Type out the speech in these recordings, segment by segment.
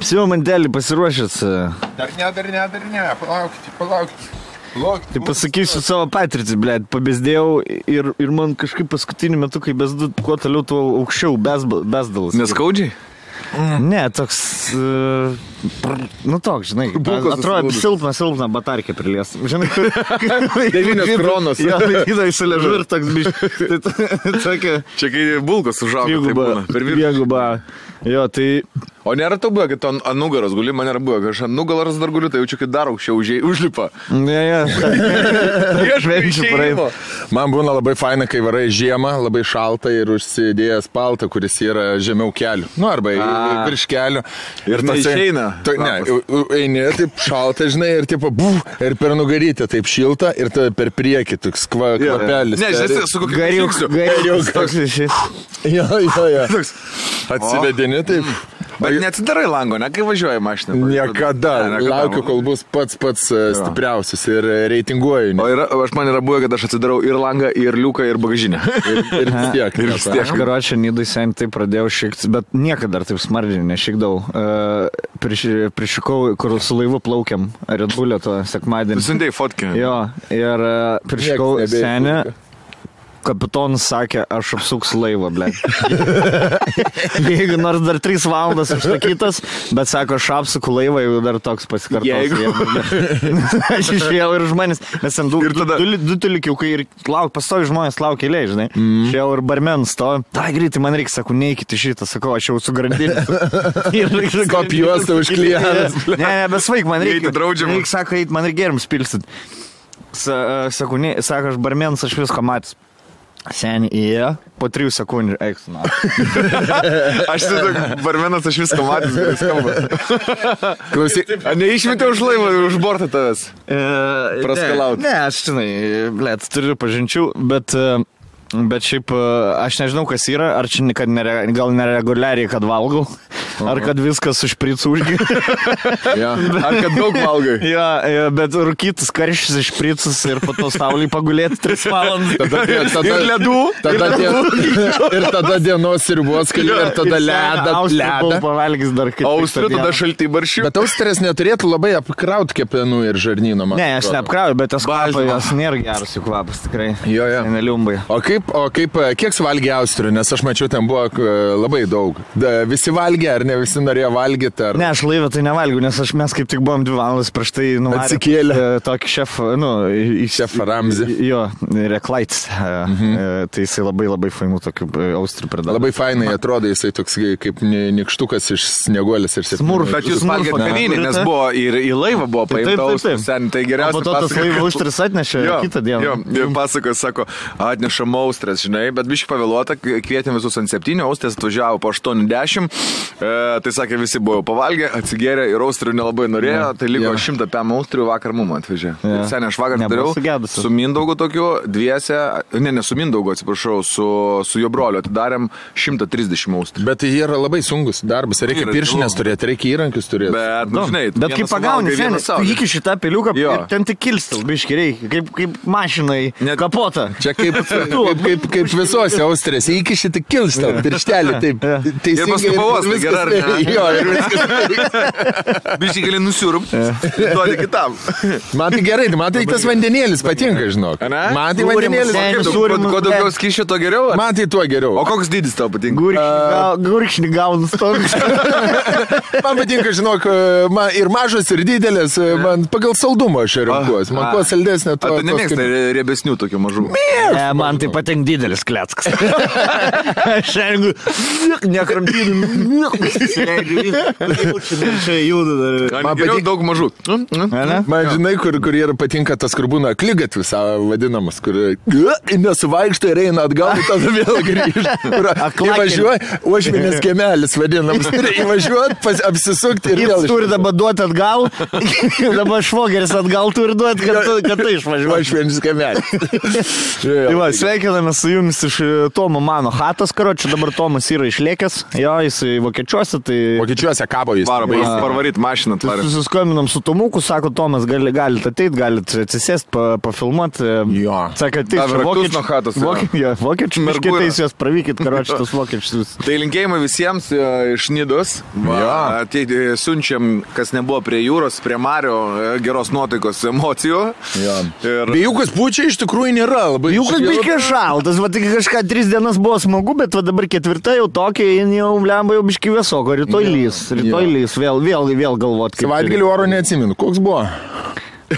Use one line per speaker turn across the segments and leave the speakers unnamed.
Все, mantelį pasiruošęs.
Dar ne, palaukit.
Tai pasakysiu savo patirtį, blėt, pabėsdėjau ir man kažkaip paskutiniu metu, kai besdu, kuo toliau, tuo aukščiau besdalas.
Neskaudžiai?
Ne, toks, toks, žinai, atrodo silpna batarkė prilies. Žinai,
9 kronos.
Jo, laikydai įsiležu ir toks biškai.
Čia kai bulkos užaugo, tai būna. Per
Dviguba. Jo, tai...
O nėra to buvo, kad tu ant nugaros guli, man nėra buvo, kad aš ant nugaros dar guliu, tai jaučiu, kad dar aukščiau užlipa.
Ne.
Man būna labai faina, kai varai žiemą, labai šalta ir užsidėjęs paltą, kuris yra žemiau kelių. Nu, arba virš kelių.
Ir tai išeina.
Eini, taip šalta, žinai, ir taip, ir per nugarytę taip šilta, ir tada per priekį toks kvapelis.
Ne, žinai, su kokiu
Gariuk.
Jo. Atsivedini, taip.
Bet neatsidarai lango, ne, kai važiuoja mašina.
Niekada. Laukiu, kol bus pats stipriausias ir reitinguoju.
O man yra buvę, kad aš atsidarau ir langą, ir liuką, ir bagažinę.
Ir vis tiek.
Aš karočią Nidai sen taip pradėjau šikti, bet niekada dar taip smarkiai nešikdavau. Prišikau, kur su laivu plaukiam, Red Bull'o to sekmadienį.
Sundėjai fotkę.
Jo, ir prišikau senį. Kapitonas sakė, aš apsuksiu laivą, blėt. Jeigu nors dar 3 valandas užsakytas, bet sako, aš apsuku laivą, jeigu dar toks pasikartos. Aš išėjau ir žmonės, nes ten du tulikiukai ir pastovi žmonės laukia eilėj, žinai. Išėjau ir barmen stovi. Tai greitai man reikia, sakau, neikite šitą, sakau, aš jau su grandinė.
Kopijuostą užklijavęs.
Ne, besvaik, man reikia. Reikia, sako, eit, man reikia geriams pilsit. Sako, aš barmenas, aš visko matęs. Seniai įėjo, po 3 sekundžių eiks, na.
Aš barmenas, aš viską matęs, gerai skamba. Klausyk, neišmetė už laivą, už bortą tavęs? Praskalaut.
Ne, aš, žinai, blėt, turiu pažinčių, bet šiaip aš nežinau, kas yra, ar čia gal nereguliariai, kad valgau, ar kad viskas su špricu užgi.
Ar kad daug valgai.
Jo, bet rūkytus karščius iš špricus ir po to saulį pagulėti 3 valandas.
Ir ledų.
Ir tada dienos sriubos keli, ir tada ledą.
Pavalgys dar kaip.
Austrių tada šaltai baršių.
Bet Austrės neturėtų labai apkrauti kepenų ir žarnyno.
Ne, aš neapkrauju, bet tas kvapas nėra geras jų kvapas, tikrai.
Jo.
Neliumbai.
O kiek suvalgė Austrių, nes aš mačiau, ten buvo labai daug. Visi valgė, ar ne visi norėjo valgyti? Ar...
Ne, aš laivę tai nevalgiu, nes mes kaip tik buvom 2 valandas prieš tai nuvarė.
Atsikėlė.
Tokį šefą,
šefą Ramzį.
Jo, Reklaits. Tai jisai labai fainų tokių Austrių pridavė.
Labai fainai atrodo, jisai toks kaip nikštukas iš snieguolės ir
Smurf.
Bet jūs valgėte kavinį, nes buvo ir į laivą buvo paimta Austrių. Tai geriausia.
Po to tas laivą Austrius atnešė kitą dieną.
Jo, pasakoja, sako, atnešam Austrės, žinai, bet biškai pavėluota, kvietėm visus ant 7, Austrės atvažiavo po 8:10, tai sakė, visi buvo pavalgę, atsigėrė ir Austrių nelabai norėjo, tai liko 100 PM Austrių vakar mum atvežė. Seniai, aš vakar dariau su Mindaugu tokiu, dviese, ne su Mindaugu, atsiprašau, su jo broliu atidarėm 130 Austrių.
Bet jie yra labai sunkus darbas, reikia piršinės turėti, reikia įrankius turėti.
Bet kaip pagauni, seniai, iki šitą peliuką ir ten tik kilstil, biškai reikia, kaip mašinai kapotą.
Čia kaip visose Austrės, iki šitą kilstą, pirštelį, taip.
Ir paskui pavos, tai gerai, ar ne?
Jo, ir viskas.
Biškai gali nusiurup, duoti kitam.
Man tai gerai, man tai tas vandenėlis patinka, žinok. Man tai vandenėlis.
Kuo daugiau skyšio, to geriau?
Man tai tuo geriau.
O koks dydis tau patinka?
Gurkšnį gaunus toks.
Man patinka, žinok, ir mažas, ir didelis, man pagal saldumą aš renkuosi. Man kuo saldesnė, to...
Tu nemėgsta riebesnių tokių mažų?
Man tai patinka didelis kleckas. Aš rengiu, nekramtydami, čia juda dar.
Man geriau daug mažų.
Man žinai, kur yra patinka tas, kur būna akligatvis vadinamas, kur nesuvaikšta ir eina atgal, tada vėl grįžta. Įvažiuoja, Uošvienės kiemelis vadinamas. Įvažiuot, apsisukti ir vėl.
Jis turi dabar duoti atgal, dabar švogeris atgal turi duoti, kad tai išvažiuoja.
Uošvienės kiemelis.
Tai va, sveikinu sveikinamės su jumis iš Tomo mano chatos, karočiui, dabar Tomas yra išlėkęs, jo, jis vokiečiuose, tai...
Vokiečiuose kabo jis.
Parvaryt mašiną tvarę.
Susiskambinom su Tomuku, sako, Tomas, galite ateit, galite atsisėst, pafilmuoti.
Jo.
Sako, tai vokiečių miškitais juos pravykit, karočiui, tas vokiečius.
Tai linkėjimai visiems iš Nidos. Siunčiam, kas nebuvo prie jūros, prie Mario, geros nuotaikos, emocijų.
Vėjukas pučia iš tikrųjų nėra labai.
Vėjukas biškai šaltas, va tik kažką 3 dienas buvo smagu, bet va dabar 4 jau tokia, jau lemba jau biškai vėsoko, rytoj lys, vėl galvot.
Savaitgalį oro neatsimenu, koks buvo?
O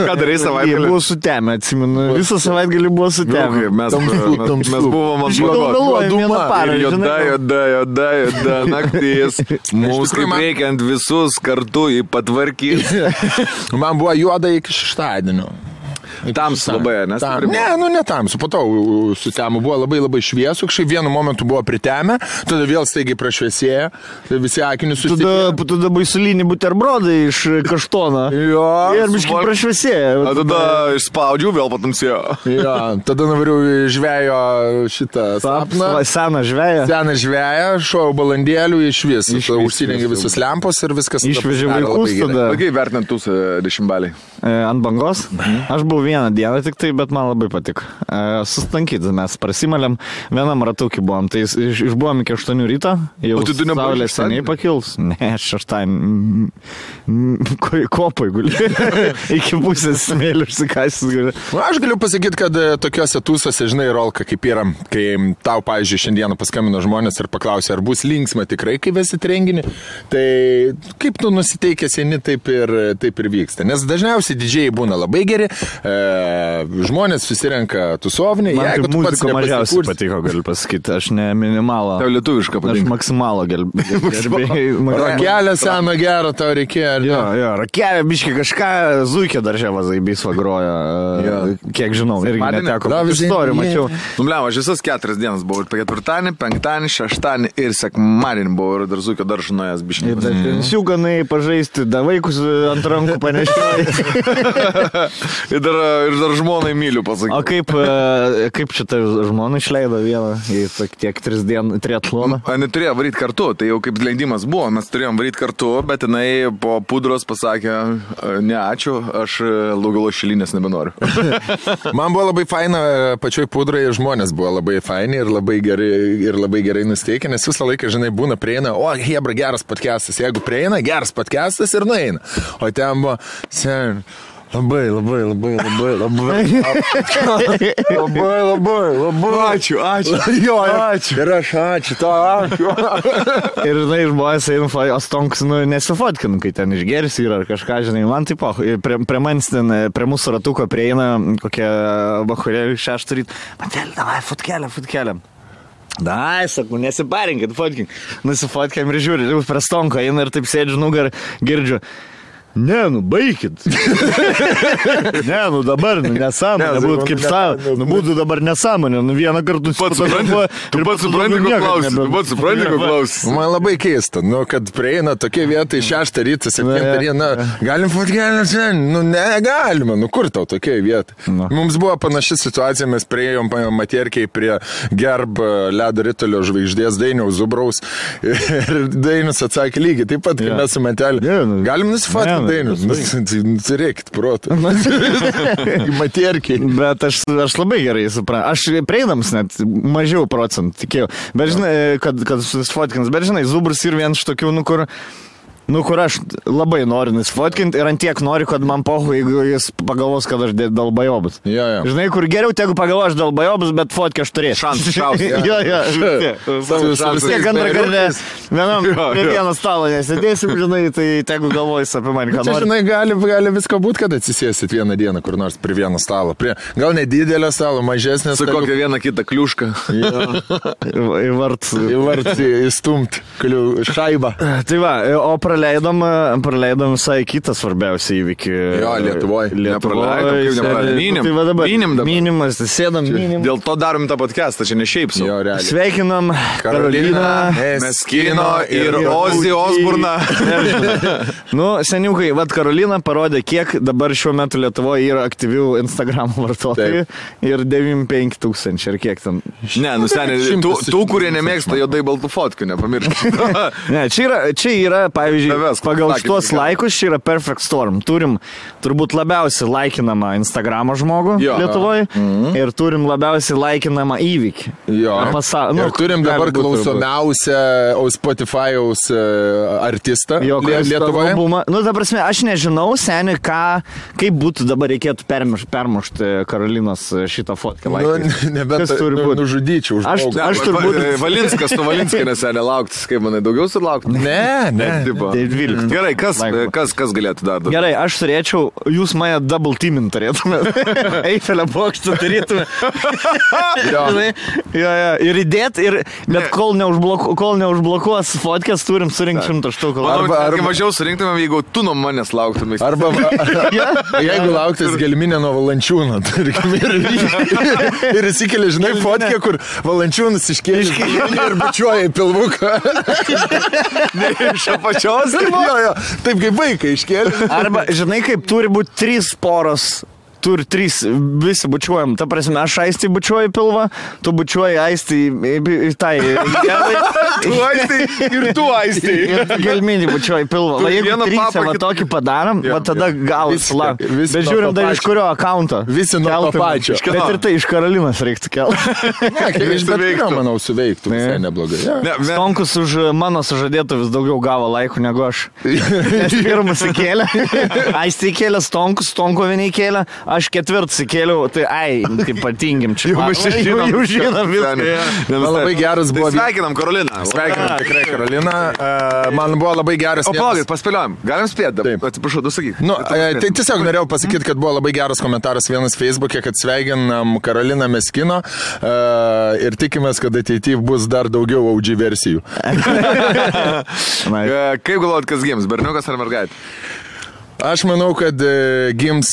ką darai savaitgalį?
Buvo sutemę, atsimenu. Visą savaitgalį buvo sutemę.
Mes buvom ant blogos. Juoda naktis. Mums kaip reikiant visus kartu į patvarkyti.
Man buvo juoda iki šeštadienio.
Tamsu labai, nes?
Ne tamsu, po to sutemų buvo labai šviesu, kažkaip vienu momentu buvo pritemę, tada vėl staigiai prašviesėjo, tai visi akinius susitikė.
Tada baisulinį buterbrodą iš kaštono.
Jo.
Ir biškai prašviesėjo.
Tada išspaudžiau, vėl patamsėjo.
Jo, tada nuvariau žvejo šitą sapną.
Seną žveją.
Seną žveją, šojau balandėlių iš vis. Užsidengi visus lempos ir viskas.
Išvežė vaikus tada.
Kaip vertinant tūs 10 baliai?
Ant bangos? Aš buvau vieną dieną tik tai, bet man labai patiko. Sustankyti, mes prasimalėm, vienam ratukį buvom, tai išbuvom iki 8 ryto, jau saulė seniai pakils. Ne, šeštadienį kopai guli. Iki pusės smėlių išsikasis guli.
Aš galiu pasakyti, kad tokiuose tūsose, žinai, Rolka, kaip yra, kai tau, pavyzdžiui, šiandieną paskambino žmonės ir paklausė, ar bus linksma tikrai, kai vesit renginį, tai kaip tu nusiteikęs eini, taip ir vyksta. Nes dažniausiai didžiai būna labai geri, žmonės susirenka tusovnį.
Man kaip muzika mažiausiai patiko, galiu pasakyti, aš ne minimalą.
Tau lietuvišką patinka.
Aš maksimalą gerbėjau.
Rakelę seną gerą tau reikėjo.
Jo, rakelę, biškai kažką, Zuikė daržė vazaibys vagroja, kiek žinau, irgi neteko. Istorijų mačiau.
Numliau, aš visas 4 dienas buvau, ir 4, 5, 6 ir sekmadienį buvau, ir dar Zuikė daržą nuėjęs biškai.
Ir dar pensiuganai pažaisti, da vaikus ant rankų panešioja.
Ir dar žmonai myliu, pasakyti.
O kaip šitą žmoną išleido vieną į tiek 3 dienų triatloną?
Neturėjo varyti kartu, tai jau kaip leidimas buvo, mes turėjom varyti kartu, bet jinai po pudros pasakė, ne ačiū, aš Lugalo šilinės nebenoriu.
Man buvo labai faina, pačioj pudrai žmonės buvo labai faini ir labai gerai nusteikę, nes visą laiką, žinai, būna prieina, o hebra, geras podcastas, jeigu prieina, geras podcastas ir nueina. O ten buvo, Labai.
Ačiū.
Jo, ačiū. Ir aš ačiū, ačiū.
Ir, žinai, žmonės eina, o stonks, nesifotkinu, kai ten išgeris yra ar kažką, žinai, man taip, prie manęs ten, prie mūsų ratuko prieina kokie bachurėliai 6 ryt. Matelė, davai, fotkelę. Dai, sakau, nesiparinkit, fotkink. Nusifotkiam ir žiūri, jau prie stonko eina ir taip sėdžiu nugar, girdžiu. Ne, baikit. Ne, dabar, nesąmonė, būtų kaip savo, būtų dabar nesąmonė, vieną kartą
susipažinti. Tu pats supranti, ko klausi.
Man labai keista, kad prieina tokie vietai 6 rytą, 7 rytą, galim fotkelę sen, negalima, kur tau tokie vietai. Mums buvo panaši situacija, mes priėjom Matierkiai prie Gerb ledo ritulio žvaigždės Dainiaus Zubraus ir Dainius atsakė lygiai, taip pat, kai mes su Matelė, galim nusifotkti Dainius, reikit protą. Matierkiai.
Bet aš labai gerai suprantu. Aš prieinams net mažiau procentų tikėjau. Bet žinai, kad susifotkinas. Bet žinai, Zubras ir vienas iš tokių, kur aš labai noriu nusifotkinti ir ant tiek noriu, kad man pohu, jeigu jis pagalvos, kad aš dalbajobas. Žinai, kur geriau, tegu pagalvos, aš dalbajobas, bet fotkę aš turėsiu.
Šansas.
Tiek antrą kartą prie vieno stalo nesėdėsim, žinai, tai tegu galvojus apie mane, ką nori.
Žinai, gali visko būti, kad atsisėsit vieną dieną kur nors prie vieno stalo. Gal nedidelio stalo, mažesnės.
Su kokią vieną kitą kliušką.
Į vartį įstumt šaibą.
Tai va, o praleidom visai kitą svarbiausią įvykį.
Jo, Lietuvoje.
Minimas, sėdam minim.
Dėl to darom tą podcastą, čia ne šiaip su.
Jo, realiai.
Sveikinam Karoliną,
Meskino ir Ozzy Osburną.
Nu, seniukai, Karolina parodė, kiek dabar šiuo metu Lietuvoje yra aktyvių Instagram vartotojų. Ir 95 000, ir kiek ten.
Ne, seniai, tų, kurie nemėgsta juodai baltų fotkių, nepamirškit.
Ne, čia yra, pavyzdžiui, pagal šitos laikus, čia yra Perfect Storm. Turim turbūt labiausiai laikinamą Instagramo žmogų Lietuvoje ir turim labiausiai laikinamą įvykį.
Jo. Ir turim dabar klausomiausią Spotify'aus artistą Lietuvoje.
Nu, ta prasme, aš nežinau, seniai, kaip būtų dabar reikėtų permušti Karolinos šitą fotkę.
Nebent nužudyčiau.
Aš turbūt...
Valinskas, tu Valinskai neseniai lauktis, kaip manai, daugiau sulaukti?
Ne.
Gerai, kas galėtų dar?
Gerai, aš turėčiau, jūs mane double teamint turėtumėte. Eifelio bokštą turėtumėte. Ir įdėti, bet kol neužblokuos fotkės, turim surinkti 100 štukų.
Arba mažiau surinktumėm, jeigu tu nuo manęs lauktumės.
Arba jeigu lauktis Gelminė nuo Valančiūno, tarkim, ir įsikeli, žinai, fotkę, kur Valančiūnas iškėlė ir bučiuoja į pilvuką.
Ne, iš apačios?
Taip kaip vaikai iškėlė.
Arba, žinai, kaip turi būti 3 poros. Turi 3, visi bučiuojam. Ta prasme, aš Aistį bučiuoju pilvą, tu bučiuoji Aistį į tai.
Tu Aistį ir tu Aistį.
Ir Gelminį bučiuoji pilvą. Va, jeigu 3 va tokį padarom, va tada gausi sulaukt. Bet žiūrim dar iš kurio akaunto.
Visi nuo to pačio.
Bet ir tai iš Karolinos reiktų kelti.
Ne, iš bet kurio, manau, suveiktų. Visai neblogai.
Stonkus už mano sužadėtų vis daugiau gavo laikų negu aš. Nes pirmas įkėlė. Aistį įkėlė Stonkus, Stonko vieni įkėlė. Aš 4 įkėliau, tai patingim čia. Jau žinom viską.
Labai geras buvo.
Sveikinam Karoliną.
Sveikinam tikrai Karoliną. Man buvo labai geras.
O palaukit, paspėliojam. Galim spėti? Atsiprašau, tu sakyk.
Tai tiesiog norėjau pasakyti, kad buvo labai geras komentaras vienas Facebook'e, kad sveikinam Karoliną Meskino ir tikimės, kad ateityje bus dar daugiau OG versijų.
Kaip galvojat, kas gims? Berniukas ar mergaitė?
Aš manau, kad gims...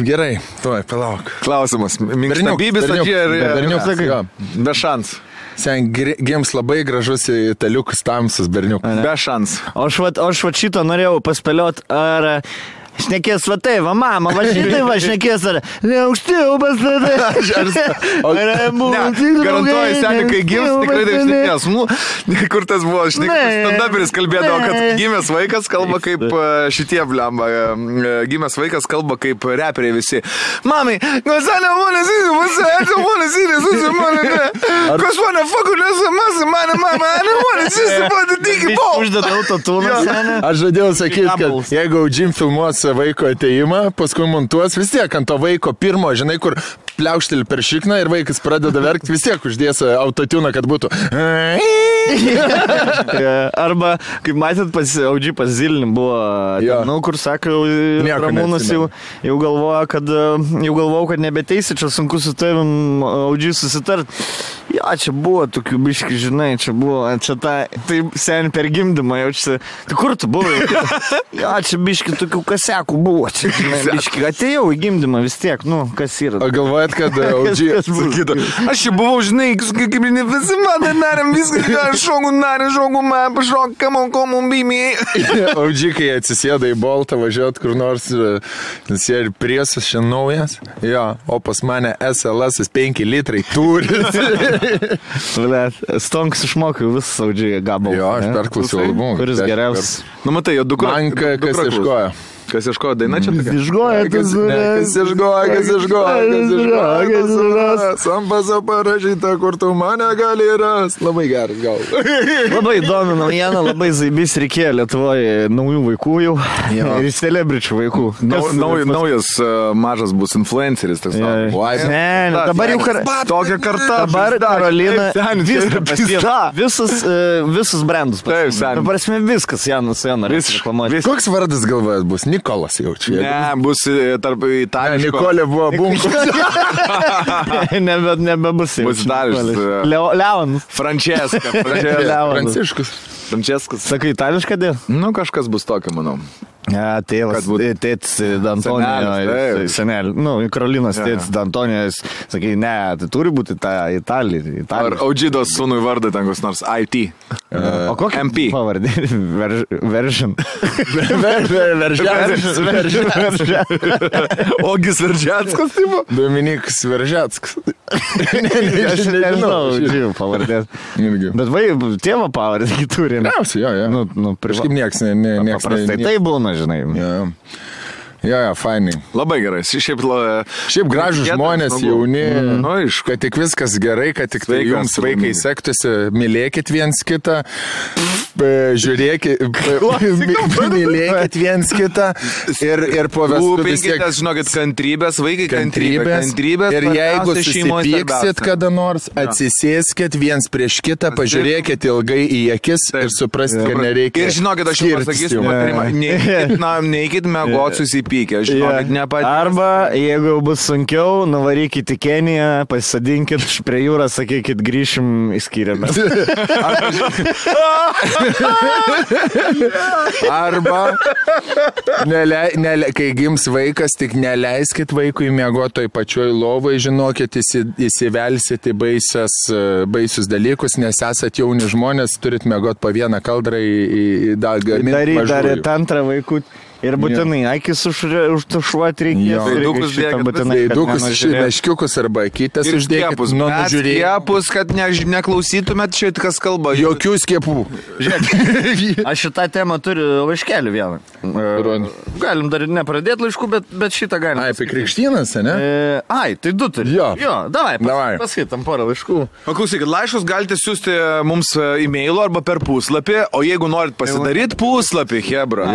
Gerai, tuoj, palauk.
Klausimas. Minkštabybis
berniukas.
Be šansų.
Sen gims labai gražus italiukas tamsus berniukas.
Be šansų.
O aš šito norėjau paspėlioti, ar... Šnekės va tai, va mama, va šitai va šnekės, ar neužtėjau pas tada.
Garantuoju, seniai, kai gims, tikrai taip šnekės. Kur tas buvo, stand-uperis kalbėdavo, kad gimęs vaikas kalba kaip šitie blemba. Gimęs vaikas kalba kaip reperiai visi. Mamai, Gonzalo, monas įsimas, monas įsimas, kas mane fakulės, mane, mama, monas įsimas, tiki po.
Uždėdau to tūną, seniai.
Aš žadėjau sakyti, kad jeigu Jim filmuos vaiko ateimą, paskui montuos vis tiek ant to vaiko pirmo, žinai, kur pliaukšteli per šikną ir vaikas pradeda verkti, vis tiek uždės autotuną, kad būtų.
Arba, kaip matėt, Audži pas Zilin buvo, kur sako, Ramūnas jau galvoja, kad nebeteisi, čia sunku su tavim Audži susitart. Čia buvo tokių biški, žinai, čia tai seniai per gimdymą jaučiasi. Tai kur tu buvai? Čia biški tokių kasiakų buvo. Čia, žinai, biški, atėjau į gimdymą vis tiek, kas yra.
O galvojat, kad Audži...
Aš čia buvau, žinai, kaip ne visi man darėm viską, šogu, man pašok, kamon, bimiai.
Audži, kai atsisėda į Boltą važiuot kur nors, nes jie ir priesas šiandien naujas. O pas mane SLS 5 litrai turi.
Stonks išmokiau visą Audžiai gabalą.
Aš perklausiau albumą.
Kuris geriausias.
Matai, jo dukra.
Man kas ieškojo.
Kas ieškojo daina čia?
Kas ieškojo.
Sampaso parašyta, kur tu mane gali rast. Labai geras gal.
Labai įdomi naujiena, labai zaibys reikėjo Lietuvoje naujų vaikų jau. Ir celebričių vaikų.
Naujas mažas bus influenceris.
Dabar jau
tokia karta.
Dabar Karolina visus brandus. Prasme viskas, Janas Janas.
Koks vardas galvojas bus? Nikolas jau čia.
Ne, bus tarp itališko.
Nikolė buvo Bunkus.
Nebebus jau.
Bus itališkas.
Leonas.
Pranciškus.
Franceskas.
Sakai, itališką dėl?
Nu, kažkas bus tokio, manau.
Ja, tėvas, tėtis D'Antonio, senelį, Karolinas tėtis D'Antonio, sakai, ne, tai turi būti ta Italija.
Ar Audžidos sūnui vardą ten koks nors IT?
O kokia
MP?
Pavardė? Veržin.
Ogis Veržetskas, tipo?
Dominikas Veržetskas.
Aš nežinau pavardės. Bet tėvo pavardė turi.
Gausiai, jo. Kažkaip nieks
paprastai tai būna, žinai.
Jo, fainai.
Labai gerai.
Šiaip gražus žmonės, jauni, kad tik viskas gerai, kad tik tai jums vaikai sektųsi, mylėkit viens kitą, žiūrėkit, mylėkit viens kitą ir po vestuvių vis tiek.
Žinokit, kantrybės, vaikai kantrybės.
Ir jeigu susipyksit kada nors, atsisėskit viens prieš kitą, pažiūrėkit ilgai į akis ir supraskit, kad nereikia.
Ir žinokit, aš jums pasakysiu patarimą, neikit mėgot susipykti.
Arba, jeigu bus sunkiau, nuvarykit į Keniją, pasisadinkit prie jūros, sakykit, grįšim į skyrėmę.
Arba, kai gims vaikas, tik neleiskit vaikui miegoti toj pačioj lovai, žinokit, įsivelsit į baisius dalykus, nes esat jauni žmonės, turit miegoti po vieną kaldrą į gaminti mažųjų.
Daryti antrą vaikų. Ir būtinai, akis užtušuoti reikės.
Daidukus, meškiukus arba akytės uždėkit.
Skiepus, kad neklausytumėt šit, kas kalba.
Jokių skiepų.
Aš šitą temą turiu laiškelį vieną. Galim dar nepradėti laiškų, bet šitą galim.
Apie krikštynas, ne?
Tai du turi. Jo, davai. Paskaitam porą laiškų.
Paklausykit, laiškus galite siūsti mums e-mailu arba per puslapį, o jeigu norit pasidaryti puslapį, hebra.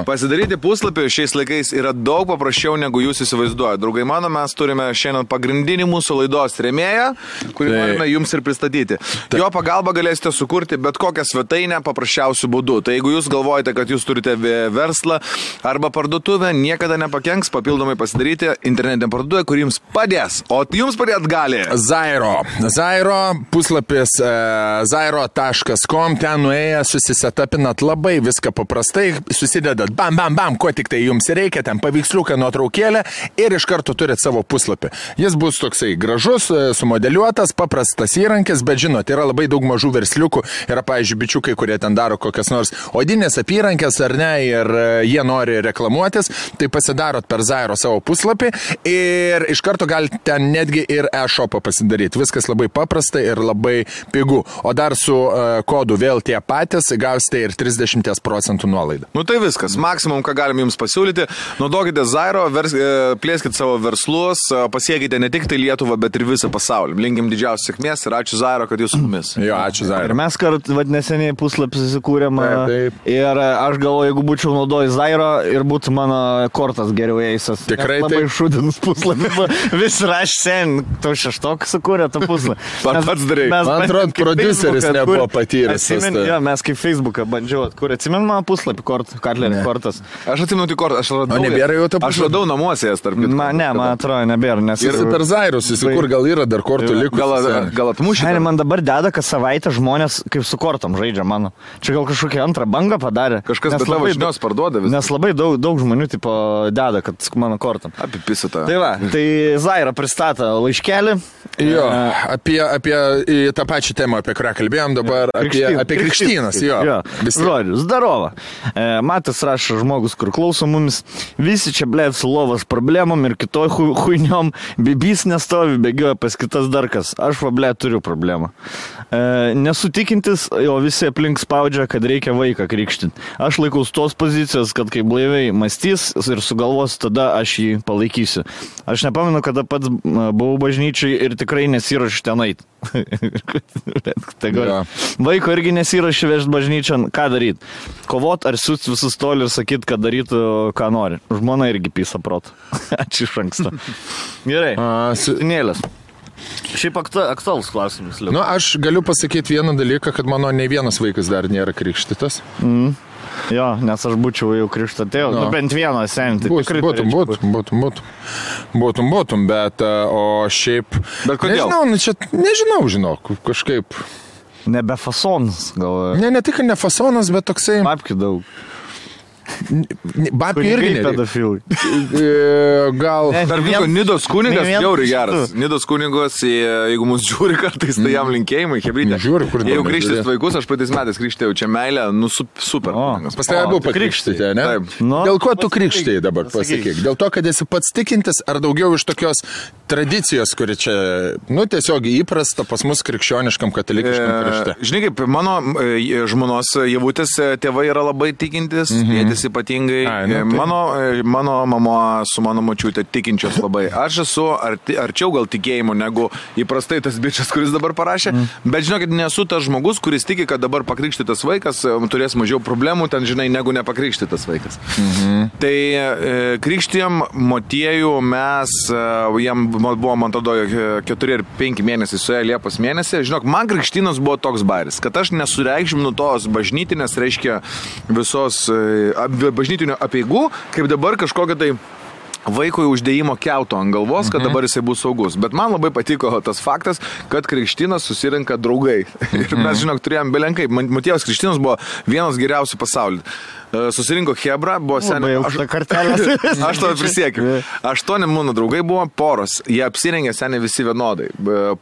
Pasidaryti puslapį šiais laikais yra daug paprasčiau, negu jūs įsivaizduojate. Draugai mano, mes turime šiandien pagrindinį mūsų laidos rėmėją, kurį norime jums ir pristatyti. Jo pagalba galėsite sukurti bet kokią svetainę paprasčiausių būdų. Tai jeigu jūs galvojate, kad jūs turite verslą arba parduotuvę, niekada nepakenks papildomai pasidaryti internetinę parduotuvę, kuri jums padės. O jums padėt gali
Zairo puslapis zairo.com, ten nuėję susisetapinat labai viską paprastai, susidedat bam, ko tik tai jums reikia, ten paveiksliuką, nuotraukėlę ir iš karto turit savo puslapį. Jis bus toksai gražus, sumodeliuotas, paprastas įrankis, bet žinot, yra labai daug mažų versliukų, yra, pavyzdžiui, bičiukai, kurie ten daro kokias nors odinės apyrankės ar ne, ir jie nori reklamuotis, tai pasidarot per Zairo savo puslapį ir iš karto galite ten netgi ir e-shopą pasidaryti. Viskas labai paprasta ir labai pigu. O dar su kodu vėl tie patys gausite ir 30% nuolaidą.
Nu tai viskas, maksimum, ką galim jums pasiūlyti. Naudokite Zairo, plėskite savo verslus, pasiekite ne tik tai Lietuvą, bet ir visą pasaulį. Linkim didžiausios sėkmės ir ačiū Zairo, kad jūs su mumis.
Jo, ačiū Zairo.
Ir mes neseniai puslapį susikūrėm. Ir aš galvoju, jeigu būčiau naudojęs Zairo ir būtų mano kortas geriau eisas.
Tikrai
labai šūdinus puslapį. Vis raš sen, tu šeštok sukūrė tą puslapį.
Pats darai.
Man atrodo, prodiuseris nebuvo patyręs.
Jo, mes kaip Facebooką bandžiau atkūrė. Atsimenu mano puslapį, Karlerį kortas.
Aš atsimenu tik kortą, aš radau namuose jas tarp.
Man atrodo, nebėra.
Ir per Zairus, kur gal yra dar kortų likus.
Gal atmušė.
Man dabar deda, kad savaitę žmonės kaip su kortom žaidžia mano. Čia gal kažkokią antrą bangą padarė.
Kažkas bet tavo žinios parduoda visą.
Nes labai daug žmonių tipo deda, kad mano kortom.
Apipisa tą.
Tai va, tai Zaira pristato laiškelį.
Jo, apie tą pačią temą, apie kurią kalbėjom dabar, apie krikštynas, jo.
Žodžiu, zdarova. Matas rašo žmogus, kur klauso mumis, visi čia blėt su lovas problemom ir kitoj huiniom, bibys nestovi, bėgioja pas kitas darkas. Aš va blėt turiu problemą. Nesu tikintis, o visi aplink spaudžia, kad reikia vaiką krikštinti. Aš laikaus tos pozicijos, kad kai blaiviai mąstys ir sugalvos, tada aš jį palaikysiu. Aš nepamenu, kada pats buvau bažnyčiai ir tikrai nesiruošiu ten eit. Vaiko irgi nesiruošiu vežti bažnyčią, ką daryti? Kovot ar siūsti visus toli ir sakyti, kad darytų, ką nori. Žmona irgi pysa protų. Ačiū iš anksto. Gerai, Nėlės. Šiaip aktualus klausimas.
Nu, aš galiu pasakyti vieną dalyką, kad mano ne vienas vaikas dar nėra krikštytas.
Jo, nes aš būčiau jau krikštatėjau. Nu, bent vieną senį.
Būtum, bet o šiaip...
Bet kodėl?
Nežinau, žinok, kažkaip...
Nebe fasonas, gal...
Ne tik ne fasonas, bet toksai...
Papkių daug.
Babkių irgi
pedofilai.
Gal...
Dar vyko Nidos kunigas, jauriai geras. Nidos kunigas, jeigu mus žiūri kartais, tai jam linkėjimai, hebrytė. Jeigu krikštis vaikus, aš praeitais metais krikštėjau čia meilę, nu super.
Pas tave buvo pakrikštyti, ne? Dėl ko tu krikštėjai dabar, pasakyk? Dėl to, kad esi pats tikintis, ar daugiau iš tokios tradicijos, kuri čia, nu, tiesiog įprasta pas mus krikščioniškam katalikiškam krikšte?
Žinai, kaip mano žmonos Javutės tėvai yra labai tikintis, tėtis ypatingai. Mano mama su mano močiutė tikinčios labai. Aš esu arčiau gal tikėjimo negu įprastai tas bičias, kuris dabar parašė, bet žinokit, nesu tas žmogus, kuris tiki, kad dabar pakrikštytas vaikas turės mažiau problemų, ten žinai, negu nepakrikštytas vaikas. Tai krikštijom motiejų mes, jam buvo, man tada 4 ir 5 mėnesiai suėjo Liepos mėnesį. Žinok, man krikštynas buvo toks bairis, kad aš nesureikšminu tos bažnytinės, reiškia visos bažnytinių apeigų, kaip dabar kažkokia tai vaikui uždėjimo kiauto ant galvos, kad dabar jisai bus saugus. Bet man labai patiko tas faktas, kad krikštynas susirinka draugai. Ir mes, žinok, turėjom belenkai. Motiejaus krikštynas buvo vienas geriausių pasaulyje. Susirinko Hebra, buvo seniai. Aš to prisiekiu. 8 mano draugai buvo poros. Jie apsirengė seniai visi vienodai.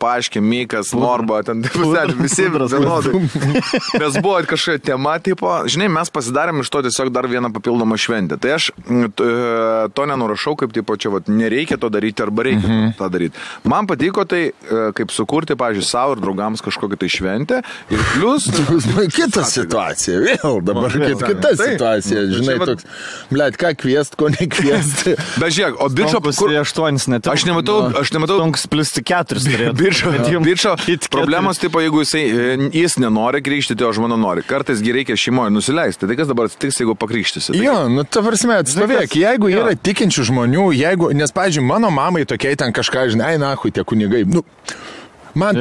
Paaiškė, Mikas, Morba, ten visi vienodai. Mes buvo kažkokia tema, tipo, žinai, mes pasidarėm iš to tiesiog dar vieną papildomą šventę. Tai aš to nenurašau, kaip tipo, čia vat, nereikia to daryti arba reikia tą daryti. Man patiko tai, kaip sukurti, pavyzdžiui, savo ir draugams kažkokią tai šventę. Ir plus...
Kita situacija, vėl dabar kita situacija. Žinai, toks, blėt, ką kviest, ko nekviest.
Bet žiūrėk, o Bičo... Aš nematau...
Stonks plus 4
Bičo problemos, tipo, jeigu jis nenori krikštyti, o žmona nori. Kartais reikia šeimoje nusileisti. Tai kas dabar atsitiks, jeigu pakrikštysi?
Jo, nu, ta prasme, atstovėk, jeigu yra tikinčių žmonių, nes, pavyzdžiui, mano mamai tokiai ten kažką, žinai, nahui, tie kunigai, man,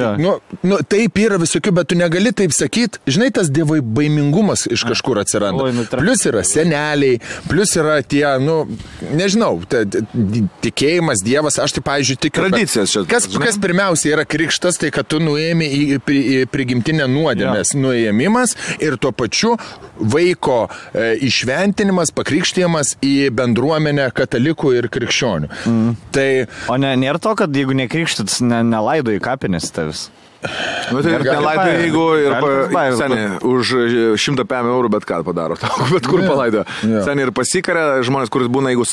taip yra visokių, bet tu negali taip sakyti. Žinai, tas dievai baimingumas iš kažkur atsiranda. Plius yra seneliai, plius yra tie, nežinau, tikėjimas, dievas, aš tai, pavyzdžiui, tikiu.
Tradicijas čia.
Kas pirmiausia yra krikštas, tai kad tu nuėmė į prigimtinę nuodėmės nuėmimas ir tuo pačiu vaiko išventinimas, pakrikštijimas į bendruomenę katalikų ir krikščionių. Tai...
O nėra to, kad jeigu nekrikštytas, nelaido į kapinės tavis.
Nu, tai nelaidai, jeigu ir seniai už 100 eurų bet ką padaro, bet kur palaido. Seniai ir pasikarė žmonės, kuris būna, jeigu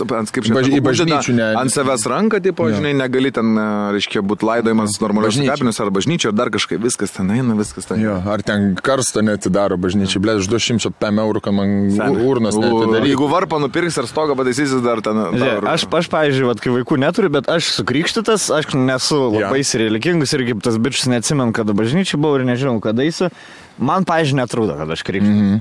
ant savęs ranką, tipo, žinai, negali ten, reiškia, būti laidojimas normalios kapinės ar bažnyčio, ar dar kažkaip, viskas ten eina, viskas ten.
Jo, ar ten karsto netidaro bažnyčiai, blėt, už 200 eurų, kad man urnas netidaro.
Jeigu varpą nupirks ar stogą pataisysis dar ten.
Aš, pavyzdžiui, kai vaikų neturiu, bet aš sukrikštytas, aš nesu labai religingus ir kaip tas bičas neatsimenu, kada bažnyčiai buvau ir nežinau, kada eisiu. Man, pavyzdžiui, netrūdo, kad aš krikščiu.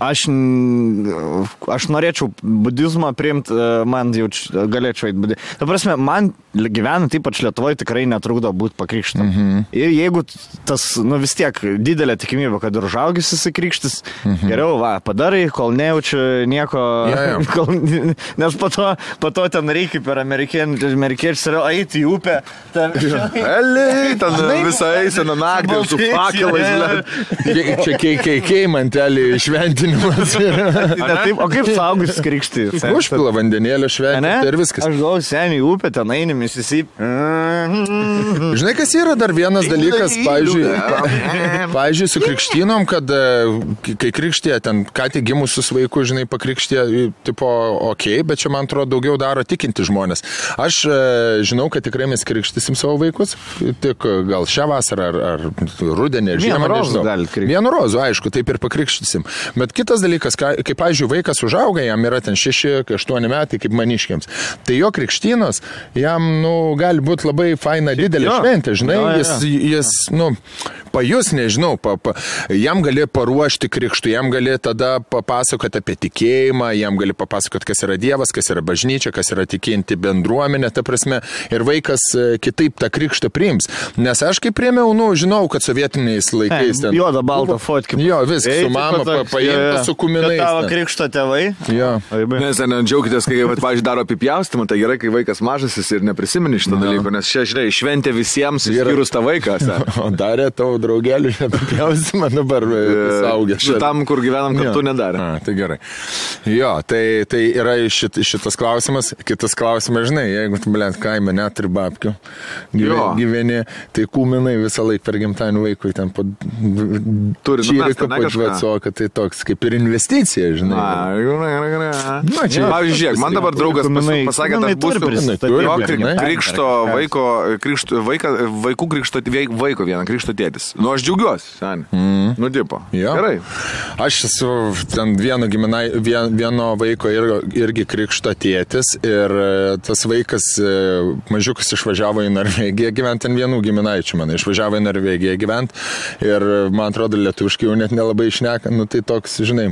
Aš norėčiau budizmą priimti, man jau galėčiau eiti budizmą. Ta prasme, man gyvenant ypač Lietuvoje tikrai netrūdo būti pakrikštam. Ir jeigu tas, vis tiek didelė tikimybė, kad ir užaugis įsikrikštis, geriau, padarai, kol nejaučiu nieko, nes po to ten reikia per amerikiečius eiti į upę.
Eliai, ten visą eisena naktį su fakelais, čia KKK mantelį šventinimas.
O kaip saugus krikšti?
Užpila vandenėlio šventinti ir viskas.
Aš galvoju, seniai upė, ten eini, Mississippi.
Žinai, kas yra dar vienas dalykas, pavyzdžiui, su krikštynom, kad kai krikštė, ten ką tik gimusius vaikus, žinai, pakrikštė, tipo, bet čia, man atrodo, daugiau daro tikinti žmonės. Aš žinau, kad tikrai mes krikštysim savo vaikus, tik gal šią vasarą ar rudenį, žiemą, nežinau. Vienu rozų, aišku, taip ir pakrikštysim. Bet kitas dalykas, kai, pavyzdžiui, vaikas užauga, jam yra ten 6-8 metai, kaip maniškiams, tai jo krikštynos, jam, gali būti labai faina didelė šventė, žinai, jis pajus, nežinau, jam gali paruošti krikštų, jam gali tada papasakoti apie tikėjimą, jam gali papasakoti, kas yra Dievas, kas yra bažnyčia, kas yra tikinti bendruomenė, ta prasme, ir vaikas kitaip tą krikštą priims. Nes aš kaip priėmiau, žinau, kad sovietiniais laikais ten...
Juoda, balta foto. galvoti, kaip...
Jo, viskas, su mama paimta, su kuminais.
Tavo krikšto tėvai.
Jo.
Nes džiaugitės, kai, pavyzdžiui, daro apipjaustymą, tai gerai, kai vaikas mažasis ir neprisimeni šitą dalyką, nes čia, žinai, šventė visiems, išskyrus tą vaiką.
O darė tavo draugelių apipjaustymą, dabar saugęs.
Šitam, kur gyvenam, kartu nedarė.
Tai gerai. Jo, tai yra šitas klausimas. Kitas klausimas, žinai, jeigu tu, blėt, kaime neturi babkių, gyveni, tai kūminai visą laiką per gimtadienį vaikui ten po čyrika podvecoką, tai toks kaip ir investicija, žinai.
Pavyzdžiui, žiūrėk, man dabar draugas pasakė, kad krikšto vaiko vieną krikšto tėtis. Nu, aš džiaugiuosi, seniai. Nu, tipo. Gerai.
Aš esu ten vieno vaiko irgi krikšto tėtis ir tas vaikas mažiukas išvažiavo į Norvegiją gyventi, ten vienų giminaičių man išvažiavo į Norvegiją gyventi ir man atrodo lietuviškai jau net nelabai išneka, nu tai toks, žinai.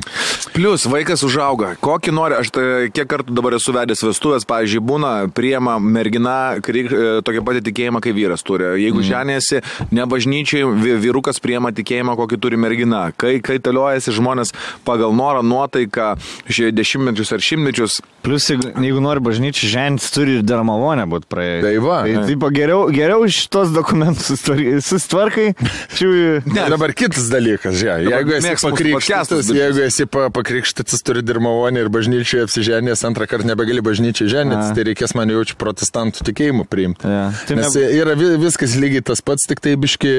Plius vaikas užauga, kokį nori, aš kiek kartų dabar esu vedęs vestuvės, pavyzdžiui, būna, priema mergina tokia pati tikėjimą, kai vyras turi. Jeigu ženėsi, ne bažnyčiai, vyrukas priema tikėjimą, kokį turi mergina. Kai taliojasi žmonės pagal norą, nuotaiką, dešimtmečius ar šimtmečius.
Plius, jeigu nori bažnyčiai, ženis turi ir dar malonę būti praėjęs.
Tai va.
Tai geriau šitos dokumentus susitvarkai.
Dabar kitas dalykas, jeigu esi pakrikštytas, turi ir malonę ir bažnyčiai apsiženės, antrą kartą nebegali bažnyčiai ženės, tai reikės man jaučiu protestantų tikėjimų priimti. Nes yra viskas lygiai tas pats, tik tai biški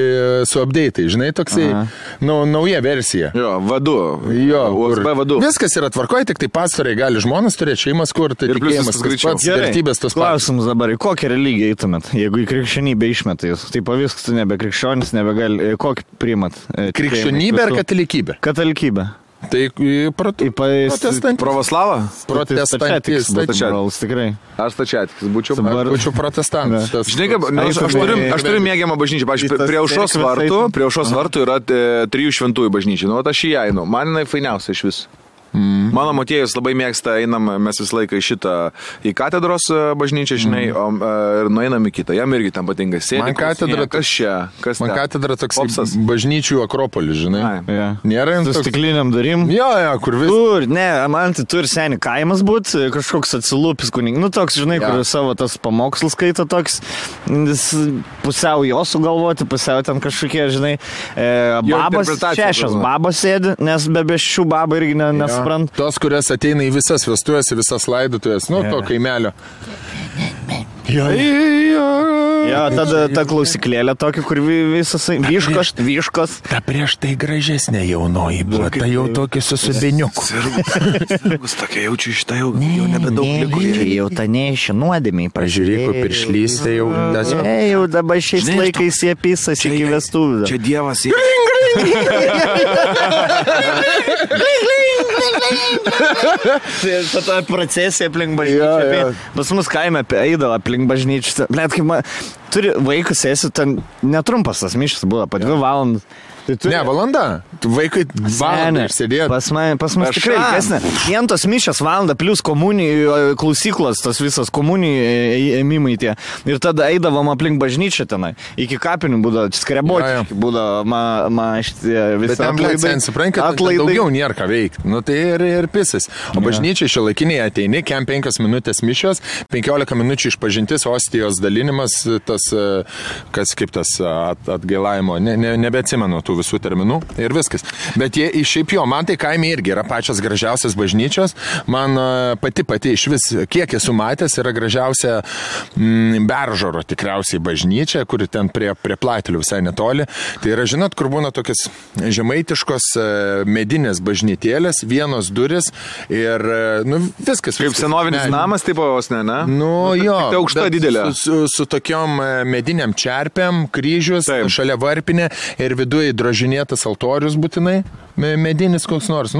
su update'ai, žinai, toksai, nauja versija.
Jo, vadu.
Jo,
USB vadu.
Viskas yra tvarkoje, tik tai pastoriai gali žmonas turėti šeimas, kur tai tikėjimas tas pats, vertybės tas pats.
Klausimus dabar, į kokią religiją eitumėt, jeigu į krikščionybę išmetai jūs? Tai pavyks, tu nebe krikščionis, nebegali, kokį priimat?
Krikščionybė ar katalikybė?
Katalikybė.
Tai protestantis.
Pravoslavą?
Protestantis.
Tikrai.
Aš stačiatikis būčiau.
Būčiau protestantas.
Žinai, aš turiu mėgiamą bažnyčią. Pavyzdžiui, prie Aušros vartų yra 3 šventųjų bažnyčių. Nu, aš į ją einu. Man jinai fainiausia iš vis. Mano motiejus labai mėgsta, einam mes visą laiką į katedros bažnyčią, žinai, ir nueinam į kitą. Jam irgi tam patinka sėdėti.
Man katedra, man katedra toks bažnyčių akropolis, žinai. Nėra jums
su stikliniam darim.
Jo, kur vis.
Man tai turi seni kaimas būt, kažkoks atsilūpis kuning. Nu, toks, žinai, kur savo tas pamokslus skaito toks, pusiau jo sugalvoti, pusiau ten kažkokie, žinai, babas, 6 babas sėdi, nes be šių babą irgi nes
tos, kurias ateina į visas vestuvės, į visas laidotuvės, to kaimelio. Jo,
tada ta klausiklėlė tokia, kur visas vyškos.
Ta prieš tai gražesnė jaunoji buvo, ta jau tokia su subiniuku.
Sirgus tokia jaučiu šitą jau nebedaug liko.
Jau ta neišė nuodėmiai.
Pažiūrėk, piršlys, tai jau...
Jau dabar šiais laikais jie pisas iki vestuvių.
Čia dievas jie.
Ta procesija aplink bažnyčią. Pas mus kaime eidavo aplink bažnyčią. Blet, kaip turi vaikus esi, ten netrumpas tas mišas buvo, po 2 valandas.
Ne, valanda. Vaikai valandą išsėdėjo.
Pas mus tikrai ilgesnė. Vientos mišios valandą, plus komunijų klausyklos, tas visas komunijų ėmimai tie. Ir tada eidavom aplink bažnyčią tenai. Iki kapinių būdavo skreboti. Būdavo šitie visi
atlaidai. Daugiau nėra ką veikti. Nu tai ir pisas. O bažnyčiai šiuolaikiniai ateini, 5 minutės mišios, 15 minučių išpažintis, ostijos dalinimas, tas, kas kaip tas atgailavimo, nebeatsimenu tų visų terminų ir viskas. Bet šiaip jo, man tai kaime irgi yra pačios gražiausias bažnyčios. Man pati iš vis, kiek esu matęs, yra gražiausia Beržoro tikriausiai bažnyčia, kuri ten prie Platelių visai netoli. Tai yra, žinot, kur būna tokias žemaitiškos medinės bažnytėlės, vienos duris ir, viskas.
Kaip senovinis namas, taip vos ne?
Jo.
Tai aukšta didelė.
Su tokiom mediniam čerpėm, kryžius, šalia varpinė ir viduje drožinėtas altorius būtinai, medinis koks nors.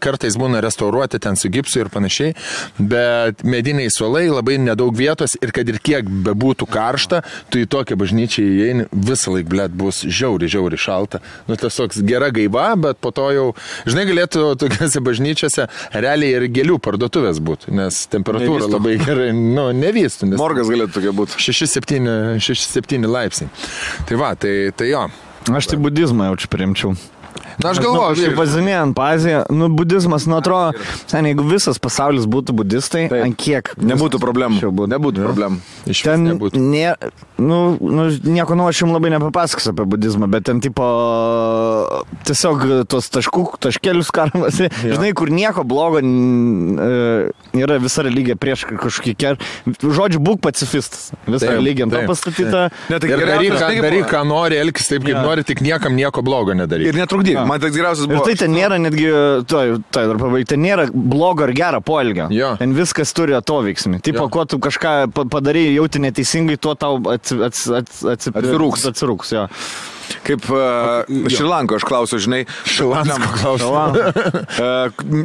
Kartais būna restauruoti ten su gipsu ir panašiai, bet mediniai suolai, labai nedaug vietos ir kad ir kiek bebūtų karšta, tu į tokią bažnyčią įeini, visą laik, blėt, bus žiauri šalta. Tas toks gera gaiva, bet po to jau, žinai, galėtų tokiose bažnyčiose realiai ir gėlių parduotuvės būti, nes temperatūra labai gerai, nevystų.
Morgas galėtų tokia būti.
6-7 laipsniai. Tai va, tai jo.
Aš tai budizmą jaučiu priimčiau.
Na, aš galvoju,
šiaip vazinėjant Aziją, budizmas, atrodo, sen, jeigu visas pasaulis būtų budistai, ant kiek
nebūtų problemų. Nebūtų problemų.
Iš ten nebūtų. Nieko aš jums labai nepapasakosiu apie budizmą, bet ten tipo tiesiog tos taškelius karamas, žinai, kur nieko blogo yra visa religija prieš kažkokį žodžiu, būk pacifistas. Visa religija to pastatyta.
Daryk, ką nori, elkis taip, kaip nori, tik niekam nieko blogo nedaryk.
Ir netrukdyk. Man tai geriausias buvo.
Ir tai ten nėra netgi, ten nėra blogo ar gero poelgio. Ten viskas turi atoveiksmį. Tipo, kuo tu kažką padarai, jauti neteisingai, tuo tau atsirūks. Jo.
Kaip Šrilanko aš klausiu, žinai.
Šrilanko klausiu.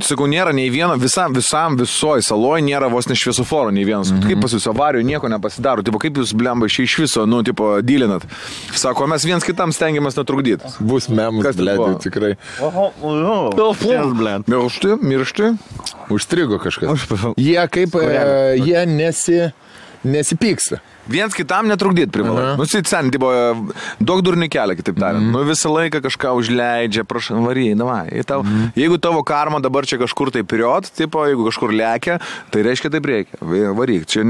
Sakau, nėra nei vieno, visoji saloj nėra vos ne šviesoforo nei vienas. Kaip pas jūs avarijų nieko nepasidaro. Tipo, kaip jūs, blemba, iš viso, dylinat. Sako, mes viens kitam stengiamės netrukdyti.
Bus memus, blėdė, tikrai.
Miršti.
Užstrigo kažkas. Jie kaip, jie nesipyksta.
Viens kitam netrukdyti privalai. Sen, daug durnių kelia, kitaip tariant. Visą laiką kažką užleidžia, prašau, varyj, davai. Jeigu tavo karma dabar čia kažkur tai period, jeigu kažkur lekia, tai reiškia taip reikia. Varyk. Čia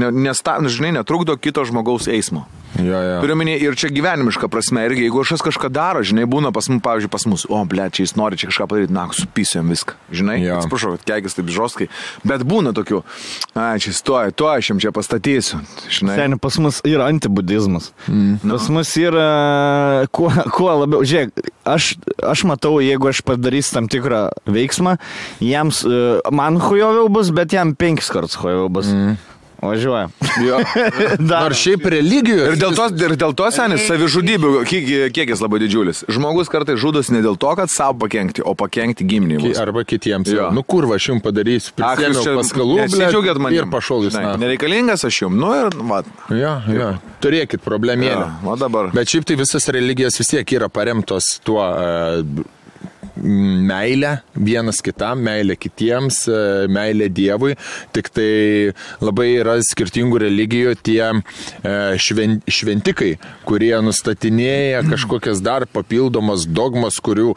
žinai, netrukdo kito žmogaus eismo. Turiu minį ir čia gyvenimiška prasme. Irgi, jeigu kažkas kažką daro, žinai, būna pavyzdžiui, pas mus, čia jis nori čia kažką padaryti, supisiu jam viską. Žinai, atsiprašau, kad keikis taip žostkai. Bet būna tokių, čia stoja, aš jam čia pastatysiu. Žinai.
Seniai, pas mus yra antibudizmas. Pas mus yra, kuo labiau, žiūrėk, aš matau, jeigu aš padarysiu tam tikrą veiksmą, jiems, man hujoviau bus, bet jam 5 kartus hujoviau bus. Važiuoja.
Nors šiaip religijos.
Ir dėl to, senis, savižudybių kiekis labai didžiulis. Žmogus kartais žudosi ne dėl to, kad savo pakenkti, o pakenkti giminimus.
Arba kitiems. Kurva, aš jums padarysiu. Prisėmiau paskalų, ir pašol jūs.
Nereikalingas aš jums. Ir vat.
Turėkit problemėlę. Bet šiaip tai visas religijos vis tiek yra paremtos tuo meilę vienas kitam, meilę kitiems, meilę Dievui, tik tai labai yra skirtingų religijų tie šventikai, kurie nustatinėja kažkokias dar papildomas dogmas, kurių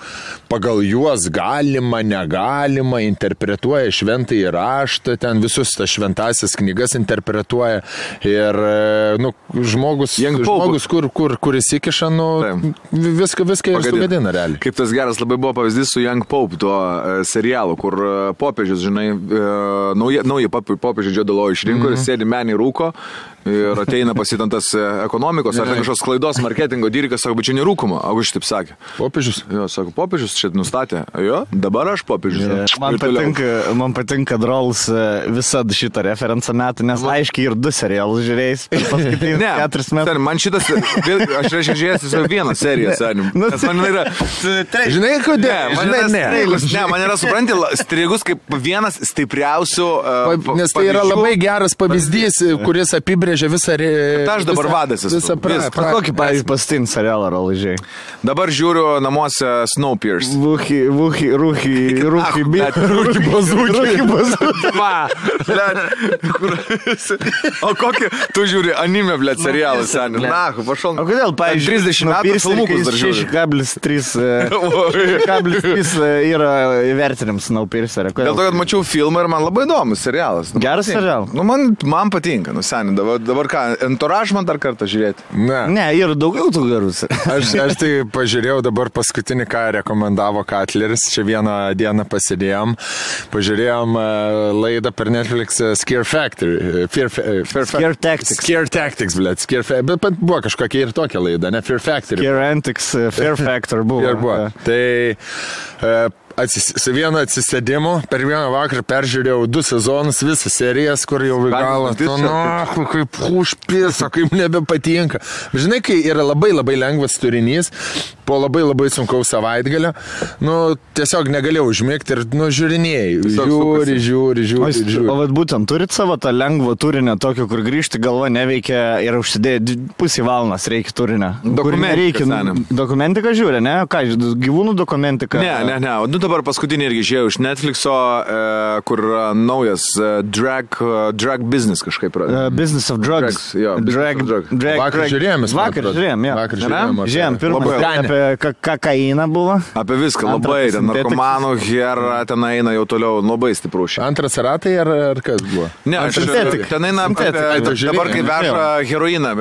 pagal juos galima, negalima, interpretuoja šventąjį raštą, ten visus tas šventasias knygas interpretuoja ir žmogus kur įsikiša, viską ir sugadina realiai.
Kaip tas geras labai buvo pavyzdys su Young Pope, tuo serialu, kur popiežius, žinai, nauji popiežių Džodalo išrinko ir sėdi menį rūko ir ateina pasitantas ekonomikos ar kažkokios klaidos marketingo dyrikas, sako, bet čia nerūkoma, o aš taip sakė.
Popiežius?
Jo, sako, popiežius čia nustatė. Jo, dabar aš popiežius.
Man patinka Drolls visada šitą referenciją metų, nes aiškiai ir 2 serialus žiūrėjus.
Ne,
4 metų.
Man šitas, aš reiškia žiūrėjęs vieną seriją, senim. Nes man yra...
Žinai, kodėl?
Man yra, supranti, strigus kaip vienas stipriausių...
Nes tai yra labai geras pavyzdys, kuris apibrėžia visą...
Aš dabar vadas esu.
Kokį, pavyzdžiui, pastin serialą roližiai?
Dabar žiūriu namuose Snowpiercer.
Rūkį bazūkį.
O kokį, tu žiūri anime, blėt, serialą, seniai. Na, pašal.
O kodėl, pavyzdžiui,
30 metų filmukus dar žiūri.
6,3 yra įvertinims Snowpiercer.
Dėl to, kad mačiau filmą ir man labai įdomus serialas.
Geras serialas?
Man patinka, seniai. Dabar ką, Entourage man dar kartą žiūrėti?
Ne, yra daugiau tų gerus.
Aš tai pažiūrėjau dabar paskutinį, ką rekomendavo Katleris. Čia vieną dieną pasidėjom. Pažiūrėjom laidą per Netflix Scare Factory.
Scare Tactics.
Scare Tactics, blėt. Bet buvo kažkokia ir tokia laida, ne? Fear Factory.
Scare Antics, Fear Factor buvo.
Tai... Su vienu atsisėdimu, per vieną vakarą peržiūrėjau 2 sezonus, visas serijas, kur jau galą, kaip užpisa, kaip nebepatinka. Žinai, kai yra labai labai lengvas turinys, po labai labai sunkaus savaitgalio, tiesiog negalėjau užmigti ir, žiūrinėjai, žiūri.
O vat būtent turit savo tą lengvą turinę, tokio, kur grįžti galva neveikia ir užsidėti pusį valandas reikia turinę. Dokumentiką žiūri, ne? Ką, gyvūnų dokumentiką?
Ne. Dabar paskutinį irgi žiūrėjau iš Netflixo, kur naujas drag business kažkaip yra.
Business of drugs.
Vakar
žiūrėjom.
Žiūrėjom, pirmą apie apie kokainą buvo.
Apie viską, labai, ten narkomanų, hera, ten eina jau toliau, labai stiprų šį.
Antras ratai ar kas buvo?
Ne, ten eina dabar kai veža heroiną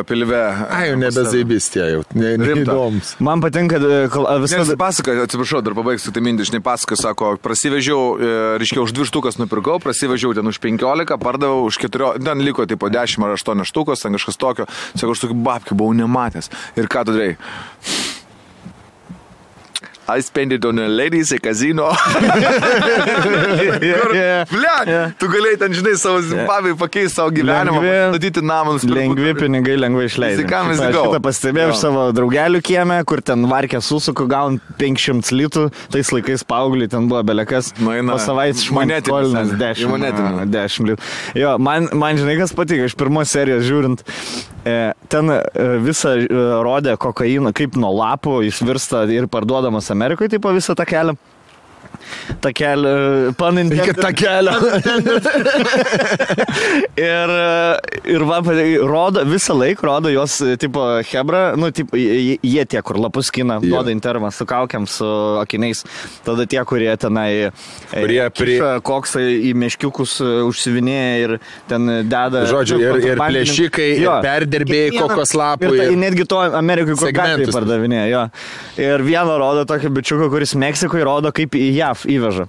pilve.
Ai, jau nebezaibistė jau, neįdomus.
Man patinka visą...
Pasaka, atsiprašau, dar pabaigsiu tai mintį, žinai, pasaka, sako, prasivežiau, reiškia, už 2 štukas nupirkau, prasivežiau ten už 15, pardavau už 4, ten liko tipo 10 ar 8 štukos, ten kažkas tokio, sako, aš tokį babkių buvau nematęs. Ir ką tu darai? I spend it on a ladies a casino. Tu galėjai ten, žinai, savo Zimbabvei pakeisti savo gyvenimą, statyti namus.
Lengvi pinigai, lengvai išleidai. Šitą pastebėjau iš savo draugelių kieme, kur ten varkė susuku, gaun 500 litų, tais laikais paaugliai ten buvo belekas. Po savaitės šmonetinis 10 litų. Jo, man žinai, kas patiko, iš pirmos serijos žiūrint, ten visą rodė kokainą, kaip nuo lapų jis virsta ir parduodamas Amerikoje, taip po visą tą kelią. Takelį,
iki takelio.
ir va, rodo, visą laiką rodo jos, tipo, hebra, nu, tipo, jie tie, kur lapus skina, duoda intervą su kaukiam, su akiniais. Tada tie, kurie tenai koksai į meškiukus užsivinėja ir ten deda...
Žodžiu, ir plėšikai, ir perdirbėjai kokos lapų.
Ir netgi to Amerikai, kur gatvėje pardavinėja, jo. Ir vieno rodo tokį bičiuką, kuris Meksikoje rodo, kaip į JAV įveža.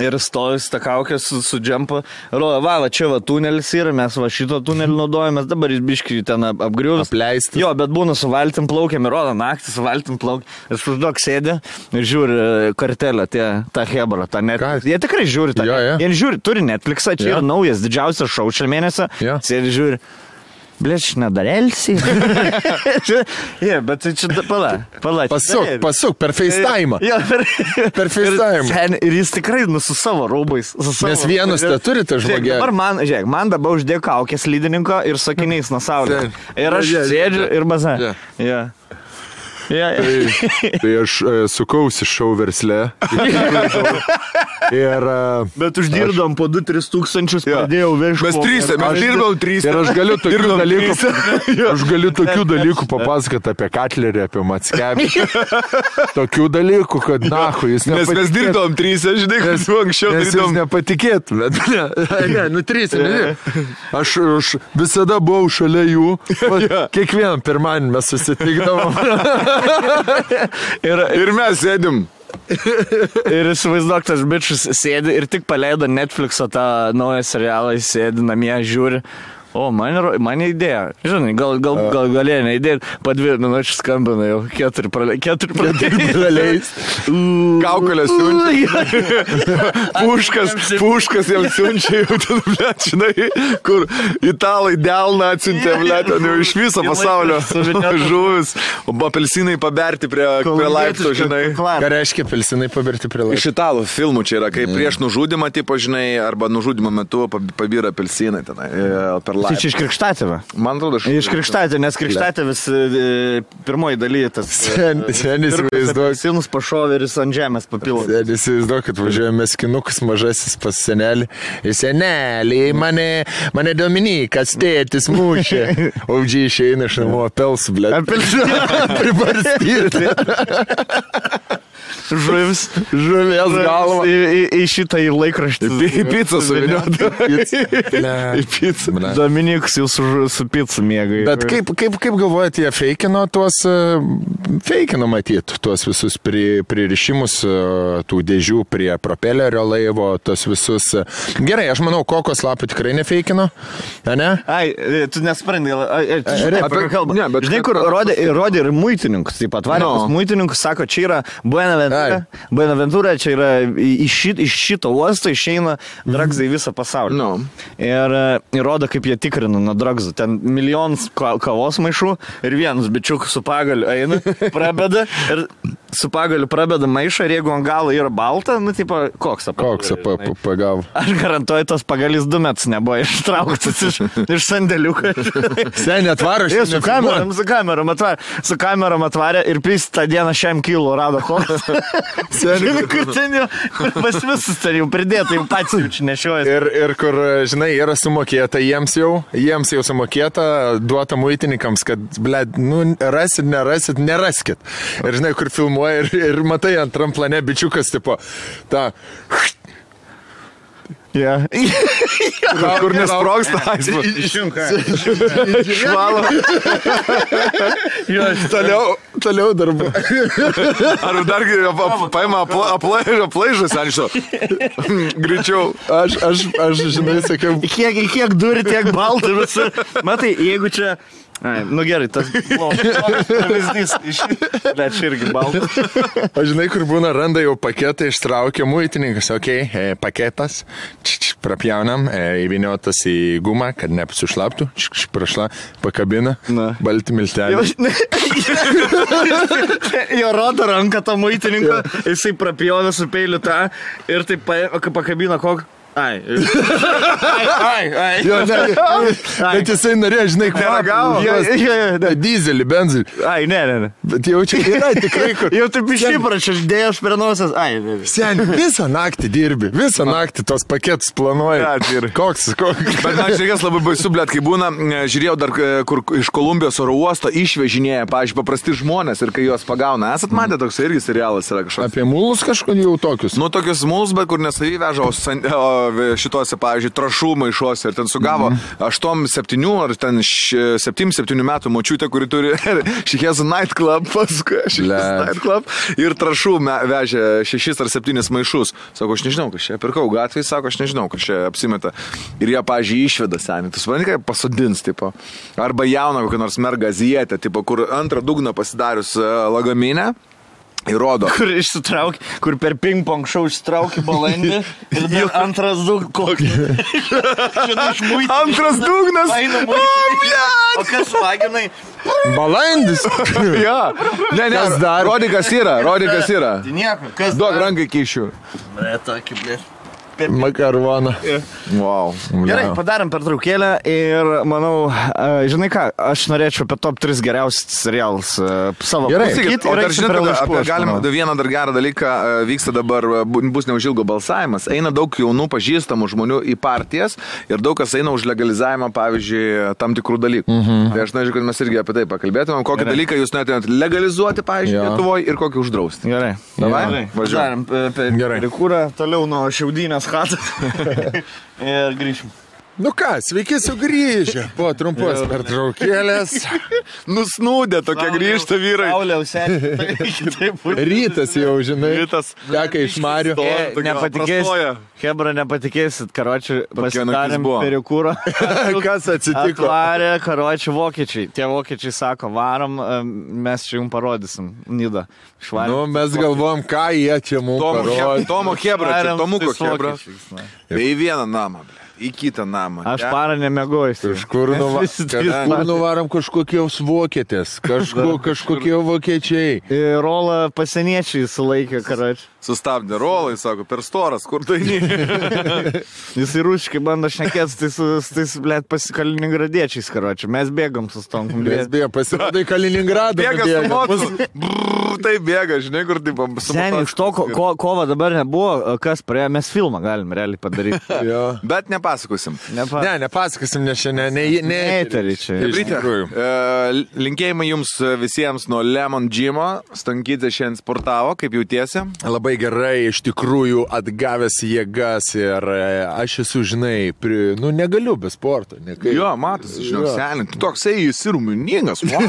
Ir stojus tą kaukę su džempu, rodo, va, čia va tunelis yra, mes va šito tunelį naudojame, dabar jis biškį ten apgriuvęs.
Apleistas.
Jo, bet būna su valtim plaukiam ir rodo naktį su valtim plaukiam. Ir užduok sėdė ir žiūri kartelę, tą hebrą, tą Netflix. Jie tikrai žiūri tą. Jie žiūri, turi Netflixą, čia yra naujas, didžiausias šou šią mėnesį. Sėdė žiūri. Blėč, nedarelsi. Bet čia pala.
Pasuk, per FaceTime. Per FaceTime.
Ir jis tikrai su savo rūbais.
Nes vienus turi tą žmogį.
Dabar man dabar uždėjo kaukės lydininko ir sakiniais nuo saulės. Ir aš sėdžiu ir baza.
Tai aš sukausi šou versle.
Bet uždirbdom po 2-3 tūkstančius, pradėjau vežti.
Mes dirbom 3.
Ir aš galiu tokių dalykų papasakoti apie Katlerį, apie Mackevičių. Tokių dalykų, kad nahu, jis nepatikėtų.
Nes mes dirbom 3, žinai, kad su anksčiau
dirbom. Nes jis nepatikėtų. Nu 3, aš visada buvau šalia jų. Kiekvieną pirmanį mes susitikdavom.
Ir mes sėdim.
Ir įsivaizduok, tas bičius sėdi ir tik paleido Netflix'o tą naują serialą, jis sėdi namie, žiūri. O, man idėja. Žinai, gal galėjo neįdėti, po 2 minučių skambina jau 4 praleis.
Kaukolės siunčia. Puškas jam siunčia jau ten, blėt, žinai, kur italai delną atsiuntė, blėt, jau iš viso pasaulio žuvis. O apelsinai paberti prie laiptų, žinai.
Ką reiškia apelsinai paberti prie laiptų?
Iš italų filmų čia yra, kai prieš nužudimą, tipo, žinai, arba nužudimo metu pabyra apelsinai tenai per
Tai čia iš Krikštatėvio.
Man atrodo,
iš Krikštatėvio, nes Krikštatėvis pirmoji dalyje tas...
Senis įsivaizduok.
Sinus pašovė ir jis ant žemės papilo.
Senis įsivaizduok, kad važiuojame skinukas mažasis pas senelį. Ir senelį, mane Dominikas tėtis mušė. O džiai išeina iš namo apelsų, blėt. Pribarstyti.
Žuvis
galva.
Į šitą į laikraštį.
Į pizzą suvinioti.
Į pizzą.
Dominikas jau su pizza mėgai.
Bet kaip galvojate, jie feikino tuos, matyt, tuos visus pririšimus tų dėžių prie propelerio laivo, tuos visus. Gerai, aš manau, kokos lapų tikrai nefeikino, ne?
Ai, tu nesprendai. Žinai, kur rodė ir muitininkus, taip pat varikus muitininkus, sako, čia yra Buenaventura, čia yra iš šito uosto išeina dragsai visą pasaulį. Ir rodo, kaip jie tikrina nuo dragsų. Ten milijonas kavos maišų ir vienas bičiukas su pagaliu eina, prabeda ir su pagaliu prabeda maišą ir jeigu ant galo yra balta, nu, tipo, koksą
pagavo.
Aš garantuoju, tos pagalis 2 metus nebuvo ištrauktas iš sandėliuko.
Seniai atvaro
su kamerom atvarė ir pys tą dieną 100 kilo rado koksą. Seniai, kur ten jau, pas visus ten jau pridėta, jau pats jaučiu nešiojas.
Ir kur, žinai, yra sumokėta jiems jau sumokėta, duota muitininkams, kad, blėd, nu, neraskit. Ir žinai, kur filmuoja ir matai antram plane bičiukas, tipo, ta...
Yeah.
Kur nesprogsta,
švalo.
Toliau darbu.
Ar dar paima aplaižas, ar iš to? Greičiau.
Aš, žinai, sakiau.
Kiek duri, tiek baltų visur. Matai, jeigu čia... Ai, nu gerai, tas pavyzdys bet čia irgi baltas.
O žinai, kur būna, randa jau paketą, ištraukia muitininkas, paketas, prapjaunam, įviniotas į gumą, kad nepasušlaptų, pakabina, balti milteliai.
Jo rodo ranką to muitininko, jisai prapjovė su peiliu tą ir taip pakabina kokį. Ai.
Jo, bet jisai norėjo, žinai, kvapą. Dizelį, benzinį.
Ai, ne.
Bet jau čia yra tikrai kur.
Jau taip išyprašęs, dėjęs per nosas. Ai, ne.
Seniai, visą naktį dirbi, visą naktį tos paketus planuoji. Koks.
Bet man šiandien labai baisu, blėt, kai būna, žiūrėjau dar, kur iš Kolumbijos oro uosto išvežinėja, pavyzdžiui, paprasti žmonės ir kai juos pagauna. Esat matę, toks irgi serialas yra kažkoks.
Apie mulus kažkodėl jau tokius?
Nu, tokius mulus, bet kur nesavy veža, šituose, pavyzdžiui, trašų maišuose ir ten sugavo 8-7 ar ten 7 metų močiutė, kuri turi Šihezų nightclub, paskui nightclub ir trašų vežė 6 ar 7 maišus. Sako, aš nežinau, kas čia pirkau gatvėje, sako, aš nežinau, kas čia apsimeta. Ir jie, pavyzdžiui, išveda senį. Tu supranti, kaip pasodins, tipo. Arba jauną kokią nors mergą azijietę, tipo, kur antrą dugną pasidarius lagaminę. Įrodo.
Kur išsitraukė, kur per ping-pong šau išsitraukė balandį ir dar antras dugnas.
Antras dugnas?
O kas vaginai?
Balandis?
Ja. Ne, rodi, kas yra.
Nieko.
Duok rankai kišiu.
Tokį, blė.
Makaroną.
Wow.
Gerai, padarėm pertraukėlę ir manau, žinai ką, aš norėčiau apie top 3 geriausius serialus savo pasakyti.
O dar žinot, galim vieną dar gerą dalyką, vyksta dabar, bus neužilgo balsavimas, eina daug jaunų pažįstamų žmonių į partijas ir daug kas eina už legalizavimą, pavyzdžiui, tam tikrų dalykų. Tai aš norėčiau, kad mes irgi apie tai pakalbėtumėm, kokį dalyką jūs norėtumėt legalizuoti, pavyzdžiui, Lietuvoje ir kokį uždrausti.
Gerai.
Davai?
Važiuojam perikūrą, toliau nuo šiaudynės chatas ir grįšim.
Nu ką, sveiki sugrįžę po trumpos pertraukėlės.
Nusnūdė tokia grįžta vyrai.
Rytas jau, žinai.
Rytas.
Teka iš Marių.
Nepatikėsit, Hebra, nepatikėsit, karočiui, pasidarėm perikūrą.
Kas atsitiko?
Atvarė, karočiui, vokiečiai. Tie vokiečiai sako, varom, mes čia jums parodysim. Nida.
Nu, mes galvom, ką jie čia mums parodė.
Tomo Hebra, čia Tomuko Hebra. Į vieną namą, ble. Į kitą namą.
Aš parą nemegojus.
Kažkur nuvarom kažkokios vokietės, kažkokie vokiečiai.
Rolą pasieniečiai sulaikė, karočiui.
Sustabdė rolą, jis sako, per storas, kur tai ne.
Jis į ruškai bando šnekėti, tai blėt, Kaliningradiečiais, karočiui. Mes bėgam su stonkom.
Mes bėgam, pasirodai Kaliningradą.
Tai bėga, žinai, kur taip.
Seniai, iš to, kova dabar nebuvo, kas praėjo, mes filmą galim realiai padaryti.
Bet nepasakosim.
Ne, nepasakosim, nes šiandien
neįtari čia.
Linkėjimai jums visiems nuo Lemon Gymo. Stankytė šiandien sportavo, kaip jautiesi?
Labai gerai, iš tikrųjų atgavęs jėgas ir aš esu, žinai, negaliu be sporto.
Jo, matosi, žinau, seniai, tu toksai esi ruminingas, wow.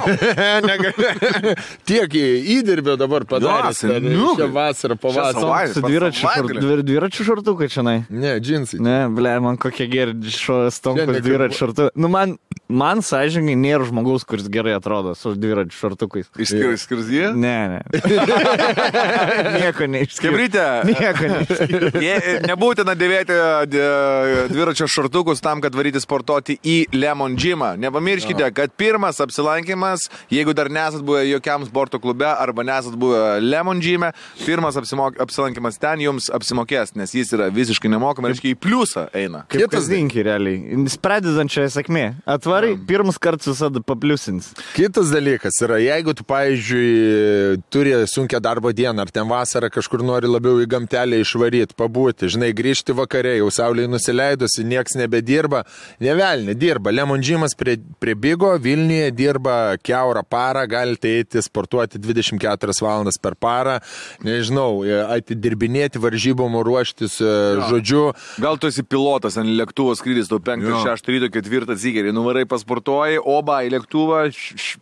Tiek įdirbio dabar padaręs, šią vasarą, pavasarą.
Su dviračių šortukai čianai?
Ne, džinsai.
Ne, ble, man kokie geri stonkus dviračių šortukai. Nu, man Man sąžininkai nėra žmogaus, kuris gerai atrodo su dviračių šortukais.
Išskyrus jį?
Ne. Nieko neišskyrus.
Kebrytė.
Nieko neišskyrus.
Nebūtina dėvėti dviračio šortukus tam, kad varyti sportuoti į Lemon Gymą. Nepamirškite, kad pirmas apsilankimas, jeigu dar nesat buvę jokiam sporto klube arba nesat buvę Lemon Gyme, pirmas apsilankimas ten jums apsimokės, nes jis yra visiškai nemokamai, reiškia į pliusą eina.
Kaip kasdienki realiai. Pradedančia sėkmė. Atvarai, pirmas kartas visada papliusins.
Kitas dalykas yra, jeigu tu, pavyzdžiui, turi sunkią darbo dieną, ar ten vasarą kažkur nori labiau į gamtelę išvaryti, pabūti, žinai, grįžti vakare, jau saulėje nusileidusi, nieks nebedirba, nevelnė, dirba. Lemon Gymas prie Bigo, Vilniuje dirba kiaurą parą, galite eiti sportuoti 24 valandas per parą, nežinau, atidirbinėti varžybom, ruoštis, žodžiu.
Gal tu esi pilotas, ant lėktuvo skrydis, tau 5, 6 ryto, 4 zygerį, nuvarai pasportuoji, oba į lėktuvą,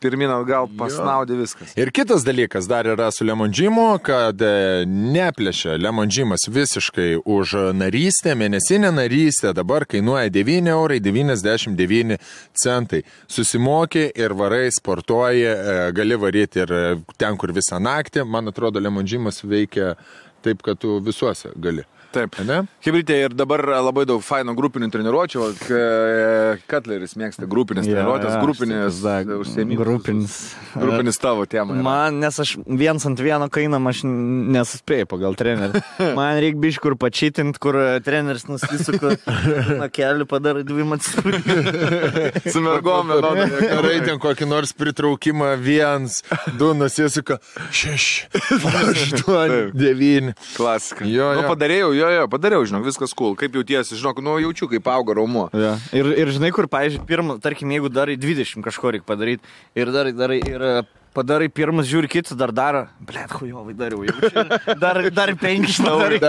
pirmin atgal pasnaudė viskas.
Ir kitas dalykas dar yra su Lemon Gymu, kad neplėšia Lemon Gymas visiškai už narystę, mėnesinę narystę, dabar kainuoja 9,99 €. Susimokė ir varai, sportuoji, gali varyti ir ten, kur visą naktį. Man atrodo, Lemon Gymas veikia taip, kad tu visuose gali.
Taip. Hebrytė, ir dabar labai daug faino grupinių treniruočių. Cutleris mėgsta grupinės treniruotės, grupinės užsiėmimas. Grupinis tavo tema.
Man, nes aš 1-ant-1 kainam, aš nesuspėjau pagal trenerį. Man reikia biškai kur pačytint, kur treneris nusisuka nuo kelių, padara 2 atsispūrį.
Su mergom,
Gerai, ten kokį nors pritraukimą 1, 2 nusisuka 6, 8, 9.
Klasika. Padariau, žinok, viskas cool. Kaip jautiesi, žinok, jaučiu, kaip auga raumuo.
Ja. Ir žinai, kur, pavyzdžiui, pirmą, tarkim, jeigu darai 20 kažko reikia padaryti ir padarai pirmas, žiūri kitus, dar daro, blet, hujovai dariau, jaučiu, dar 5 padarai,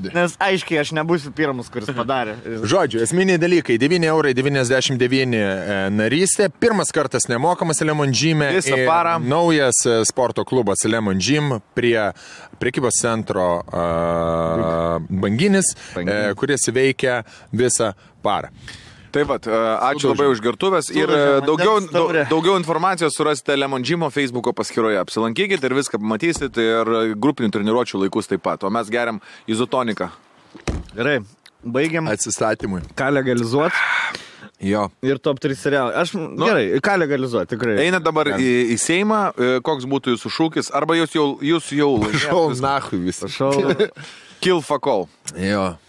nes aiškiai aš nebūsiu pirmas, kuris padarė.
Žodžiu, esminiai dalykai, 9,99 € narystė, pirmas kartas nemokamas Lemon Gyme, naujas sporto klubas Lemon Gym prie prekybos centro Banginis, kuris veikia visą parą.
Taip pat, ačiū labai už gertuvės ir daugiau informacijos surasite Lemon Gymo Facebooko paskyroje. Apsilankykite ir viską pamatysit ir grupinių treniruočių laikus taip pat. O mes geriam izotoniką.
Gerai, baigiam.
Atsistatymui.
Ką legalizuot?
Jo.
Ir top 3 serialai. Aš, gerai, ką legalizuoti, tikrai.
Eina dabar į Seimą, koks būtų jūsų šūkis, arba jūs jau
šau nahui visą.
Kill fuck all.
Jo.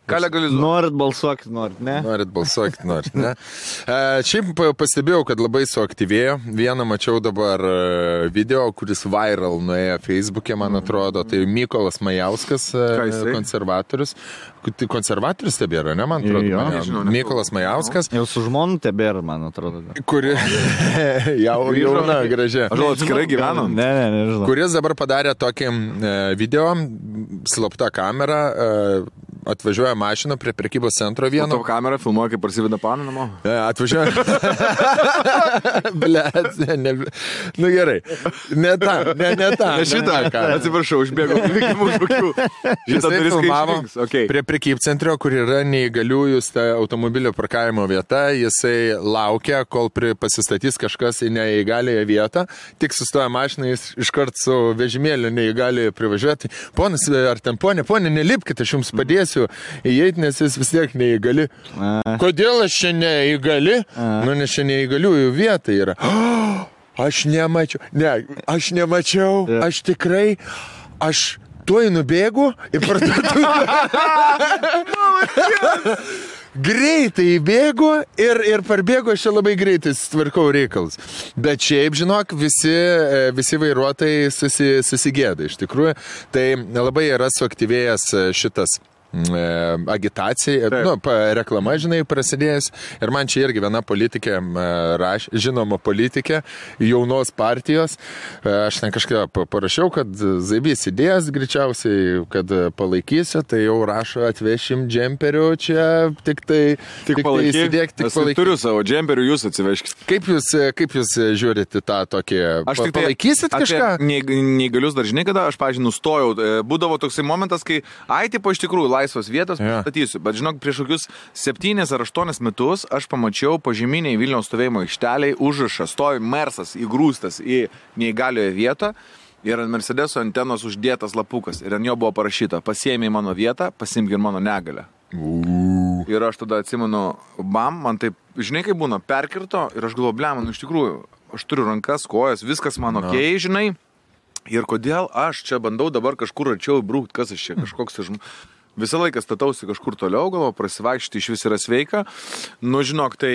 Ką legalizuoti?
Norit balsuokit, norit, ne?
Norit balsuokit, norit, ne? Šiaip pastebėjau, kad labai suaktyvėjo. Vieną mačiau dabar video, kuris viral nuėjo Facebook'e, man atrodo. Tai Mykolas Majauskas, konservatorius. Konservatorius tebėra, ne, man atrodo? Mykolas Majauskas.
Jau su žmonu tebėra, man atrodo.
Kuri jauna, gražia.
Aš atskirai gyvenu.
Ne, nežinau.
Kuris dabar padarė tokį video, slapta kamera, atvažiuoja mašina prie prekybos centro vieno.
Tavo kamera filmuoja, kaip parsiveda paną namo.
Atvažiuoja. Blet, nu gerai. Ne tą.
Ne šitą. Atsiprašau, užbėgau.
Jisai filmavo prie prekybcentrio, kur yra neįgaliųjų automobilio parkavimo vieta. Jisai laukia, kol pasistatys kažkas į neįgalioje vietą. Tik sustoja mašiną, jis iškart su vežimėliu neįgalioje privažiuoti. Ponas, ar ten ponė, nelipkite, aš jums padėsiu įeiti, nes jis vis tiek neįgali. Kodėl aš čia neįgali? Nu, nes čia neįgaliųjų vieta yra. Aš nemačiau. Ne, aš nemačiau. Aš tikrai. Aš tuoj nubėgu į parduotuvę. Greitai įbėgu ir parbėgu, aš čia labai greitai tvarkau reikalus. Bet šiaip, žinok, visi vairuotojai susigėda iš tikrųjų. Tai labai yra suaktyvėjęs šitas agitacija, reklama, žinai, prasidėjus. Ir man čia irgi viena politikė, žinoma politikė, jaunos partijos. Aš ten kažką parašiau, kad Zaibys idėjas greičiausiai, kad palaikysiu, tai jau rašo, atvešim džemperių čia, tik įsidėk, tik palaikyk.
Turiu savo džemperių, jūs atsiveškit.
Kaip jūs žiūrite tą tokį, palaikysit kažką?
Neįgalius dar žinai, kada aš, pavyzdžiui, nustojau. Būdavo toksai momentas, kai, tipo iš tikrųjų, laisvos vietos pristatysiu. Bet žinok, prieš kokius 7 ar 8 metus aš pamačiau pažyminiai Vilniaus stovėjimo aikšteliai užrašą, stovi Mersas įgrūstas į neįgalioje vietą ir ant Mercedeso antenos uždėtas lapukas. Ir ant jo buvo parašyta, pasiėmė mano vietą, pasiimk ir mano negalę. Ir aš tada atsimenu, man taip, žinai, kaip būna, perkirto ir aš galvoju, man iš tikrųjų, aš turiu rankas, kojas, viskas man okei, žinai. Ir kodėl aš čia bandau dabar kažkur arčiau įbrūkti, kas aš čia, kažkoks visą laiką statausi kažkur toliau, galvo, prasivaikšti iš vis yra sveika. Nu, žinok, tai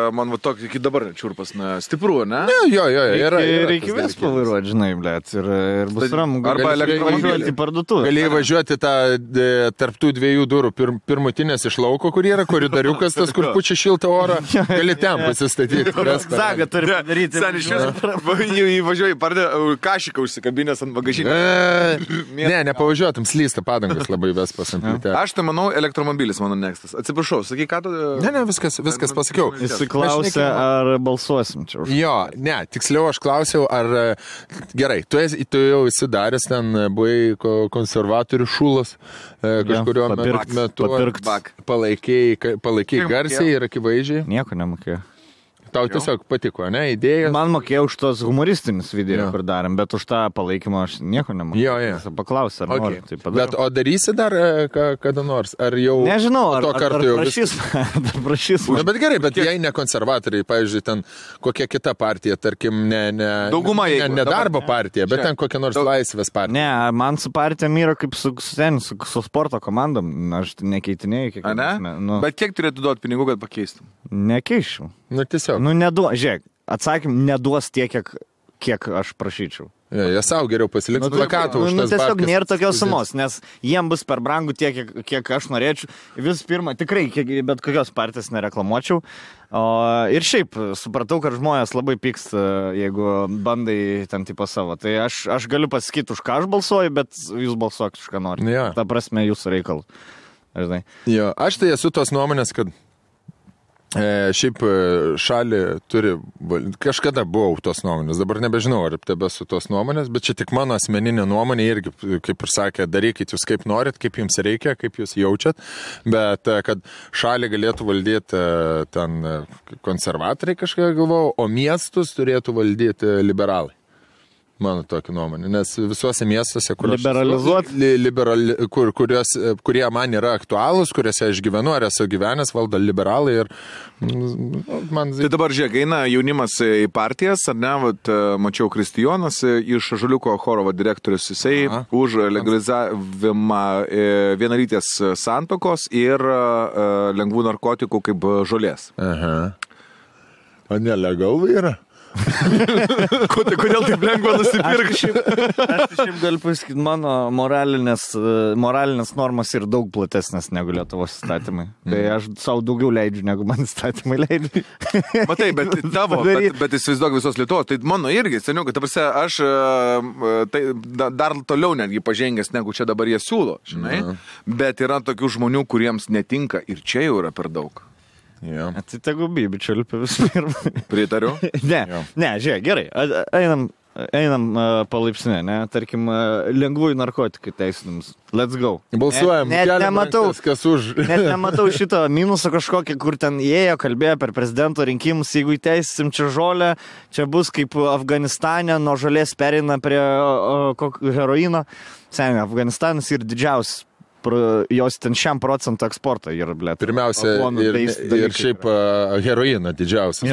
man va tokį iki dabar čiurpas, stipru, ne?
Jo,
reikia vis pavairuoti, žinai, blėt, ir bus ramu.
Arba elektromobilį
į parduotuvę.
Galėjai važiuoti tą tarptų 2 durų, pirmutinės iš lauko, kur yra koridoriukas, tas, kur pučia šiltą orą, gali ten pasistatyti.
Zaga turi padaryti.
Sen iš vis įvažiuoji, pardė kašiką užsikabinės ant bagažinės.
Nepavažiuotum, slysta padangas labai vespas.
Aš tai manau, elektromobilis mano nekstas. Atsiprašau, sakai, ką tu...
Ne, viskas pasakiau.
Jis klausė, ar balsuosim čia už.
Jo, ne, tiksliau aš klausiau, ar... Gerai, tu jau esi daręs, ten buvai konservatorių šūlas, kažkurio metu palaikiai garsiai ir akivaizdžiai.
Nieko nemokėjau.
Tau tiesiog patiko, ne, idėjas?
Man mokėjau už tos humoristinius video, kur darėm, bet už tą palaikymą aš nieko nemokėjau.
Jo.
Paklausė, ar nori, tai padariau.
Bet o darysi dar kada nors? Ar jau...
Nežinau, ar
prašys. Bet gerai, bet jei ne konservatoriai, pavyzdžiui, ten kokia kita partija, tarkim, ne darbo partija, bet ten kokia nors laisvės partija.
Ne, man su partijom yra kaip su sporto komandom, aš nekeitinėjau kiekvieną.
Bet kiek turėtų duoti pinigų, kad pakeistum?
Nekeičiau.
Nu, tiesiog.
Žiūrėk, atsakym, neduos tiek, kiek aš prašyčiau.
Jie savo geriau pasiliks plakatų už tas
tiesiog nėra tokios sumos, nes jiem bus per brangu tiek, kiek aš norėčiau. Vis pirma, tikrai, bet kokios partijos nereklamuočiau. Ir šiaip, supratau, kad žmonės labai pyksta, jeigu bandai ten tipo savo. Tai aš galiu pasakyti, už ką aš balsuoju, bet jūs balsuokit, už ką nori.
Ja.
Ta prasme, jūsų reikalų.
Jo, aš tai esu tos nuomonės, kad šiaip šalį turi, kažkada buvau tos nuomonės, dabar nebežinau, ar tebesu tos nuomonės, bet čia tik mano asmeninė nuomonė irgi, kaip ir sakė, darykit jūs kaip norit, kaip jums reikia, kaip jūs jaučiat, bet kad šalį galėtų valdyti ten konservatoriai kažką galvojau, o miestus turėtų valdyti liberalai. Mano tokia nuomonė, nes visuose miestuose, kurie man yra aktualūs, kuriuose aš gyvenu, ar esu gyvenęs, valdo liberalai ir man...
Tai dabar žiūrėk, eina jaunimas į partijas, ar ne, mačiau Kristijonas iš Žaliuko choro direktorius, jisai už legalizavimą vienalytės santokos ir lengvų narkotikų kaip žolės.
Aha. O nelegalu yra?
Kodėl taip lengva nusipirkti?
Aš šiaip galiu pasakyti, mano moralinės normas yra daug platesnės negu Lietuvos įstatymai. Tai aš savo daugiau leidžiu, negu man įstatymai leidžiu.
Matai, bet tavo, bet įsivaizduok visos Lietuvos, tai mano irgi, seniukai, ta prasme, aš tai dar toliau netgi pažengęs, negu čia dabar jie siūlo, žinai, bet yra tokių žmonių, kuriems netinka ir čia jau yra per daug.
Yeah.
Tai tegu bibičiu visų pirma.
Pritariu?
Ne, žiūrėk, gerai, einam palaipsniui, ne, tarkim, lengvųjų narkotikų teisinimus. Let's go.
Balsuojam, kas už.
Net nematau šito minuso kažkokį, kur ten ėjo, kalbėjo per prezidento rinkimus, jeigu įteisim čia žolę, čia bus kaip Afganistane, nuo žolės pereina prie heroino. Seniai, Afganistanas yra didžiausias. Jos ten 100% eksportą yra, blėt.
Pirmiausia, ir šiaip heroiną didžiausias.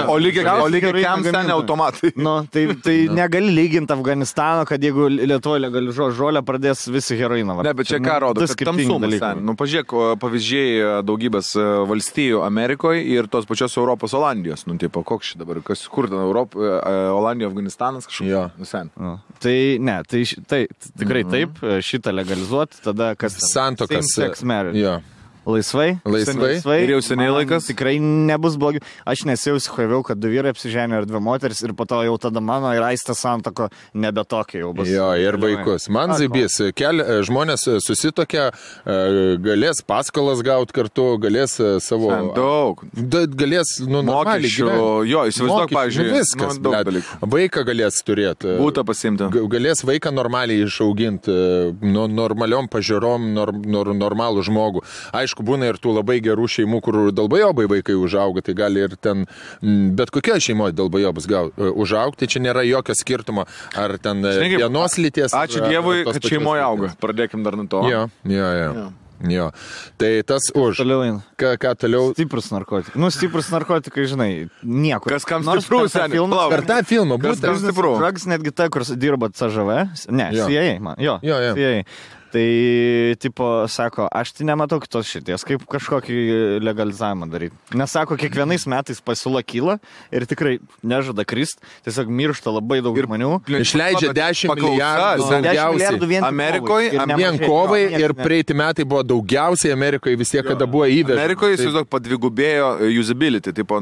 O lygiai kiam ten automatai.
Tai negali lyginti Afganistano, kad jeigu Lietuvoje legalizuos žolę, pradės visi heroiną.
Ne, bet čia ką rodo, kad tamsumas ten. Pažiūrėk, pavyzdžiai daugybės valstijų Amerikoje ir tos pačios Europos Olandijos. Tipo, koks šį dabar, kur ten Olandija, Afganistanas kažkoks.
Tai ne, tai tikrai taip, šitą legalizuoti, tada kas
santokas.
Same-sex marriage.
Jo.
Laisvai.
Ir jau seniai laikas.
Tikrai nebus blogiau. Aš nesijausiu, kad 2 vyrai apsiženė ir 2 moteris ir po to jau tada mano ir Aistės santoko nebe tokia jau bus.
Jo, ir vaikus. Man zaibys, žmonės susitokia, galės paskolas gauti kartu, galės savo...
Daug.
Galės, normaliai gyventi.
Jo, įsivaizduok, pavyzdžiui.
Viskas, vaiką galės turėti.
Būtą pasimti.
Galės vaiką normaliai išauginti, normaliom pažiūrom, normalų žmogų. Aišku, būna ir tų labai gerų šeimų, kur dalbajobai vaikai užauga, tai gali ir ten, bet kokia šeimoje dalbajobas užaugti, čia nėra jokio skirtumo, ar ten vienos lyties.
Ačiū Dievui, kad šeimoje auga. Pradėkim dar nuo to.
Jo. Tai tas už.
Toliau.
Ką toliau?
Stiprus narkotikai. Stiprus narkotikai, žinai, nieko.
Kas kam stiprus, seniai?
Per tą filmą
būtent. Kas kam stiprus?
Drugs netgi ta, kur dirba CŽV. Ne, CIA, man. Jo. CIA. Tai, tipo, sako, aš tai nematau kitos šities, kaip kažkokį legalizavimą daryti. Nes, sako, kiekvienais metais pasiūla kyla ir tikrai nežada krist, tiesiog miršta labai daug žmonių.
Išleidžia 10 milijardų daugiausiai.
Amerikoje,
vien kovai ir praeiti metai buvo daugiausiai Amerikoje vis tiek, kada buvo įvežta.
Amerikoje, įsivaizduok, padvigubėjo usability, tipo,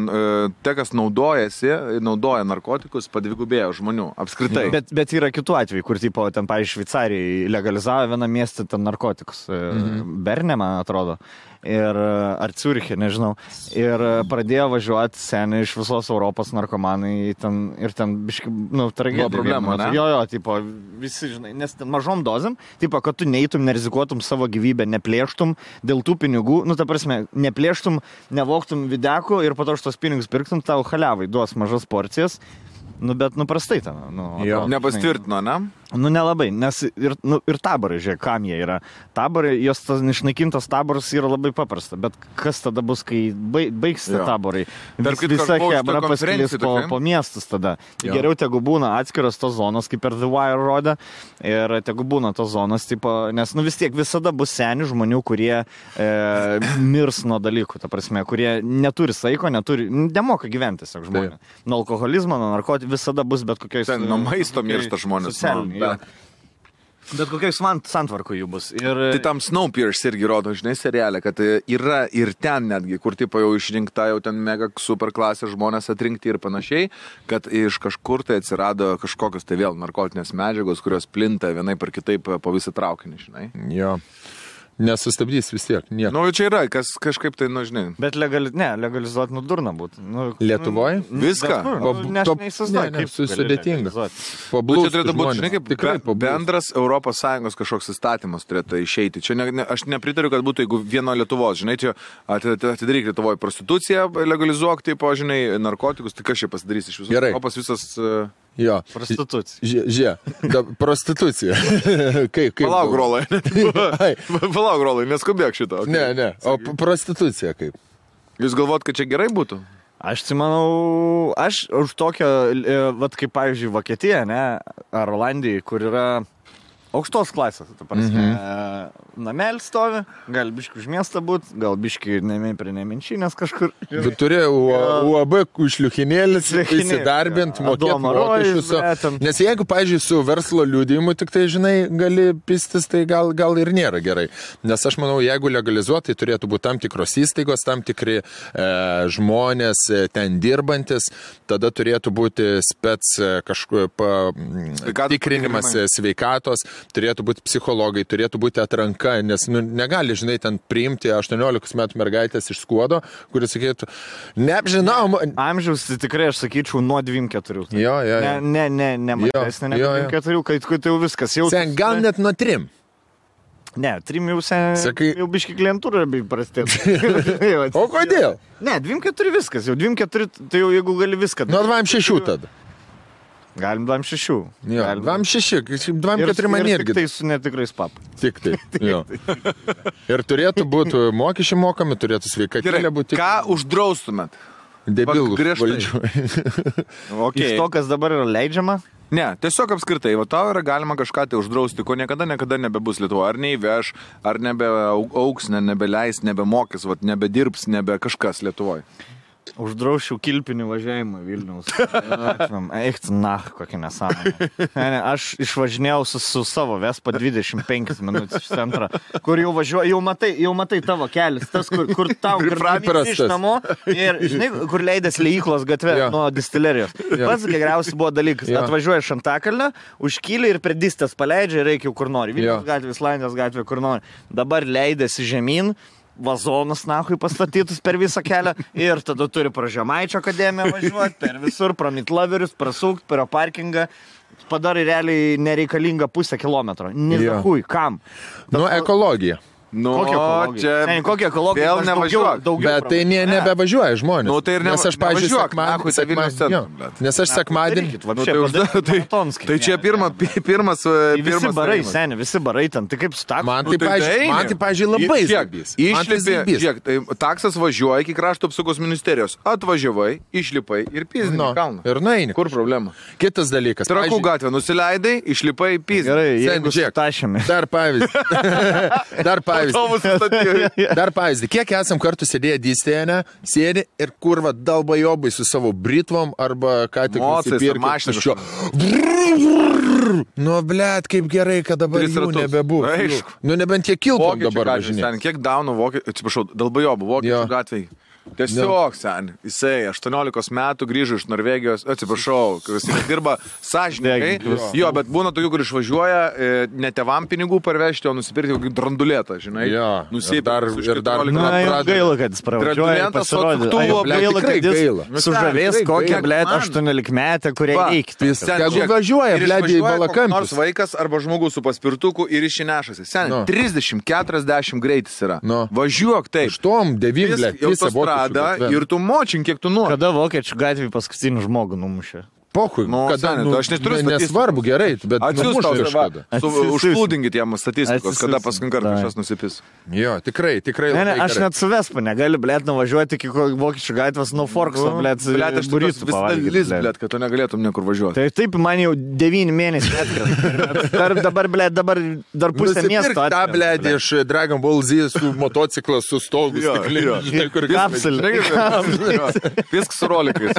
te, kas naudoja narkotikus, padvigubėjo žmonių, apskritai.
Bet yra kitų atvejų, kur, tipo, ten, pavyzdžiui, Šveicarijai legalizavo vieną miestą ten narkotikus. Berne, man atrodo. Ar Ciuriche, nežinau. Ir pradėjo važiuoti seniai iš visos Europos narkomanai ir ten biškai, tragedija.
Problema, ne?
Jo, tipo, visi, žinai, nes ten mažom dozėm, tipo, kad tu neįtum, nerizikuotum savo gyvybę, neplėštum dėl tų pinigų, ta prasme, neplėštum, nevoktum videkų ir po to už tos pinigus pirktum, tau haliavai duos mažas porcijas. Bet prastai ten.
Nepastvirtino, ne?
Nelabai, nes ir taborai, žiūrėk, kam jie yra. Taborai, jos tas išnaikintas taboras yra labai paprasta, bet kas tada bus, kai baigs taborai? Visa hebra pasklis po miestus tada. Geriau tegu būna atskiras tos zonos, kaip per The Wire rodė, ir tegu būna tos zonos, tipo, nes vis tiek visada bus senių žmonių, kurie mirs nuo dalykų, ta prasme, kurie neturi saiko, nemoka gyventi, tiesiog žmonės. Nuo alkoholizmo, nuo narkotikų visada bus bet kokiais...
Nuo maisto miršta žmonės.
Bet kokiais santvarkų jų bus.
Tai tam Snowpiercer irgi rodo, žinai, serialę, kad yra ir ten netgi, kur tipo jau išrinkta jau ten mega super klasės žmonės atrinkti ir panašiai, kad iš kažkur tai atsirado kažkokios tai vėl narkotinės medžiagos, kurios plinta vienaip ar kitaip po visą traukinį, žinai.
Jo. Nesustabdys vis tiek.
Čia yra, kas kažkaip tai, žinai.
Bet legalizuoti durna būtų.
Lietuvoje?
Viską?
Sudėtinga.
Čia turėtų būti, žinai, kaip bendras ES kažkoks įstatymas turėtų išeiti. Čia aš nepritariu, kad būtų, jeigu vieno Lietuvos, žinai, čia atidaryk Lietuvoje prostituciją, legalizuok, tipo, žinai, narkotikus, tai kas čia pasidarys iš visos Europos visas...
Jo.
Prostitucija.
Prostitucija.
Palauk, Rolai, neskubėk šito.
Okay. Ne. O prostitucija kaip?
Jūs galvot, kad čia gerai būtų?
Aš manau, aš už tokią, kaip pavyzdžiui, Vokietija, ne, ar Olandija, kur yra aukštos klasės, ta prasme, namelis stovi, gal biški už miestą būt, gal biški prie nemenčinės kažkur.
Bet turėjo UAB šliuchinėlis įsidarbint, mokėti mokesčius. Nes jeigu, pavyzdžiui, su verslo liudijimu tik tai, žinai, gali pistis, tai gal ir nėra gerai. Nes aš manau, jeigu legalizuoti, tai turėtų būti tam tikros įstaigos, tam tikri žmonės ten dirbantis, tada turėtų būti tikrinimas sveikatos, turėtų būti psichologai, turėtų būti atranka, nes negali, žinai, ten priimti 18 metų mergaitės iš Skuodo, kuris sakytų, neapžinau.
Amžiaus, tai tikrai aš sakyčiau nuo 24.
Jo.
Ne mažesnė negu 24, kai jau viskas jau...
Gal net nuo 3.
Ne, 3 jau biški klientūra prastėtų.
O kodėl?
Ne, 24 viskas, jau 24, tai jau jeigu gali viską.
Nuo 26 tada.
Galim 26.
Jo, 26, 24 man irgi.
Tik tai su netikrais pap.
Tik tai, jo. Ir turėtų būti mokesčiai mokami, turėtų sveikatėlė būti.
Ką uždraustumėt?
Debilus valdžių.
Iš to, kas dabar yra leidžiama?
Ne, tiesiog apskritai, tau yra galima kažką tai uždrausti, ko niekada nebebus Lietuvoje. Ar neįveš, ar nebeauks, nebeleis, nebemokys, nebedirbs, nebe kažkas Lietuvoje.
Uždraušiau kilpinį važiavimą Vilniaus. Eik, kokia nesąmonė. Aš išvažinėjau su savo Vespa 25 minutės iš centro, kur jau važiuoju, jau matai tavo kelias, tas, kur tau iš namo ir, žinai, kur leidės Leiklos gatvė nuo distilerijos. Pats geriausias buvo dalykas. Atvažiuoja iš Antakalnio, užkyli ir prie distės paleidžia ir reikia kur nori. Vilniaus gatvė, Islandijos gatvė, kur nori. Dabar leidėsi žemyn, vazonus nahui pastatytus per visą kelią ir tada turi pro Žemaičio akademiją važiuoti, per visur, pro Mitlaverius, prasukti, per parkingą. Padarai realiai nereikalingą 0,5 kilometro. Nezahui, kam?
Ekologija.
Kokia ekologija?
Vėl nevažiuok.
Bet tai nebevažiuoja žmonės.
Tai ir
nes aš, pavyzdžiui, nes aš sekmadienį. Tai čia pirmas
visi barai, seni, visi barai ten. Tai kaip su taksu?
Man tai, pavyzdžiui, labai zabys.
Išlipi, žiūrėk, taksas važiuoja iki krašto apsaugos ministerijos. Atvažiavai, išlipai ir pizdinį kalną.
Ir naini.
Kur problema?
Kitas dalykas.
Trakų gatvę nusileidai, išlipai pizdinį.
Gerai, jeigu tašėme.
Dar pavyzdį. Kiek esam kartu sėdėję dystėje, sėdi ir kurva dalbajobai su savo britvom arba ką tik nusipirkti šio. Blet, kaip gerai, kad dabar jų nebebūs. Nebent jie kiltom dabar važinė.
Kiek daunų atsiprašau, dalbajobų vokiečių gatvėj. Tiesiog, jisai 18 metų grįžo iš Norvegijos, atsiprašau, jis dirba sąžininkai, bet būna tokių, kur išvažiuoja ne tėvam pinigų parvežti, o nusipirkti kokį drandulėtą, žinai.
Ir dar
gaila, kad jis pravažiuoja, pasirodė. Gaila, kad jis sužavės kokią, blėt, 18 metę, kurie eikti.
Jeigu važiuoja, blėt, į Balakampį.
Nors vaikas arba žmogus su paspirtuku ir išsinešasi. 30-40 greitis yra. Važiuok taip.
8-9, blėt,
ir tu močink, kiek tu nori.
Kada vokiečių gatvį paskutinį žmogų numušė?
Pochui, aš neturiu nesvarbu, gerai, bet
užplūdinkit jam statistikos, kada paskutinį kartą kažkas nusipis.
Jo, tikrai.
Aš net su Vespa negaliu, blėt, nuvažiuoti iki vokiečių gatvės nuo Forkso, blėt, burytų pavalgyti.
Blėt, kad tu negalėtum niekur važiuoti.
Tai taip, man jau 9 mėnesių atkrenta. Dabar dar pusę miesto atkrenta.
Ta, blėt, iš Dragon Ball Z su motociklas, su stogu, stikliniu.
Kapsulė.
Viskas su rolikais.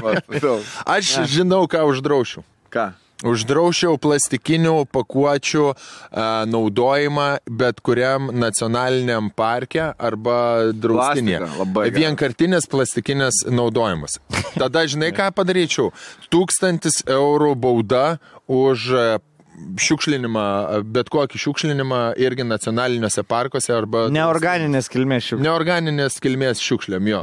Aš žinau, ką uždraušiau.
Ką?
Uždraušiau plastikinių pakuočių naudojimą bet kuriam nacionaliniam parke arba draustinėje. Vienkartinės plastikinės naudojimas. Tada žinai, ką padaryčiau? 1000 eurų bauda už šiukšlinimą, bet kokį šiukšlinimą irgi nacionaliniuose parkuose arba...
Neorganinės kilmės šiukšlėm.
Neorganinės kilmės šiukšlėm, jo.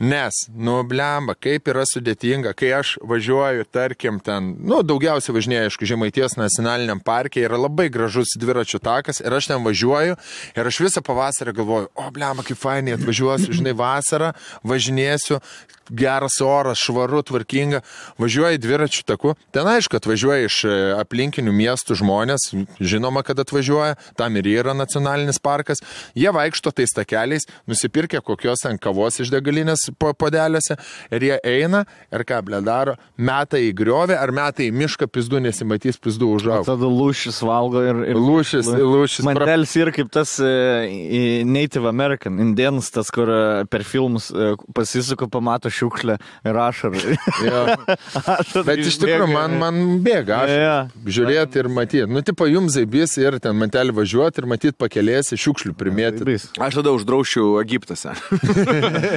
Nes, blemba, kaip yra sudėtinga, kai aš važiuoju, tarkim, ten, daugiausiai važinėju, aišku, Žemaitijos nacionaliniam parke, yra labai gražus dviračių takas ir aš ten važiuoju ir aš visą pavasarį galvoju, blemba, kaip fainai atvažiuosiu, žinai, vasarą, važinėsiu, geras oras, švaru, tvarkinga, važiuoju dviračių taku, ten aišku, atvažiuoja iš aplinkinių miestų žmonės, žinoma, kad atvažiuoja, tam ir yra nacionalinis parkas, jie vaikšto tais takeliais, nusipirkę kokios ant kavos iš degalinės podeliuose ir jie eina ir ką, ble, daro, meta į griovę ar meta į mišką, pizdu nesimatys, pizdu užauga.
Tada lūšis valgo ir...
Lūšis.
Mandelis yra kaip tas Native American, indėnas, tas, kur per filmus pasisuko, pamato šiukšlę ir ašarą.
Bet iš tikrųjų man bėga žiūrėti ir matyti. Tipo jums zaibys ir ten mantelį važiuoti ir matyti pakelėsi šiukšlių primėti.
Aš tada uždraušiu Egiptose.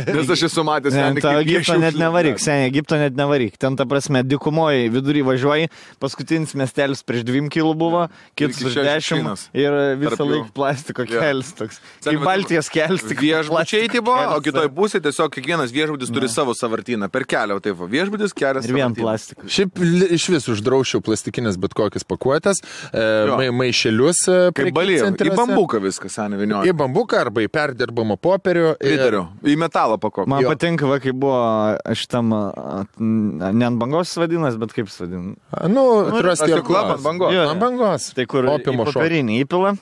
Nes aš esu matęs.
Egipto net nevaryk, Egipto net nevaryk. Ten, ta prasme, dykumoji vidury važiuoji, paskutinis miestelis prieš 2 kilų buvo, kitas už 10 ir visą laiką plastiko kelis toks. Kaip Baltijos kelis, tik
viešbučiai tai buvo, o kitoj pusėje tiesiog kiekvienas viešbutis turi savo savartyną. Per kelią, taip, viešbutis kelias.
Ir vien plastikas.
Šiaip iš vis uždraušiau plastikinės bet kokias pakuotės, maišelius.
Kaip Balyje, į bambuką viskas, seniai vinioja.
Į bambuką arba į perdirbamą popierių.
Į metalą pakuotę.
Man patinka, kai buvo šitam, ne ant bangos vadinas, bet kaip jis vadina.
Trust your club
ant bangos.
Ant bangos.
Tai kur į popierinį įpila.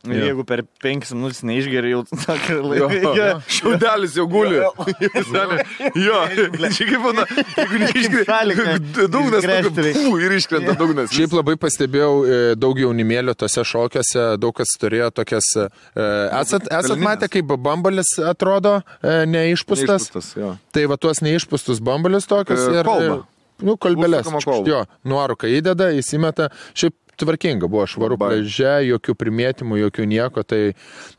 Jeigu per 5 minutės neišgeri, jau tokį laiką.
Šiaudelis jau guli. Jo, čia kaip būna, jeigu neišgeri, dugnas ir iškrenta dugnas.
Šiaip labai pastebėjau daug jaunimėlio tose šokiuose, daug kas turėjo tokias... Esat matę, kaip bambalis atrodo neišpūstas? Tai va tuos neišpūstus bambalius tokius ir... Kolbelės. Jo, nuoruką įdeda, įsimeta. Šiaip tvarkinga buvo, švaru pliaže, jokių primėtimų, jokių nieko, tai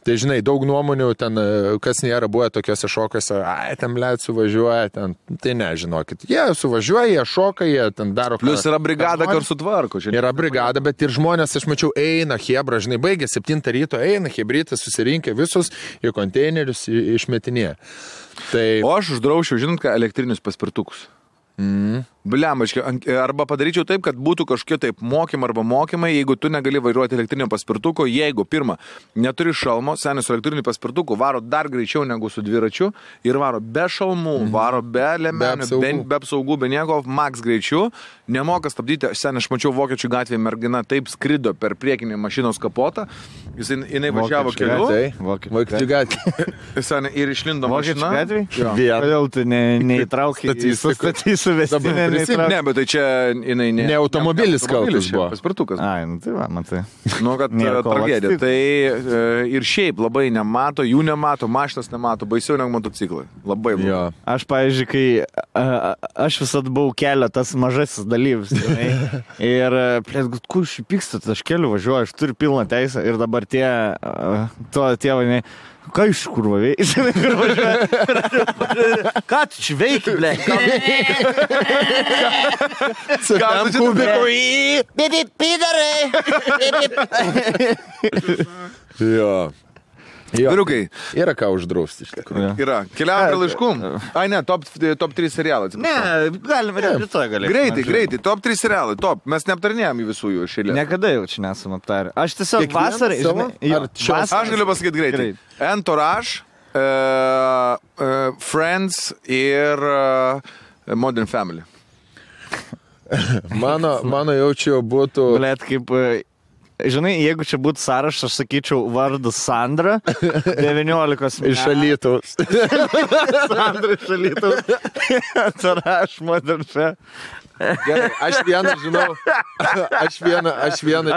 žinai, daug nuomonių ten, kas nėra buvę tokiuose šokiuose, ten blėt suvažiuoja, ten, tai nežinokit, jie suvažiuoja, jie šoka, jie ten daro...
Plus yra brigada, kur sutvarko.
Yra brigada, bet ir žmonės, aš mačiau, eina hebra, žinai, baigė 7 ryto, eina hebrytas, susirinkę visus į konteinerius išmetinėje. Tai...
O aš uždraušiau, žinot, ką, elektrinius paspirtukus. Bliamaškai, arba padaryčiau taip, kad būtų kažkokie taip mokymai, jeigu tu negali vairuoti elektrinio paspirtuko, jeigu pirmą, neturi šalmo, senis su elektriniu paspirtuku varo dar greičiau negu su dviračiu ir varo be šalmų, varo be lemenių, be apsaugų, be nieko, max greičiu, nemoka stabdyti, senis, aš mačiau Vokiečių gatvėje mergina taip skrido per priekinį mašinos kapotą, jinai važiavo keliu,
Vokiečių gatvėje
ir išlindo mašina.
Kodėl tu neįtraukai suvestinę?
Ne, bet tai čia jinai
ne automobilis kaltas buvo.
Paspirtukas.
Ai, tai va, matai.
Nu, kad tragedija. Tai ir šiaip labai nemato, jų nemato, mašinas nemato, baisiau negu motociklai. Labai blogai.
Aš, pavyzdžiui, kai aš visada buvau kelio tas mažasis dalyvis. Ir, kur šipykstat, aš keliu važiuoju, aš turiu pilną teisę ir dabar tie tėvai, ką iš kur važiuoja? Ką tu čia veiki, ble?
Tam kubiku
Bibi, pidarai!
Jo.
Vyrukai.
Yra ką uždrausti iš tikrųjų.
Yra. Keliaujame prie laiškų. Ai ne, top 3 serialai.
Ne, galime rytoj galėsime.
Greitai, top 3 serialai, top. Mes neaptarinėjom į visų jų šilę.
Niekada jau čia nesam aptarę. Aš tiesiog vasarą...
Aš galiu pasakyti greitai. Entourage, Friends ir Modern Family.
Mano jaučiu būtų...
Blet, kaip... Žinai, jeigu čia būtų sąrašas, aš sakyčiau vardas Sandra, 19 metų.
Iš Alytaus.
Sandra iš Alytaus. Entourage, Modern Family.
Gerai, aš vieną žinau. Aš vieną.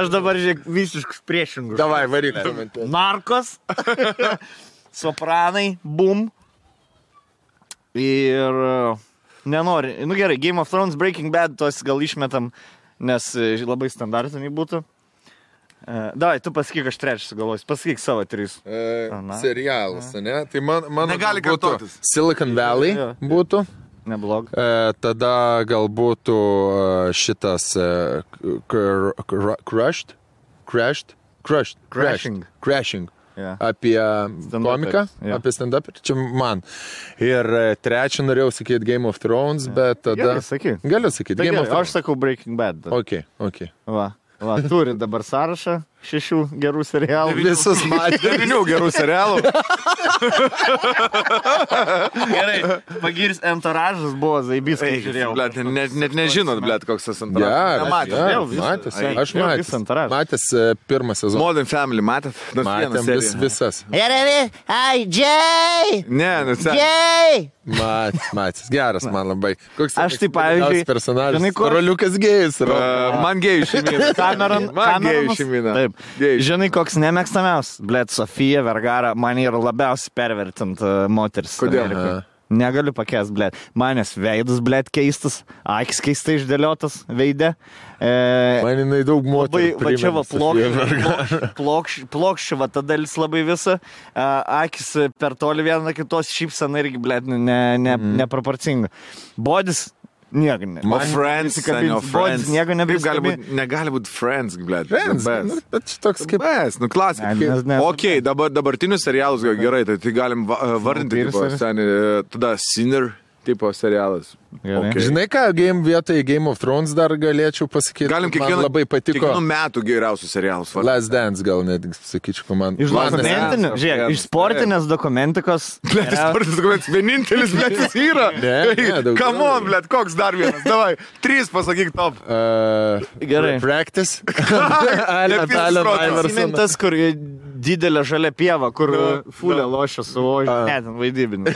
Aš dabar žiūrėk visiškus priešingus.
Davai, varyk.
Narkos, Sopranai, Boom. Ir nenori. Nu gerai, Game of Thrones, Breaking Bad, tos gal išmetam, nes labai standartiniai būtų. Davai, tu pasakyk, aš trečias sugalvosiu. Pasakyk savo 3.
Serialas, ne? Tai mano
negali kartotis.
Silicon Valley būtų.
Neblog.
Tada gal būtų šitas Crashing. Yeah. Apie komiką, apie stand-up, čia man. Ir trečią norėjau sakyti Game of Thrones, bet tada... Galiu sakyti.
Game of Thrones. Aš sakau Breaking Bad.
Ok.
Va, turi dabar sąrašą 6 gerų serialų.
Visus matė.
9 gerų serialų.
Gerai, pagirs Entourage'as buvo zaibys, kai žiūrėjau.
Blet, net nežinot, blet, koks tas Entourage'as.
Aš matęs pirmą sezoną.
Modern Family, matėt?
Matėm visas.
Jay!
Ne,
Jay!
Matęs, geras man labai. Koks
aš tai pavyzdžiui
personažas. Roliukas gėjus.
Man gėjų šeimina.
Man gėjų šeimina. Taip. Žinai, koks nemėgstamiaus? Blet, Sofija Vergara, man yra labiausiai pervertint moteris.
Kodėl?
Negaliu pakęst, blet. Manęs veidas, blet, keistas, akis keistai išdėliotas veide.
Man jinai daug moterų
va čia va plokščių, va ta dalis labai visa. Akis per toli viena kitos šypsena irgi, blet, neproporcinga. Bodis... Nieko ne.
O Friends, Friends.
Nieko nebeskabi.
Negali būti Friends, blėt.
Friends, bet toks kaip...
Best, nu klasika. Ok, dabartinius serialus gerai, tai galim vardinti, tada Sinner tipo serialas.
Okay. Žinai ką, vietoj Game of Thrones dar galėčiau pasakyti,
galim
man labai patiko.
Kiekvienų metų geriausius serialus.
Last Dance gal net, sakyčiau, man.
Iš dokumentinės, žiūrėk, iš sportinės dokumentikos.
Blet, sportinės dokumentikos, vienintelis, blet, jis yra. Come on, blet, koks dar vienas, davai, 3 pasakyk top.
Gerai.
Practice.
Simintas, kur didelė žalia pieva, kur fulė lošia su ožiu. Ne, ten vaidybinė.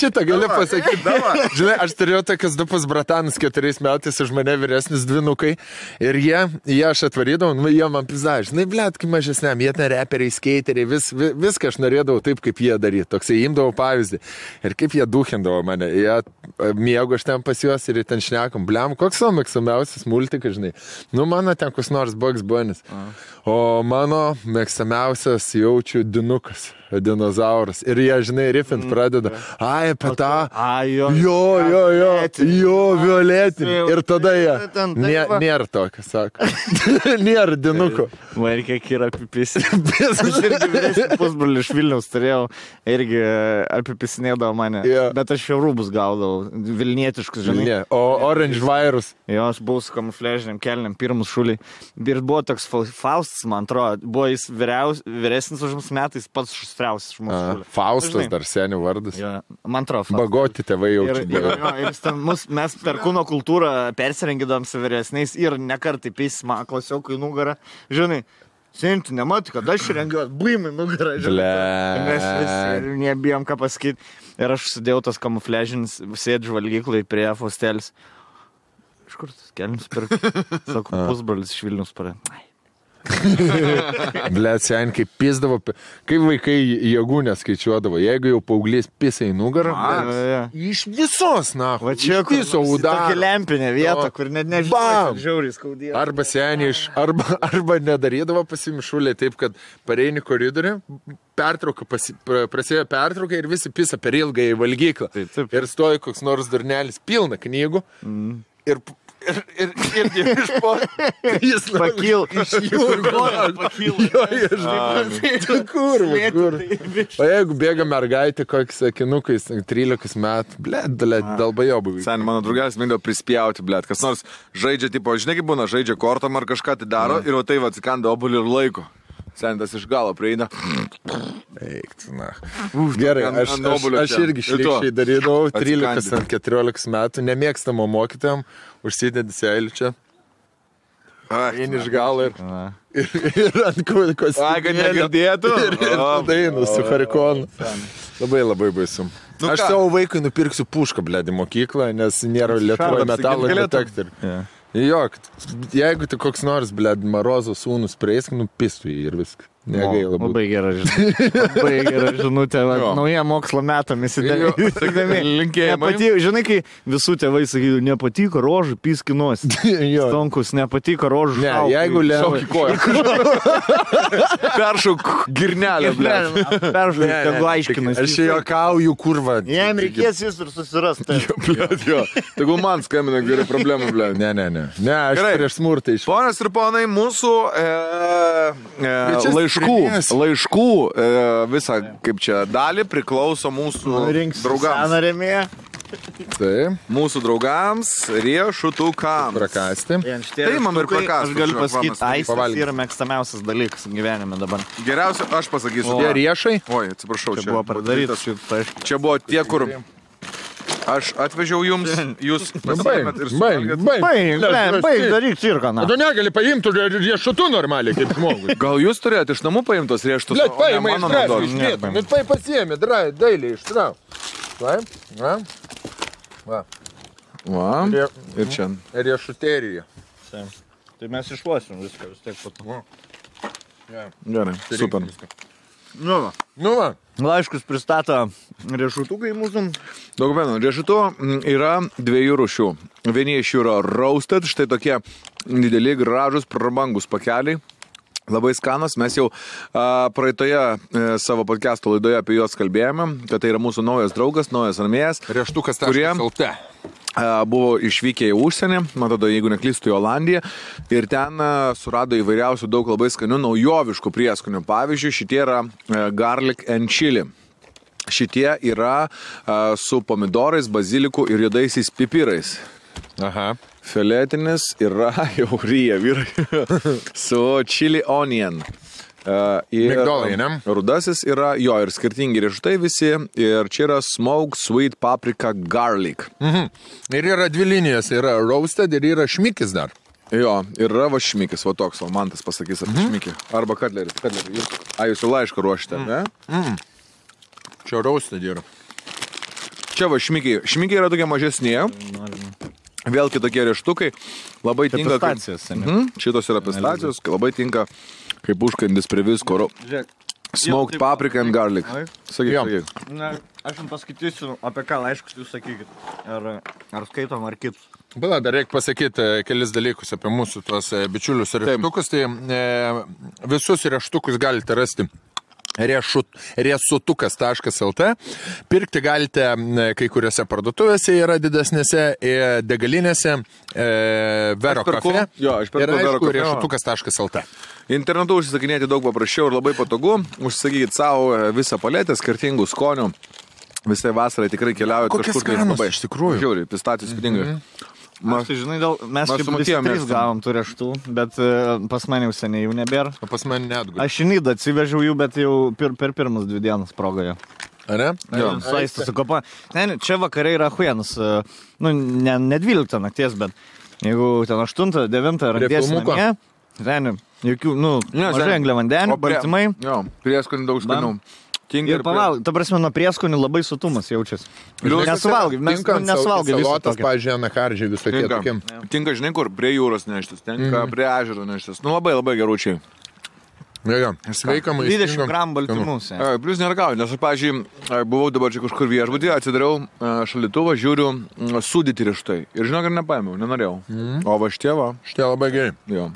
Šitą galiu pasakyti. Žinai, aš turėjau tokius du pusbratanus 4 metais už mane vyresnis dvinukai ir jie aš atvarydavau, jie man pizda, žinai, blėt, kai mažesniam, jie ten reperiai, skeiteriai, viską aš norėdavau taip, kaip jie daryti. Toksai imdavau pavyzdį. Ir kaip jie duhindavo mane. Jie miego aš ten pas juos ir ten šnekam, bliam, koks savo mėgstamiausias multikas, žinai. Nu, mano ten kus nors Bugs Bunny's. O mano mėgstamiausias jaučiu dinukas, dinozauras. Ir jie, žinai, rifint pradeda. Ai, apie tą. Jo, violetinį. Ir tada jie. Nėra tokio, sako. Nėra dinuko.
Man kiek yra apipisi. Aš irgi vyresnį pusbrolį iš Vilniaus turėjau. Irgi apipisinėdavo mane. Bet aš jau rūbus gaudavau. Vilnietiškus, žinai.
O Orange Virus.
Jo, aš buvau su kamufliažiniam kelniam, pirmus šuliai. Ir buvo toks Faustas, man atrodo. Buvo jis vyresnis už mus metais, pats šustriausias iš mūsų šuliai.
Faustas dar senių vardas.
Jo, man atrodo.
Bagoti tėvai jaučiu.
Ir mes per kūno kultūrą persirengidom su vyresniais ir nekartai pėsima klasiokų į nugarą. Žinai, senti, nematai, kad aš rengiuos, buimai nugarą. Mes visi nebijom ką pasakyti. Ir aš sudėjau tas kamufliažinis, sėdžiu valgyklai prie Faustelis. Iš kur tas kelnius pirk? Sako, pusbrolis iš Vilniaus parė.
Blet, sen, kaip pisdavo, kaip vaikai jėgų neskaičiuodavo. Jeigu jau paauglys pisa į nugarą, iš visos, na,
va čia
viso udaro.
Tokia lempinė vieta, kur net nežinau, žiauriai skaudėjo.
Arba seniai, arba nedarydavo pasimišulė taip, kad pareini koridorių, pertrauka, prasidėjo pertrauka ir visi pisa per ilgą į valgyklą. Ir stoja koks nors durnelis, pilna knygų. Ir iš po jis
pakyl
iš jūrų kur. O jeigu bėga mergaitė kokiais sakinukais 13 metų, dalbajobų.
Sen, mano draugelis mėgdavo prispjauti, kas nors žaidžia, tipo, žinai kaip būna, žaidžia kortom ar kažką tai daro ir o tai atsikanda obuolį ir laiko. Sentas iš galo prieina.
Eik, na. Gerai, aš irgi šlikščiai darydavau 13-14 metų, nemėgstamo mokytojam, užsidedi seilį čia. Eini iš galo ir ant kostimėlio.
Ai, kad negirdėtų.
Ir dainu su harikonu. Labai baisu. Aš savo vaikui nupirksiu pušką, blėdį, mokyklą, nes nėra Lietuvoje metalo detektorių. Jo, jeigu tai koks nors, Marozo sūnus prieisk, nupistų jį ir viską. Negaila būtų.
Labai gera žinutė. Labai gera žinutė. Nauja mokslo metam įsidėmė.
Linkėjimai.
Žinai, kai visų tėvai sakydavo, nepatiko rožų, piskinos. Stonkus, nepatiko rožų.
Ne, jeigu
šauk į koją. Peršauk girnelę,
Peršauk, tegu aiškinas.
Aš juokauju, kurva.
Jam reikės jis ir susirasti.
Tegu man skambina geri problemų,
Ne, aš prieš smurtą iš.
Ponas ir ponai, mūsų laiškų visą, kaip čia, dalį priklauso mūsų draugams.
Taip.
Mūsų draugams riešutukams.
Prakasti.
Tai man ir prakasti.
Aš galiu pasakyti, aistas yra mėgstamiausias dalykas gyvenime dabar.
Geriausia, aš pasakysiu.
Tie riešai?
Oi, atsiprašau,
čia buvo padarytas.
Čia buvo tie, kur aš atvežiau jums, jūs pasiėmėt ir
suvalgėt. Baig, daryk cirką, na.
Tu negali paimti riešutų normaliai, kaip žmogus.
Gal jūs turėjote iš namų paimtos riešutus?
Blet, paimai ištrauk. Bet pasiėmė, dailiai ištrauk. Va.
Ir čia.
Riešuterija.
Tai mes išlosim viską, vis tiek patu.
Gerai, super.
Nu va.
Laiškus pristato riešutukai mūsų.
Dokumentų. Riešutų yra 2 rūšių. Vieni iš jų yra roasted, štai tokie dideli, gražus, prabangus pakeliai. Labai skanas. Mes jau praeitoje savo podcast'o laidoje apie juos kalbėjome, kad tai yra mūsų naujas draugas, naujas armėjas.
Rieštukas
kurie buvo išvykę į užsienį, man atrodo, jeigu neklystu, į Olandiją, ir ten surado įvairiausių daug labai skanių naujoviškų prieskonių. Pavyzdžiui, šitie yra garlic and chili. Šitie yra su pomidorais, baziliku ir juodaisiais pipirais.
Aha.
Filetinis yra jau ryja vyrai su chili onion.
Migdolai, ne?
Rudasis yra jo ir skirtingi riešutai visi. Ir čia yra smoked sweet paprika garlic.
Ir yra 2 linijos. Yra roasted ir yra šmikis dar.
Jo, ir yra va šmikis, va toks, o man tas pasakys apie šmikį. Arba katlerį. Jūs jau laišką ruošite, ne?
Čia raustė yra.
Čia va šmikiai. Šmikiai yra tokie mažesnė. Vėl kitokie rieštukai. Labai tinka.
Pistacijos,
Šitos yra pistacijos. Labai tinka kaip užkandis prie visko. Smoked paprika and garlic. Sakyk.
Aš jums paskaitysiu, apie ką laiškus jūs sakykit. Ar skaitom, ar kitus.
Bala, dar reikia pasakyti kelis dalykus apie mūsų tuos bičiulius rieštukus. Tai visus rieštukus galite rasti riesutukas.lt. Pirkti galite kai kuriuose parduotuvėse, yra didesnėse, degalinėse, Vero kafe.
Jo, aš perku Vero kafe.
Riesutukas.lt.
Internetu užsisakinėti daug paprasčiau ir labai patogu. Užsisakykit savo visą paletę skirtingų skonių. Visai vasarai tikrai keliaujat
kažkur. Kokias kainos iš tikrųjų?
Žiūri, pistacijos spidingai.
Aš tai žinai, mes čia visi 3 gavom tų rieštų, bet pas mane jau seniai jų nebėra.
O pas mane neatgulė.
Aš į Nidą atsivežiau jų, bet jau per pirmas 2 dienas progoje.
Ar ne?
Jo, saistas su kopa. Ne, čia vakare yra huienas. Nu, ne 12 nakties, bet jeigu ten 8, 9 randėsi namie, ten jokių, mažai angliavandenių, baltymai.
Jo, prieskonių daug skanių.
Ir pavalgai, ta prasme, nuo prieskonių labai sotumas jaučiasi. Nesuvalgai, mes nesuvalgai viso
salotas, pavyzdžiui, anakardžiai visokie tokie.
Tinka, žinai, kur prie jūros neštis, tinka prie ežero neštis. Nu, labai geručiai.
Ja, sveika maistinga.
20 gramų baltymus.
Plius neragauju, nes aš, pavyzdžiui, buvau dabar čia kažkur viešbutį, atsidariau šalituvą, žiūriu sūdyti rieštai. Ir žinok, ir nepaėmiau, nenorėjau. O va šitie va.
Šitie labai gerai.
Jo.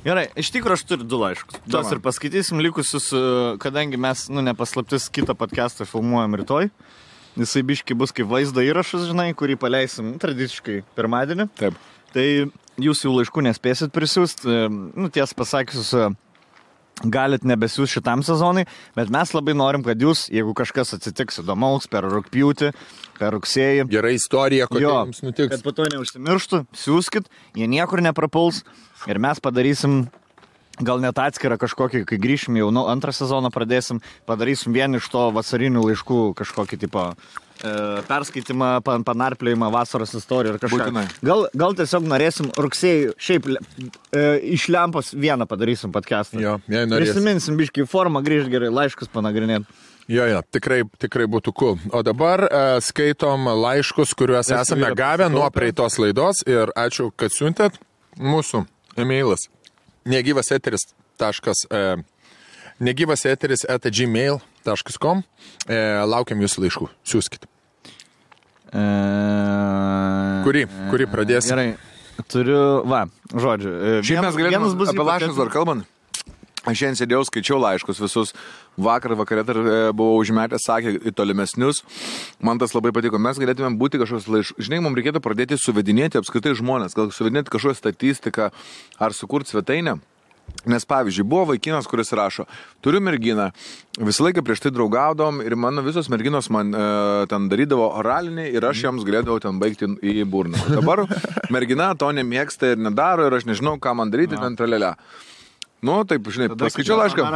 Gerai, iš tikrųjų aš turiu 2 laiškus. Tuos ir paskaitysim likusius, kadangi mes, nepaslaptis, kitą podcastą filmuojam rytoj. Jisai biški bus kaip vaizdo įrašas, žinai, kurį paleisim tradiciškai pirmadienį.
Taip.
Tai jūs jau laiškų nespėsit prisiųsti. Tiesą pasakius, galit nebesiųsti šitam sezonui, bet mes labai norim, kad jūs, jeigu kažkas atsitiks įdomaus per rugpjūtį, per rugsėjį.
Gera istorija, kokia jums nutiks.
Kad po to neužsimirštų, siūskit, jie niekur neprapuls ir mes padarysim gal net atskirą kažkokį, kai grįšim jau 2 sezoną pradėsim, padarysim vien iš to vasarinių laiškų kažkokį tipo perskaitimą, panarplėjimą, vasaros istoriją ir kažką. Gal tiesiog norėsim rugsėjį, šiaip iš lempos vieną padarysim podcastą.
Jo, jei norėsim.
Prisiminsim biškį formą, grįžt gerai, laiškus panagrinėt.
Jo, tikrai būtų cool. O dabar skaitom laiškus, kuriuos esame gavę nuo praeitos laidos ir ačiū, kad siuntėt. Mūsų emailas negyvaseteris@gmail.com. Laukiam jūsų laiškų. Siūskit. Kurį pradėsim?
Gerai, turiu, žodžiu.
Šiaip mes galėtume apie laiškus dar kalbant. Aš šiandien sėdėjau, skaičiau laiškus visus. Vakare dar buvau užmetęs, sakė, į tolimesnius. Man tas labai patiko. Mes galėtume būti kažkoks laiškus. Žinai, mums reikėtų pradėti suvedinėti apskritai žmonės. Gal suvedinėti kažkokią statistiką ar sukurti svetainę. Nes pavyzdžiui, buvo vaikinas, kuris rašo, turiu merginą, visą laiką prieš tai draugaudom ir mano visos merginos man ten darydavo oralinį ir aš jiems galėdavau ten baigti į burną. Dabar mergina to nemėgsta ir nedaro ir aš nežinau, ką man daryti, ten tralelę. Nu, taip, žinai, paskaičiau laišką.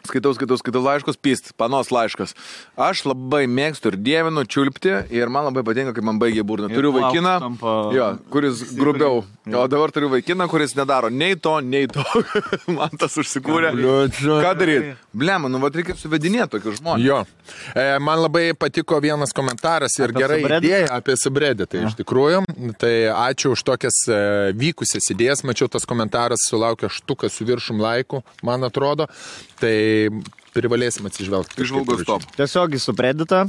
Skaitau laiškus, panos laiškas. Aš labai mėgstu ir dievinu čiulpti ir man labai patinka, kai man baigia burną. Turiu vaikiną, kuris grubiau. O dabar turiu vaikiną, kuris nedaro nei to. Man tas užsikūrė. Ką daryti? Blema, reikia suvedinėti tokius žmonės.
Jo. Man labai patiko vienas komentaras ir gerai idėja apie subredditą. Tai iš tikrųjų, tai ačiū už tokias vykusias idėjas. Mačiau, tas komentaras sulaukė štuką su viršum laikų, man atrodo. Tai privalėsim atsižvelgti.
Išvalgos top.
Tiesiog į subredditą,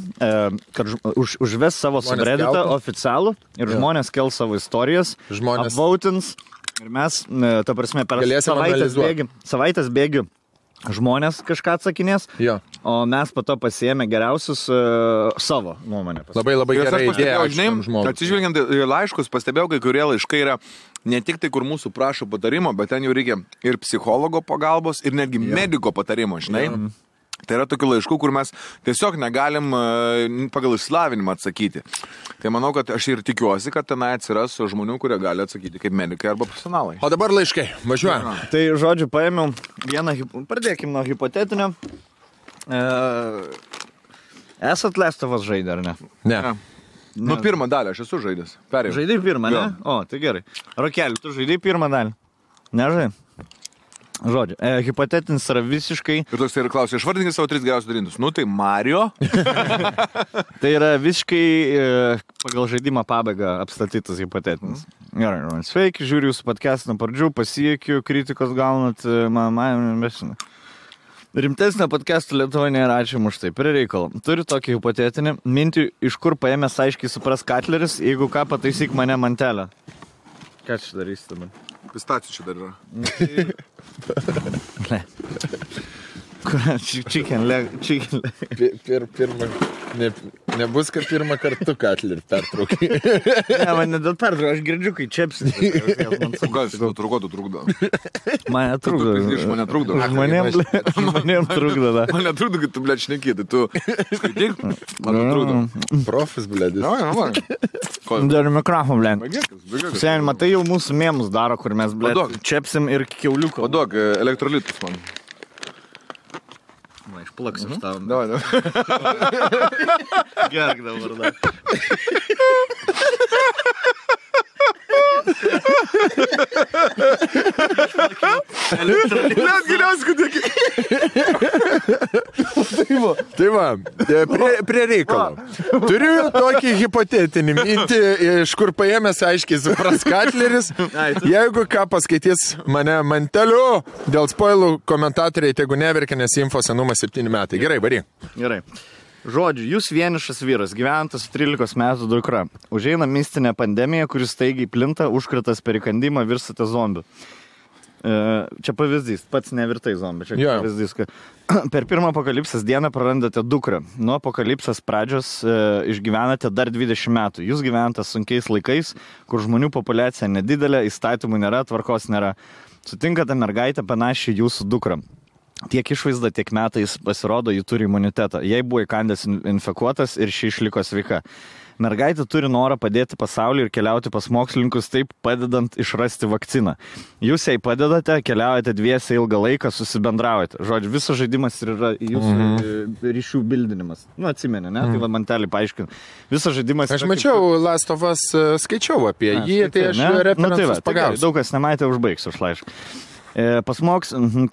kad užves savo subredditą oficialų ir žmonės kel savo istorijas, apvautins ir mes, ta prasme, per savaitės bėgių žmonės kažką atsakinės, o mes po to pasiėmė geriausius savo nuomonę.
Labai gerai idėja.
Atsižvelgiant į laiškus, pastebėjau, kai kurie laiškai yra ne tik tai, kur mūsų prašo patarimo, bet ten jau reikia ir psichologo pagalbos, ir netgi mediko patarimo, žinai. Tai yra tokių laiškų, kur mes tiesiog negalim pagal išsilavinimą atsakyti. Tai manau, kad aš ir tikiuosi, kad tenai atsiras žmonių, kurie gali atsakyti kaip medikai arba profesionalai.
O dabar laiškai, važiuojam.
Tai, žodžiu, paėmiau vieną, pradėkim nuo hipotetinio. Esat Last of Us žaidę, ar ne?
Ne.
Nu, pirmą dalį aš esu žaidęs. Perėjau.
Žaidai pirmą, ne? O, tai gerai. Rokeli, tu žaidai pirmą dalį? Nežai? Žodžiu, hipotetinis yra visiškai...
Ir toks ir klausia, išvardinkit savo 3 geriausius darintus. Nu, tai Mario.
Tai yra visiškai pagal žaidimą pabaigą apstatytas hipotetinis. Gerai, sveiki, žiūriu jūsų podcastą nuo pradžių, pasiekiu, kritikos gaunat, rimtesnio podcast'o Lietuvoje nėra, ačiū už tai. Prie reikalo. Turiu tokį hipotetinį mintį, iš kur paėmęs aiškiai supras Katleris, jeigu ką pataisyk mane mantelę. Ką čia darysi dabar?
Pistacijų čia dar yra.
Ne. Chicken leg.
Pirmą, nebus, kad pirmą kartą Katlerį pertraukai.
Ne, man ne dėl pertraukai, aš girdžiu, kai čepsi.
Gal jis trukdo.
Mane trukdo.
Mane trukdo.
Žmonėm trukdo, da.
Mane trukdo, kad tu, blėt, šneki, tai tu skaityk, mane trukdo.
Profis, blėdis.
Dar mikrofon, blėt. Sen, matai, jau mūsų mėmus daro, kur mes, blėt, čepsim ir kiauliuko.
Padok, elektrolitus man.
Va, išplaksiu tau.
Davai.
Gerk dabar, da.
Net giliausiai, kad dėkį.
Tai va, prie reikalo. Turiu tokį hipotetinį mintį, iš kur paėmęs aiškiai supras Katleris. Jeigu ką paskaitys mane manteliu, dėl spoilų komentatoriai tegu neverkia, nes info senumas 7 metai. Gerai, varyk.
Gerai. Žodžiu, jūs vienišas vyras, gyventas 13 metų dukra. Užeina mistinė pandemija, kuris staigiai plinta, užkratas per įkandimą, virsate zombiu. Čia pavyzdys, pats nevirtai zombi. Čia pavyzdys, kad per pirmą apokalipsės dieną prarandate dukrą. Nuo apokalipsės pradžios išgyvenate dar 20 metų. Jūs gyvenate sunkiais laikais, kur žmonių populiacija nedidelė, įstatymų nėra, tvarkos nėra. Sutinkate mergaitę panašiai jūsų dukrą. Tiek išvaizda, tiek metais pasirodo, ji turi imunitetą. Jai buvo įkandęs infekuotas ir ši išliko sveika. Mergaitė turi norą padėti pasauliui ir keliauti pas mokslininkus, taip padedant išrasti vakciną. Jūs jai padedate, keliaujate dviese ilgą laiką, susibendraujate. Žodžiu, visas žaidimas yra jūsų ryšių bildinimas. Nu, atsimeni, ne? Tai va mantelį paaiškinu. Visas žaidimas...
Aš mačiau Last of Us, skaičiau apie jį, tai aš referensus pagausiu.
Daug kas nematė, užbaigsiu už laišką. Pas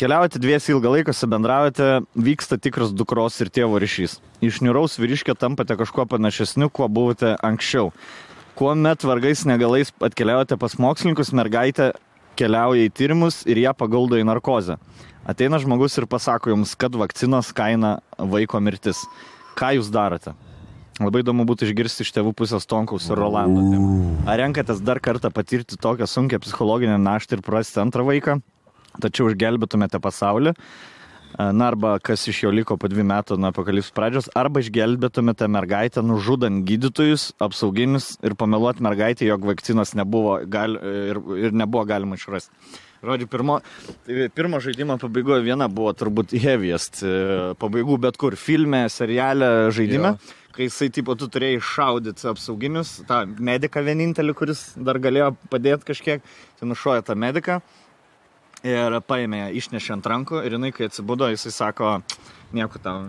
keliaujate dviesi ilgą laiką, bendraujate, vyksta tikras dukros ir tėvo ryšys. Iš niūraus vyriškio tampate kažkuo panašesniu, kuo buvote anksčiau. Kuomet vargais negalais atkeliaujate pas mokslininkus, mergaitė keliauja į tyrimus ir ją paguldo į narkozę. Ateina žmogus ir pasako jums, kad vakcinos kaina vaiko mirtis. Ką jūs darote? Labai įdomu būtų išgirsti iš tėvų pusės Tonkaus ir Rolando. Ar renkatės dar kartą patirti tokią sunkią psichologinę naštą ir prarasti antrą vaiką? Tačiau išgelbėtumėte pasaulį, na arba kas iš jo liko po 2 metų nuo apokalipsės pradžios, arba išgelbėtumėte mergaitę nužudant gydytojus, apsauginius ir pameluoti mergaitę, jog vakcinos nebuvo ir nebuvo galima išrasti. Žodžiu, pirmo žaidimo pabaigoje viena buvo turbūt heaviest pabaigų bet kur filme, seriale, žaidime. Kai jisai, tipo, tu turėjai šaudyti apsauginius, tą mediką vienintelį, kuris dar galėjo padėti kažkiek, tai nušoja tą mediką. Ir paėmė ją, išnešė ant rankų ir jinai, kai atsibudo, jisai sako, nieko tau,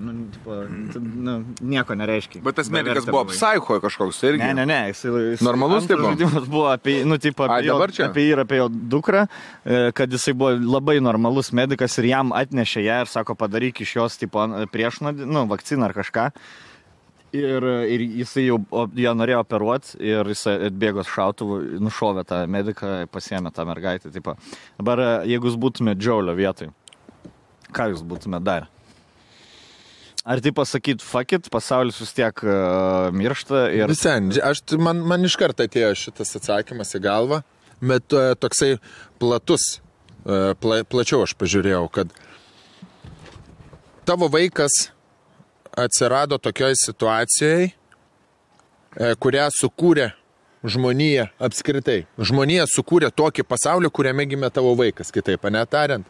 nieko nereiškia.
Bet tas medikas buvo psicho kažkoks irgi.
Ne, jisai
normalus taip buvo.
Žaidimas buvo apie jį ir apie jo dukrą, kad jisai buvo labai normalus medikas ir jam atnešė ją ir sako, padaryk iš jos priešnuodį, vakciną ar kažką. Ir jisai jau ją norėjo operuoti ir jisai atbėgo šautuvų, nušovė tą mediką, pasiėmė tą mergaitę. Tipo. Dabar, jeigu jūs būtumėte Džiaulio vietoj, ką jūs būtumėte darę? Ar tai pasakyt, fuck it, pasaulis vis tiek miršta ir...
Visen, man iš karto atėjo šitas atsakymas į galvą, bet toksai platus, plačiau aš pažiūrėjau, kad tavo vaikas atsirado tokioj situacijai, kurią sukūrė žmonija apskritai. Žmonija sukūrė tokį pasaulį, kuriame gimė tavo vaikas, kitaip netariant.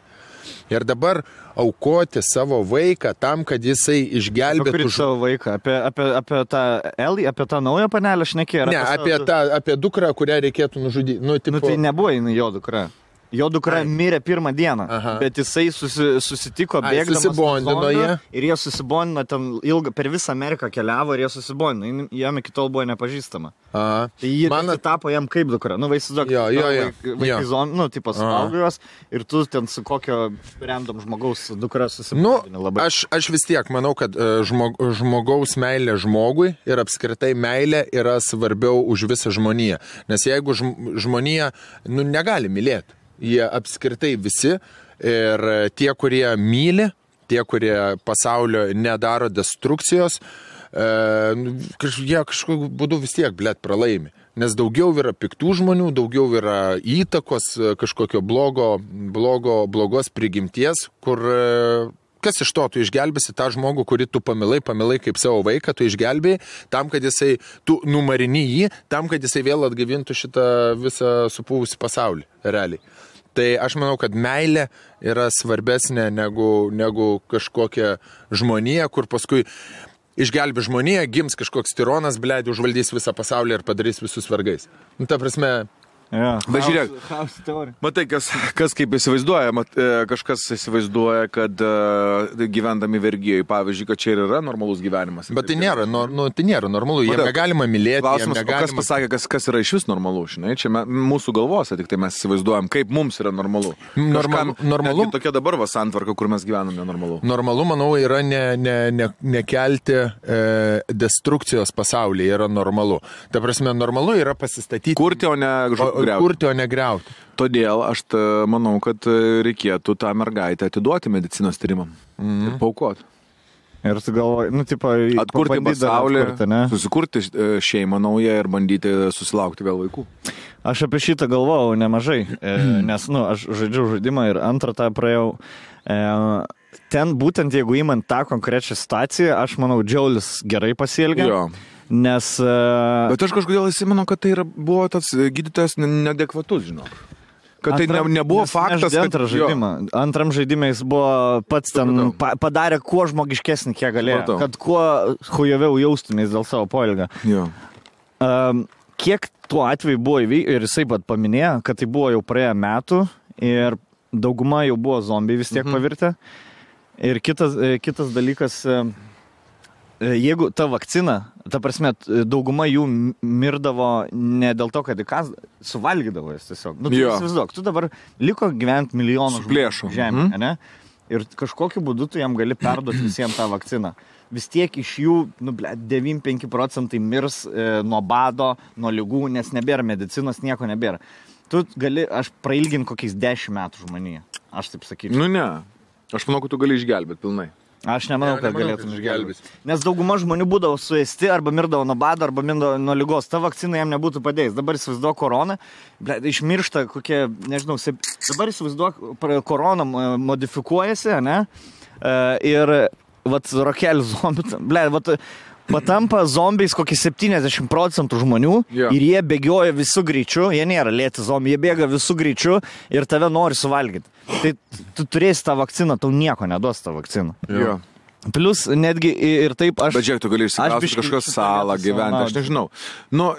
Ir dabar aukoti savo vaiką tam, kad jisai išgelbėtų...
Savo vaiką? Apie tą Elį, apie tą naują panelę šnekėjo?
Ne, apie dukrą, kurią reikėtų nužudyti.
Tai nebuvo jinai jo dukra. Jo dukra mirė pirmą dieną, bet jisai susitiko bėgdamas
susibondino jie.
Ir jie susibondino ten ilgą, per visą Ameriką keliavo ir jie susibondino. Jam iki tol buvo nepažįstama. Tai jie tapo jam kaip dukra. Nu, vaizduok, vaikai zombi, nu, tipo suvalgojos ir tu ten su kokio random žmogaus dukra susibondini labai.
Aš vis tiek manau, kad žmogaus meilė žmogui ir apskritai meilė yra svarbiau už visą žmoniją. Nes jeigu žmonija, nu, negali mylėti. Jie apskritai visi ir tie, kurie myli, tie, kurie pasaulio nedaro destrukcijos, jie kažkokiu būdu vis tiek, pralaimi. Nes daugiau yra piktų žmonių, daugiau yra įtakos kažkokio blogos prigimties, kur kas iš to, tu išgelbėsi tą žmogų, kurį tu pamilai kaip savo vaiką, tu išgelbėjai tam, kad jisai, tu numarini jį, tam, kad jisai vėl atgavintų šitą visą supūvusi pasaulį, realiai. Tai aš manau, kad meilė yra svarbesnė negu kažkokia žmonija, kur paskui išgelbė žmoniją, gims kažkoks tironas, užvaldys visą pasaulį ir padarys visus vergais. Nu, ta prasme...
Bet žiūrėk, matai, kas kaip įsivaizduoja, kažkas įsivaizduoja, kad gyvendami vergijai, pavyzdžiui, kad čia ir yra normalus gyvenimas.
Bet tai nėra normalu, jiem negalima mylėti.
Klausimas, kas pasakė, kas yra iš vis normalu, žinai, čia mūsų galvose, tik tai mes įsivaizduojam, kaip mums yra normalu. Normalu. Tokia dabar santvarka, kur mes gyvename nenormalu.
Normalu, manau, yra nekelti destrukcijos pasaulyje, yra normalu. Ta prasme, normalu yra pasistatyti.
Kurti, o ne
kurti, o negriauti.
Todėl aš manau, kad reikėtų tą mergaitę atiduoti medicinos tyrimam ir paaukoti.
Ir tu galvoji, nu, tipo,
atkurti pasaulį, susikurti šeimą naują ir bandyti susilaukti vėl vaikų.
Aš apie šitą galvojau nemažai, nes, nu, aš žaidžiau žaidimą ir antrą tą praėjau. Ten būtent, jeigu įmant tą konkrečią situaciją, aš manau, Džiaulis gerai pasielgė.
Jo.
Nes...
Bet aš kažkodėl įsimenu, kad tai buvo tas gydytojas neadekvatus, žinok. Kad tai nebuvo faktas, kad...
Antram žaidimai jis buvo pats ten, padarė kuo žmogiškesnį, kiek galėjo. Kad kuo hujoviau jaustumės dėl savo poelgio. Kiek tuo atveju buvo įvykę, ir jisai pat paminėjo, kad tai buvo jau praėję metų ir dauguma jau buvo zombiai vis tiek pavirtę. Ir kitas dalykas... Jeigu ta vakcina, ta prasme, dauguma jų mirdavo ne dėl to, kad suvalgydavo jas tiesiog. Nu, tu įsivaizduok, tu dabar liko gyventi milijonų žemė, ne? Ir kažkokiu būdu tu jam gali perduoti visiems tą vakciną. Vis tiek iš jų, 95% mirs nuo bado, nuo ligų, nes nebėra medicinos, nieko nebėra. Tu gali, aš prailginti kokiais 10 metų žmoniją. Aš taip sakyčiau.
Nu ne, aš manau, kad tu gali išgelbėti pilnai.
Aš nemanau, kad galėtum išgelbėti. Nes dauguma žmonių būdavo suėsti, arba mirdavo nuo bado, arba mirdavo nuo ligos. Ta vakcina jam nebūtų padėjęs. Dabar įsivaizduok koroną, išmiršta kokie, nežinau, dabar įsivaizduok, korona modifikuojasi, ne? Ir, rokelis zombi, patampa zombiais kokį 70% žmonių ir jie bėgioja visų greičių, jie nėra lėti zombiai, jie bėga visų greičių ir tave nori suvalgyti. Tai tu turėsi tą vakciną, tau nieko neduos tą vakciną. Plus netgi ir taip aš...
Bet žiūrėk, tu gali išsikrausti kažkokios salą gyventi, aš nežinau. Nu,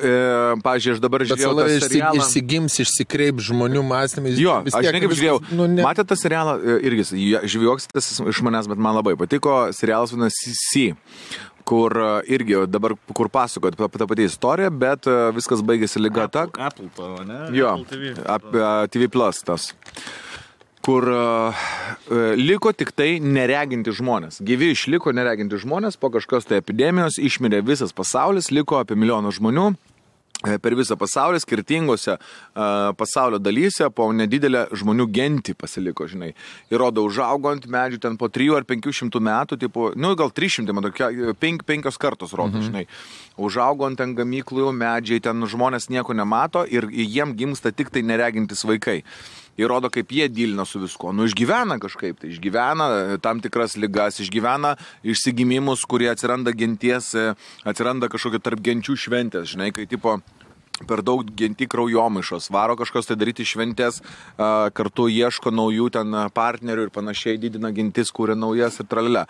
pavyzdžiui, aš dabar žiūrėjau tą serialą...
Išsigims, išsikreip žmonių mąstymais.
Jo, aš ne kaip žiūrėjau. Matėte tą serialą, irgi, žvijoksis iš manęs, bet man labai patiko. Serialas vadinasi C, kur irgi dabar, kur pasakojat apie tą patį istoriją, bet viskas baigėsi lyga ta...
Apple to, ne?
Jo, apie TV Plus tas. Kur liko tik tai nereginti žmonės. Gyvi išliko nereginti žmonės, po kažkokios tai epidemijos išmirė visas pasaulis, liko apie 1 milijoną žmonių per visą pasaulį, skirtingose pasaulio dalyse, po nedidelę žmonių gentį pasiliko, žinai. Ir rodo, užaugo ant medžių ten po 300 ar 500 metų, tipo, nu gal 300, man tokia, 5 kartos rodo, žinai. Užaugo ant ten gamyklų medžiai, ten žmonės nieko nemato ir jiem gimsta tik tai neregintis vaikai. Ir rodo, kaip jie dylina su visko. Nu, išgyvena kažkaip, tai išgyvena tam tikras ligas, išgyvena išsigimimus, kurie atsiranda genties, atsiranda kažkokia tarp genčių šventės, žinai, kai tipo per daug genti kraujomaišos, varo kažkas tai daryti šventės, kartu ieško naujų ten partnerių ir panašiai, didina gentis, kūrė naujas ir tralelė.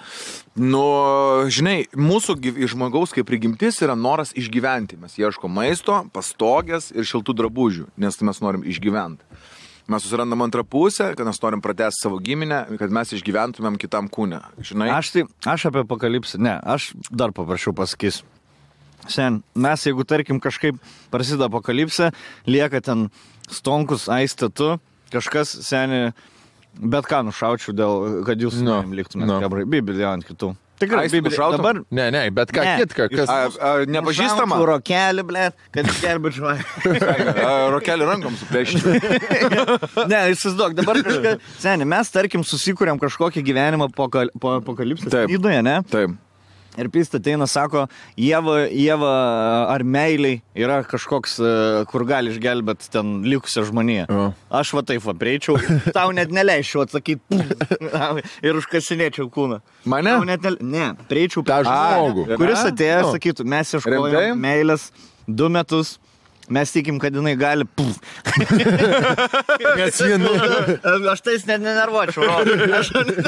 Nu, žinai, mūsų žmogaus kaip prigimtis yra noras išgyventi. Mes ieško maisto, pastogės ir šiltų drabužių, nes mes norim išgyventi. mes susirandam antrą pusę, kad mes norim pratęsti savo giminę, kad mes išgyventumėm kitam kūne. Žinai?
Aš apie apokalipsę, ne, aš dar paprašiau pasakysiu. Sen, mes jeigu tarkim kažkaip prasideda apokalipsė, lieka ten Stonkus, Aistė, tu, kažkas, seni, bet ką nušaučiau dėl, kad jūs liktumėte, Bibliją ant kitų. Tikrai, dabar...
Ne, bet ką kitką, kas...
Nepažįstama?
Rokelį, blėt, kad gelbėčiau.
Rokelį rankom suplėšti.
Ne, įsivaizduok, dabar kažką... Seni, mes, tarkim, susikūrėm kažkokį gyvenimą po apokalipsės įdoje, ne?
Taip.
Ir Pista ateina, sako, Ieva ar meiliai yra kažkoks, kur gali išgelbėti ten likusią žmoniją. Aš va taip va prieičiau, tau net neleičiau atsakyti ir užkasinėčiau kūną.
Mane?
Ne, prieičiau
tą žmogų.
Kuris atėjo, sakytų, mes ieškojom meilės 2 metus. Mes tikim, kad jinai gali...
Nes
Aš tais net nenervuočiau.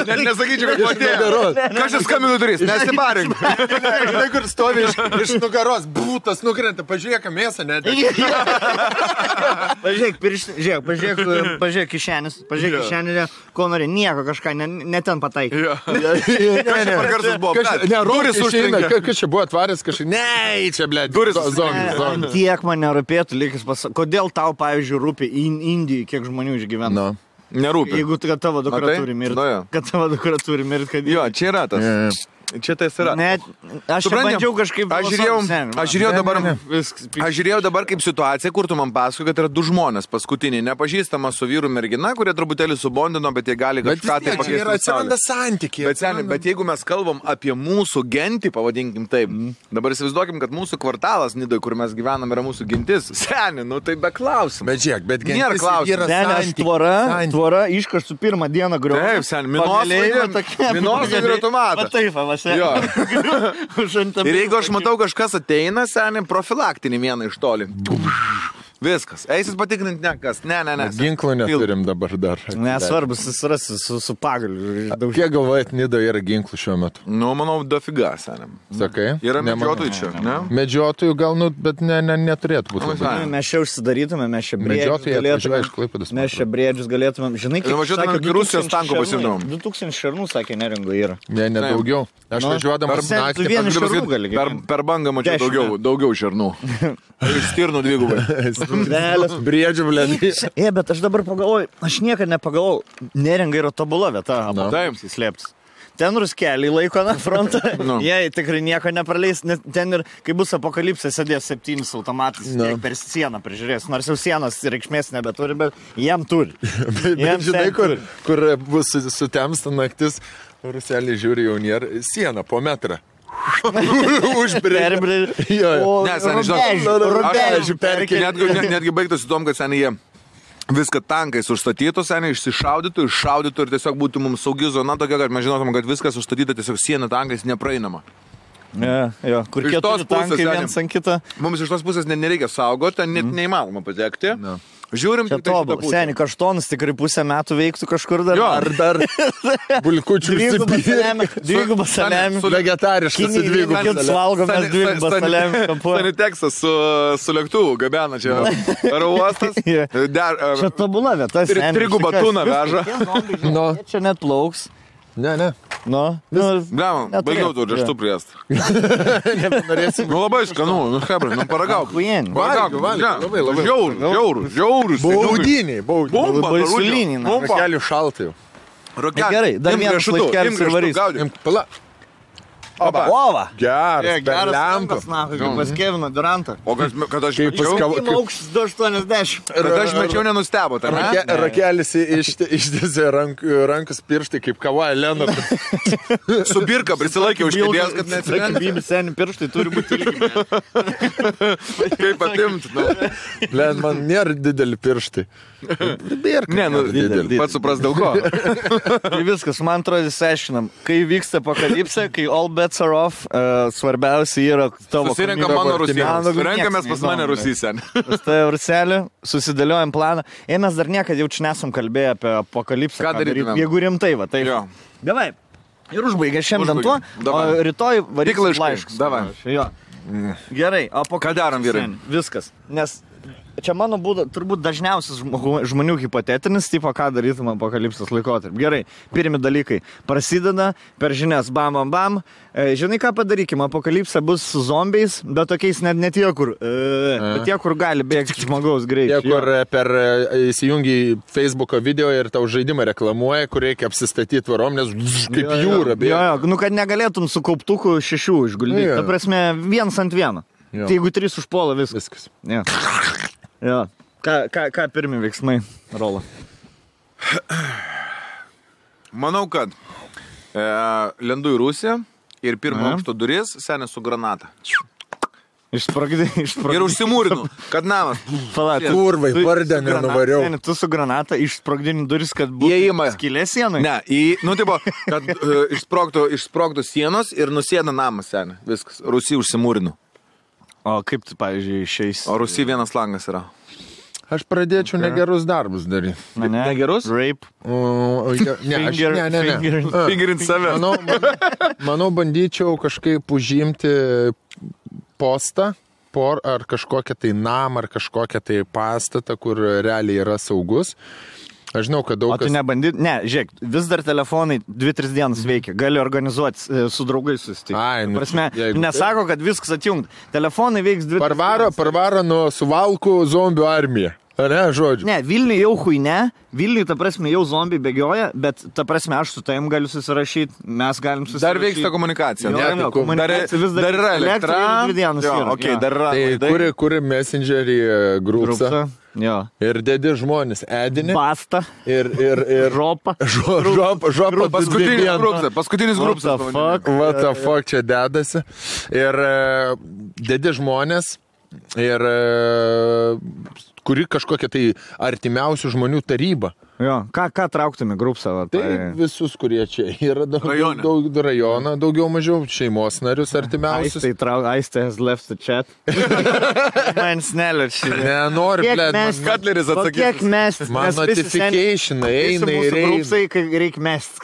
Net nesakyčiau, kad matėjau. Kažkas skambinu durys, nesibarink.
Žinai, kur stovi iš nugaros, būtas nukrenta, pažiūrėk, mėsą net.
Pažiūrėk kišenis, ko nori, nieko kažką, ne ten pataikai.
Duris užtrinka.
Kas čia buvo atvaręs kažkaip? Ne, čia, blė,
duris
zongi.
Tiek man nerūpėtų, likis pasakyti. Kodėl tau, pavyzdžiui, rūpi Indijai, kiek žmonių išgyvena?
Nerūpi.
Jeigu kad tavo dukra turi mirti. Kad tavo dukra turi mirti, kad...
Jo, čia yra tas. Čia tai yra.
Net, aš bandžiau kažkaip...
Aš žiūrėjau dabar kaip situacija, kur tu man pasakoji, kad yra 2 žmonės paskutiniai, nepažįstama su vyru mergina, kurie truputėlį subondino, bet jie gali kažką tai pakeisti.
Bet atsiranda santykiai.
Bet jeigu mes kalbam apie mūsų gentį, pavadinkim taip, dabar įsivaizduokim, kad mūsų kvartalas Nidoje, kur mes gyvenam, yra mūsų gentis. Seni, nu tai be klausimų.
Bet žiūrėk, bet gentis
nėra klausimų.
Seni, tvora iškaštų pirmą dieną griuvo.
Taip, seni, minosai ir automatą. Jo. Ir jeigu aš matau, kažkas ateina, seniai, profilaktinį vieną iš toli. Viskas. Eisis patikrinti nekas. Ne.
Ginklų neturim dabar dar.
Nesvarbus, jis rasi su pagaliu.
Kiek galvojat, Nidoje yra ginklų šiuo metu?
Nu, manau, dofiga, seniai.
Sakai?
Yra medžiotojų čia, ne?
Medžiotojų gal, bet neturėtų būti.
Mes čia užsidarytume, mes čia briedžius galėtume. Žinai, kaip
sakė, Rusijos tanko pasimdom.
2000 šarnų, sakė, neringo yra.
Ne, daugiau. Aš važiuodamas naktį.
Per bangą mačiau daugiau šarnų. Iš stirnų 2.
Briedžių, blėdį.
Bet aš dabar pagalvoju, aš niekada nepagalvoju, neringa yra tobula vieta,
taip,
slėptis. Ten ruskeliai laiko na frontą, jie tikrai nieko nepraleis, nes ten ir, kai bus apokalipsė, sėdės 7 automatais, per sieną prižiūrės, nors jau sienos reikšmės nebeturi, bet jiem turi.
Žinai, kur bus sutemsta naktis, ruseliai žiūri jau nėra, siena po metrą. Užbrėžė.
Netgi baigtųsi tom, kad seniai jie viską tankais užstatytų, seniai išsišaudytų ir tiesiog būtų mums saugi zona tokia, kad mes žinotum, kad viskas užstatyta tiesiog siena tankais nepraeinama.
Kur keturi tankai viens ant kitą.
Mums iš tos pusės nereikia saugoti, net neįmanoma patekti. Žiūrim,
čia tobulą. Seniai, kaštonas tikrai 5 metų veiktų kažkur dar.
Ar dar bulkučių
dvigubą salėmį.
Vegetariškas dvigubą
salėmį. Valgom mes dvigubą salėmį.
Saniteksas su lėktuvu gabena čia aro uostas.
Čia tobula vieta.
Trigubą tuną veža.
Čia net plauks.
Ne.
Baigiau tu rieštų priest. Labai skanu, hebra, paragauk. Labai. Žiaurus.
Baudiniai.
Baisuliniai.
Rokelių šaltai.
Gerai, dar vienas laikelis ir varys.
Pala.
Ova.
Geras
lempas, pas Kevino Durantą.
O kad aš mečiau...
Aukštis 280.
Kad aš mečiau nenustebo, tai ne?
Rakelis ištėsė rankus pirštai kaip Kawhi Leonard.
Su birka prisilaikė už kėdės, kad neatsirengė.
Bibi seni pirštai turi būti ilgi.
Kaip atimti,
Blen, man nėra dideli pirštai. Birka.
Ne, dideli. Pats supras dėl ko.
Tai viskas, man atrodo, įsiaiškinam. Kai vyksta apokalipsė, kai all bets are off, svarbiausia yra tavo...
Susirenka mano Rusijos. Renkamės pas mane Rusysien.
Pas tai Ruselį, susidėliojam planą. Mes dar niekad jau čia nesam kalbėję apie apokalipsę.
Ką darytumėm?
Jeigu rimtai, va, tai... Davai. Ir užbaigė šiandien tuo, o rytoj varyk laiškus.
Davai.
Gerai,
ką darom, vyrai?
Viskas. Nes čia mano būda, turbūt dažniausias žmonių hipotetinis, tipo, ką darytum apokalipsės laikotarpį. Gerai, pirmi dalykai. Prasideda per žinias, bam, bam, bam. Žinai, ką padarykime, apokalipsė bus su zombiais, bet tokiais net tie, kur, bet tie, kur gali bėgti žmogaus greitai.
Tie, kur per įsijungi Facebook'o video ir tau žaidimą reklamuoja, kur reikia apsistatyti tvarom, nes kaip jūra bėga.
Jo, nu, kad negalėtum su kauptuku 6 išguldyti. Ta prasme, 1 ant 1. Tai jeigu 3 užpuola viskas. Ja. Ja. Ką pirmi veiksmai, Rola?
Manau, kad lendu į Rusiją ir pirmo aukšto duris senė su granata.
Išsprogdini.
Ir užsimūrinu, kad namas.
Kurvai, pardė nenuvariau.
Seni, tu su granata išsprogdini duris, kad būtų skylė sienai?
Ne, kad išsprogtų sienos ir nusėda namas senė. Viskas, Rusija užsimūrinu.
O kaip tu, pavyzdžiui, išeis?
O Rusija vienas langas yra.
Aš pradėčiau negerus darbus daryti.
Negerus? Rape.
Fingerint save.
Manau, bandyčiau kažkaip užimti postą, ar kažkokią tai namą, ar kažkokią tai pastatą, kur realiai yra saugus. Aš žinau, kad daug
kas... O tu nebandyt? Ne, žiūrėk, vis dar telefonai 2-3 dienas veikia. Gali organizuoti su draugais susitikti. Prasme, nesako, kad viskas atjungt. Telefonai veiks 2-3 dienas.
Parvaro nuo suvalkų zombių armiją. Ne, žodžiu.
Ne, Vilniui jau ne. Vilniui, ta prasme, jau zombiai bėgioja, bet, ta prasme, aš su tavim galiu susirašyti, mes galim susirašyti.
Dar vyksta komunikacija.
Komunikacija vis dar
yra elektra.
2 dienas yra.
Okay, dar yra.
Tai kuri messengerį grupsą.
Jo.
Ir dedi žmonės edinį.
Basta.
Ir
žopą.
Žopą.
Paskutinis grupsas.
What the fuck čia dedasi. Ir dedi žmonės. Ir kuri kažkokia tai artimiausių žmonių taryba.
Jo, ką trauktume grupsą?
Tai visus, kurie čia yra rajoną, daugiau mažiau šeimos narius artimiausius.
Aistė has left the chat. Man snelėčiai.
Nenori, blėd.
Katleris atsakys.
Kiek mest?
Man notificationai eina ir eina.
Grupsai, kai reikia mest.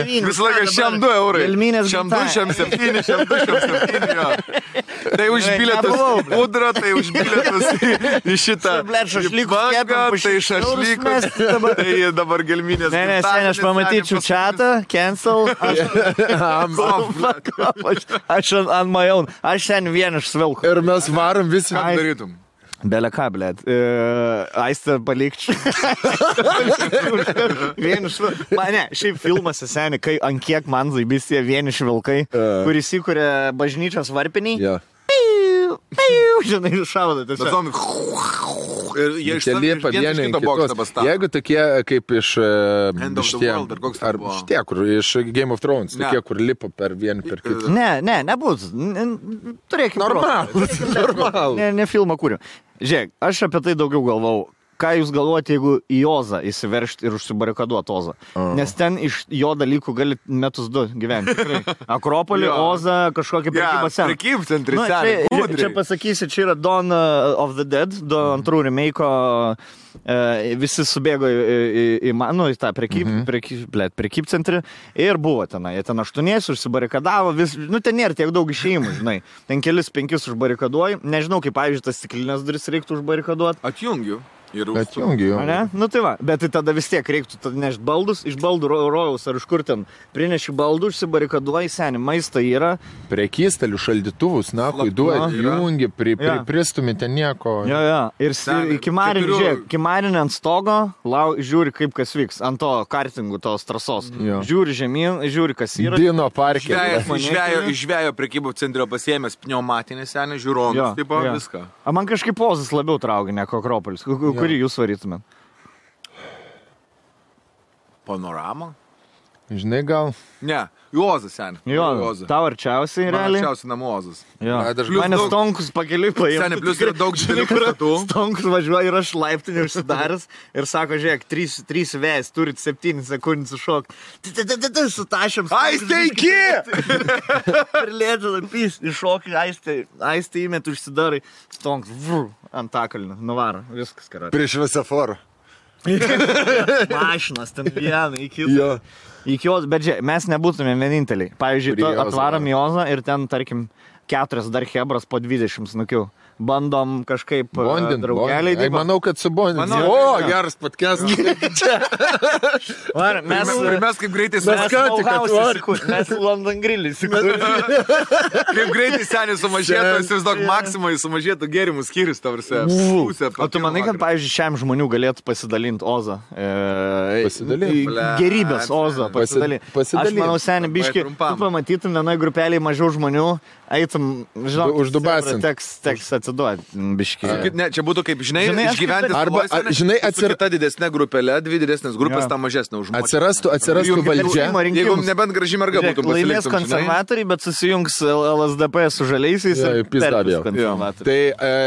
Visą laiką šiam 2 eurai. Šiam 2, šiam 7, šiam 2, šiam 7. Tai už bilietus pudrą, tai už bilietus į šitą. Tai šašlykus, tai dabar gelminės.
Ne, seniai, aš pamatyčiau chatą, cancel. Aš ant my own. Aš seniai vieniš svilku.
Ir mes varom visi.
Ką darytum?
Belė ką, blėt. Aistę palikčiau. Vieniš vilkai. Ne, šiaip filmuose seniai, kai ant kiek man zaibystė vieniš vilkai, kuris įkuria bažnyčios varpiniai.
Jo.
Žinai, šaudo tiesiog.
Jeigu tokie kaip iš šitie, kur iš Game of Thrones, tokie, kur lipa per vieną per kitą.
Ne, nebus. Turėkime.
Normal.
Ne filmą kūriu. Žiūrėk, aš apie tai daugiau galvau. Ką jūs galvojate, jeigu į Ozą įsiveršti ir užsibarikaduoti Ozą? Nes ten iš jo dalykų gali metus 2 gyventi. Akropolį, Ozą, kažkokį prekybą seną.
Prekybcentris,
čia pasakysi, čia yra Dawn of the Dead, 2 remake'o, visi subėgo į tą prekybcentrį ir buvo tenai. Jie ten 8 užsibarikadavo, ten nėra tiek daug išėjimų, žinai. Ten 4-5 užbarikaduoji. Nežinau, kaip, pavyzdžiui, tas stiklinės duris reiktų užbarikaduoti.
Atjungiu.
Atjungiu.
Nu tai va, bet tai tada vis tiek reiktų nešti baldus, iš baldų rojaus ar iš kur ten prineši baldų, užsibarikaduoji, seni, maistą yra.
Prekystalių šaldytuvus, duodi, jungi, pristumi ten nieko.
Jo. Ir kimarinį ant stogo, žiūri kaip kas vyks, ant to kartingų, tos trasos. Žiūri žemyn, žiūri kas yra.
Dino parke.
Išvėjo prekybų centrio pasiėmęs pneumatinį senį, žiūronus, taip viską.
Man kažkaip Ozas labiau traukia, negu Akropolis. Kurį jūs varytumėt?
Panoramą?
Žinai, gal?
Ne, Ozas, seniai.
Tau arčiausiai, realiai?
Arčiausiai namų Ozas.
Mane Stonkus pakeliui paėmė.
Seniai, plius yra daug didelių pastatų.
Stonkus važiuoja ir aš laiptinį užsidaręs ir sako, žiūrėk, 3 vėjas, turit 7 sekundės sušok. Su tašiam.
Aistė iki!
Ir lėdžia, iššokį, aistė įmet, užsidarai. Stonkus, ant takalnių, nuvaro, viskas, karat.
Prieš visaforą.
Mašinas, ten vieną, iki jos, bet žiūrėk, mes nebūtume vieninteliai. Pavyzdžiui, atvarom į Ozą ir ten, tarkim, 4 dar hebras po 20 snukių. bandom kažkaip draugeliai.
Manau, kad su bondin. O, geras podcastas.
Mes kaip greitai
mes London Grill
kaip greitai senis sumažėtų, įsivaizduok, maksimai sumažėtų gėrimų skyrius, tavrasi.
O tu manai, kad, pavyzdžiui, šiam žmonių galėtų pasidalinti Ozą?
Pasidalinti?
Gerybės Ozą pasidalinti. Aš manau, seniai, biški, tu pamatytum vienoj grupeliai mažiau žmonių, eitum, žinau,
uždubasim.
Teks atsiduoti, biški.
Ne, čia būtų kaip, žinai išgyventi
arba, žinai,
ta didesnė grupelė, 2 didesnės grupės, ta mažesnė už žmonės.
Atsirastų valdžia.
Jeigu nebent graži merga būtų pasiliktum.
Laimės konservatoriai, bet susijungs LSDP su žaliaisiais ir konservatoriai.
Tai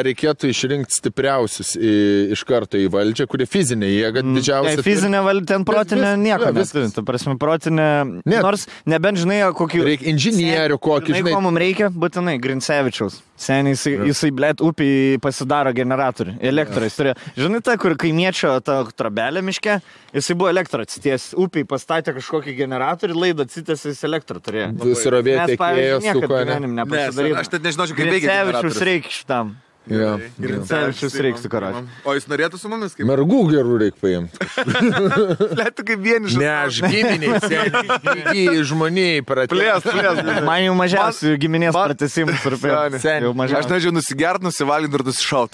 reikėtų išrinkti stipriausius iš karto į valdžią, kurie fizinė jėga didžiausia.
Fizinė valdžia, ten protinė nieko neturi. Ta prasme, protinė, nors nebent žinai, kokį...
Reikia inžinierių kokį,
žinai. Ko mums reikia? Būtinai, Grincevičiaus. Seniai jisai blėt, upį pasidaro generatorių. Elektrais turėjo. Žinai, ta, kur kaimiečio ta trobelė miške, jisai buvo elektrą atsities. Upį pastatė kažkokį generatorių, laidą atsities, jis elektrą turėjo.
Surovėti tekėjo,
suko, ne?
Aš net nežinau, kaip veikia generatorius.
Grincevičius reikia šitam. Grincevičius reikia karočiui.
O jis norėtų su mumis kaip?
Mergų gerų reikia paimti.
Lėtų kaip vienišas.
Ne, aš giminiai, seniai, žmoniai pratės.
Man jau mažiausiai giminės pratesimus rūpėjo.
Aš nežinau, nusigert, nusivalinti ir nusišaut.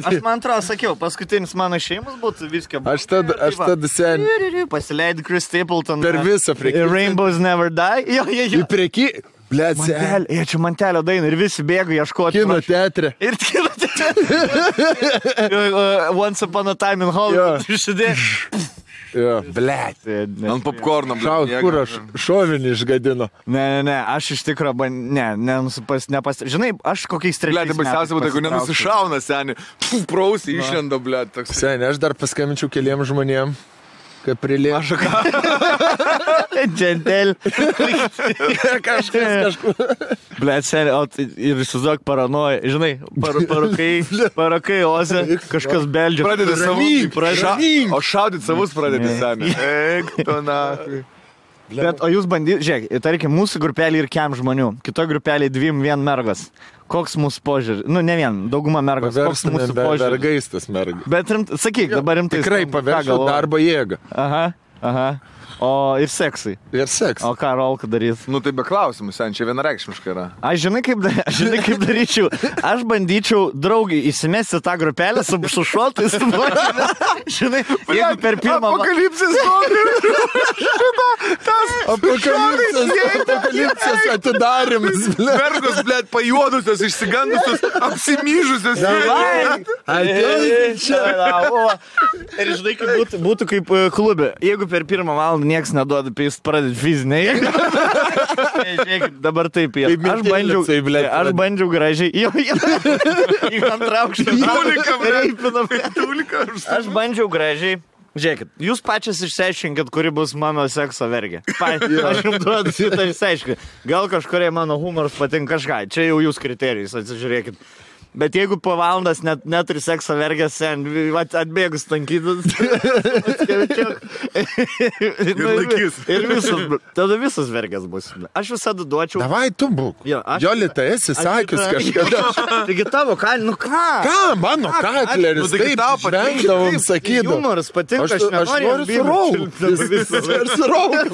Aš man atrodo, sakiau, paskutinis mano šeimus būtų viską.
Aš tada seniai.
Pasileidai Chris Stapleton.
Per visą prekį.
Rainbows Never Die.
Į prekį.
Čia Mantelio daina ir visi bėga ieškoti.
Kino teatre.
Ir kino teatre. Once Upon a Time in Hollywood. Išsidė.
Jo, blėt.
Ant popcorno,
blėt. Kur aš šovinį išgadino?
Ne, aš iš tikro, žinai, aš kokiais 3
metais. Blėt, baisiausia būtų, jeigu nenusišauna, seniai. Prausiai išlenda, blėt.
Seniai, aš dar paskambinčiau keliems žmonėm. Kaip prilė.
Aš ką?
Džentel.
Kažkur.
Blet, seniai, ir įsivaizduok paranoja. Žinai, parakai Ozę, kažkas beldžia.
Pradedi savus. O šaudyt savus pradedi, seniai. Eik, tu nakai.
Bet, o jūs bandyti, žiūrėk, tarkim, mūsų grupelį ir kem žmonių, kitoj grupelį 2 mergas. Koks mūsų požiūrį? Nu, ne vien, dauguma mergos. Koks mūsų požiūrį?
Vergaistas mergas.
Bet sakyk, dabar rimtai.
Tikrai paverčiau darbo jėgą.
Aha. O ir seksai.
Ir seksai.
O ką Rolka darys?
Nu, tai be klausimų, sen, čia vienareikšmiškai yra.
Aš žinai, kaip daryčiau. Aš bandyčiau draugiai įsimesti tą grupelę su šotais. Žinai, jeigu per pirmą...
Apokalipsis
Apokalipsis atidarimas.
Mergos, blėt, pajuodusios, išsigandusios, apsimyžusios.
Ir žinai, kaip būtų kaip klube. Jeigu per pirmą valandą nieks neduoda, tai jis pradėt fizinę jėgą. Žiūrėkit, dabar taip yra. Aš bandžiau gražiai. Į antrą aukštą. Aš bandžiau gražiai. Žiūrėkit, jūs pačias išsiaiškinkit, kuri bus mano sekso vergė. Aš jums duodu šitą išsiaiškinti. Gal kažkurie mano humoras patinka kažką. Čia jau jūs kriterijus, atsižiūrėkit. Bet jeigu po valandas neturi sekso vergės, atbėgus tankytus, ir tada visas vergės bus. Aš visada duočiau.
Davai, tu būk. Jolita, esi sakius kažkada.
Taigi tavo, nu ką?
Ką, mano katleris, taip žvengdavom, sakydavom.
Humoras patinka, aš
noriu suraukti.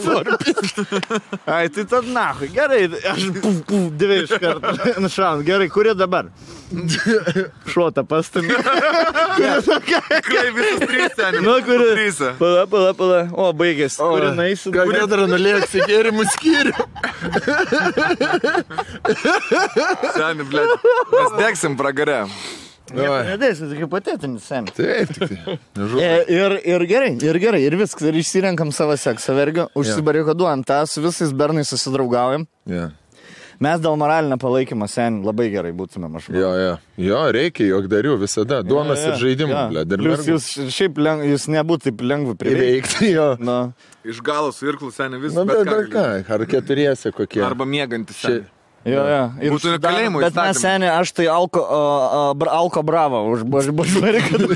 Ai, tai tad nahui, gerai, aš 2 iš karto nušaunu. Gerai, kurie dabar? Šuota pastumė.
Kai visas 3 seniai.
Nu, kuri? Pala. O, baigėsi. Kuri naisi?
Gal nedara nulėksi gėrimų skyrių?
Seniai, blėt. Mes degsim pragare.
Nedėsi, tai hipotetinis, seniai.
Taip.
Ir gerai, ir viskas. Ir išsirenkam savo seksą vergą, užsibarikaduojam tą, su visais bernais susidraugaujam. Mes dėl moralinio palaikymo sen labai gerai būtumėm, aš manau.
Jo, reikia, jogdarių visada. Duonas ir žaidimų, blėt.
Plius jūs nebūtų taip lengva
priveikti, jo.
Iš galo su irklu seniai vis.
Na, bet ką, ar 4 kokie.
Arba mėgantis seniai.
Jo.
Būtų nekalėjimo įstatymų.
Bet mes seniai, aš tai alko bravo užbarikadu.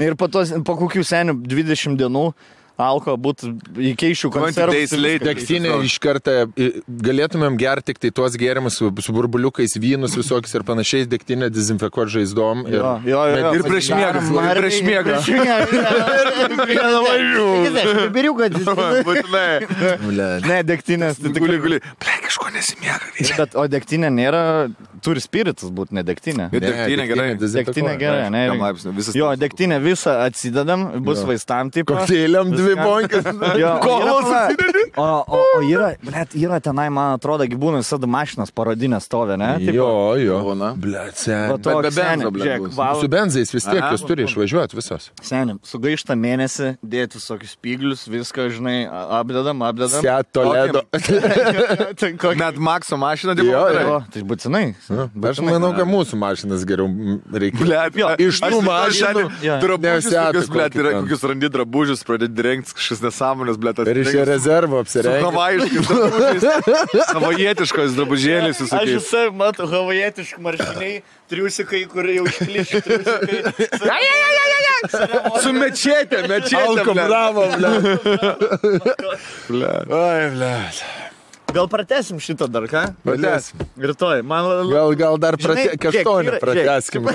Ir po kokių senių 20 dienų alko, būtų įkeišių konservus.
Degtinė iš karto galėtumėm gerti tik tai tuos gėrimus su burbuliukais, vynus visokius ir panašiais, degtinę dezinfekuoti žaizdom.
Ir prieš miegą.
Ne, degtinės.
Guli. Kažko nesimiega.
Bet, o degtinė nėra, turi spiritus būti, ne degtinė.
Degtinė gerai.
Degtinė gerai, ne? Jo, degtinė visą atsidedam, bus vaistam tipo.
Koktėliam 2 bonkas.
O yra tenai, man atrodo, gyvūnai visada mašinas parodinės stovė, ne?
Jo.
Bet
be benzo, blet.
Su benzais vis tiek jūs turi išvažiuoti visos.
Senim, sugaištą mėnesį, dėti visokius spyglius, viską, žinai, apdedam.
Seat Toledo.
Net Makso mašiną
Jo.
Tai būtinai.
Aš manau, kad mūsų mašinas geriau reikia. Iš tų mašinų.
Kokius randi drabužius, pradėti rengti kažkas nesąmonės, blet.
Ir iš rezervo apsirengti.
Havaijiškais drabužiais. Havajietiškos drabužėlis visokiais.
Aš visai matau havajietiškų marškiniai, triusikai, kur jau išplišti triusikai.
Su mečetė,
Alko, bravo,
Oi, blet.
Gal pratesim šitą dar, ką?
Pratesim.
Rytoj.
Gal dar kažtonį prateskim.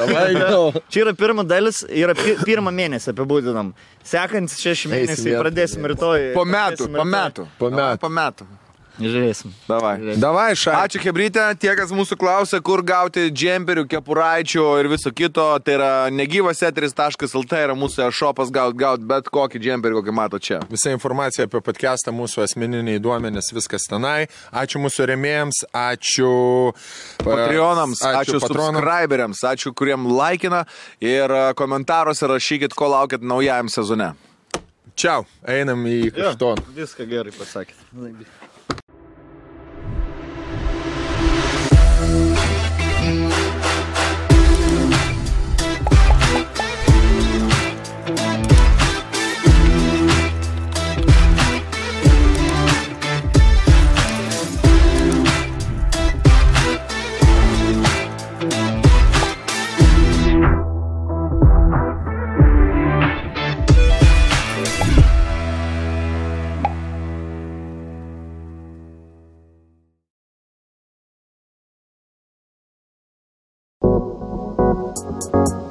Čia yra pirma dalis, yra pirmą mėnesį apibūdinam. Sekantis 6 mėnesiai pradėsim rytoj.
Po metų.
Žiūrėsim.
Davai, šai.
Ačiū, Hebrytė. Tie, kas mūsų klausia, kur gauti džemperių, kepuraičių ir viso kito, tai yra negyvaseteris.lt, yra mūsų šopas gaut bet kokį džemperį, kokį mato čia.
Visa informacija apie podcastą, mūsų asmeniniai duomenys, viskas tenai. Ačiū mūsų rėmėjams, ačiū
Patreonams, ačiū subscriberiams, ačiū, kuriem laikina ir komentaruose rašykit, ko laukit naujajam sezone.
Čiau, einam į Kaštoną.
Viską gerai pasakėt.
You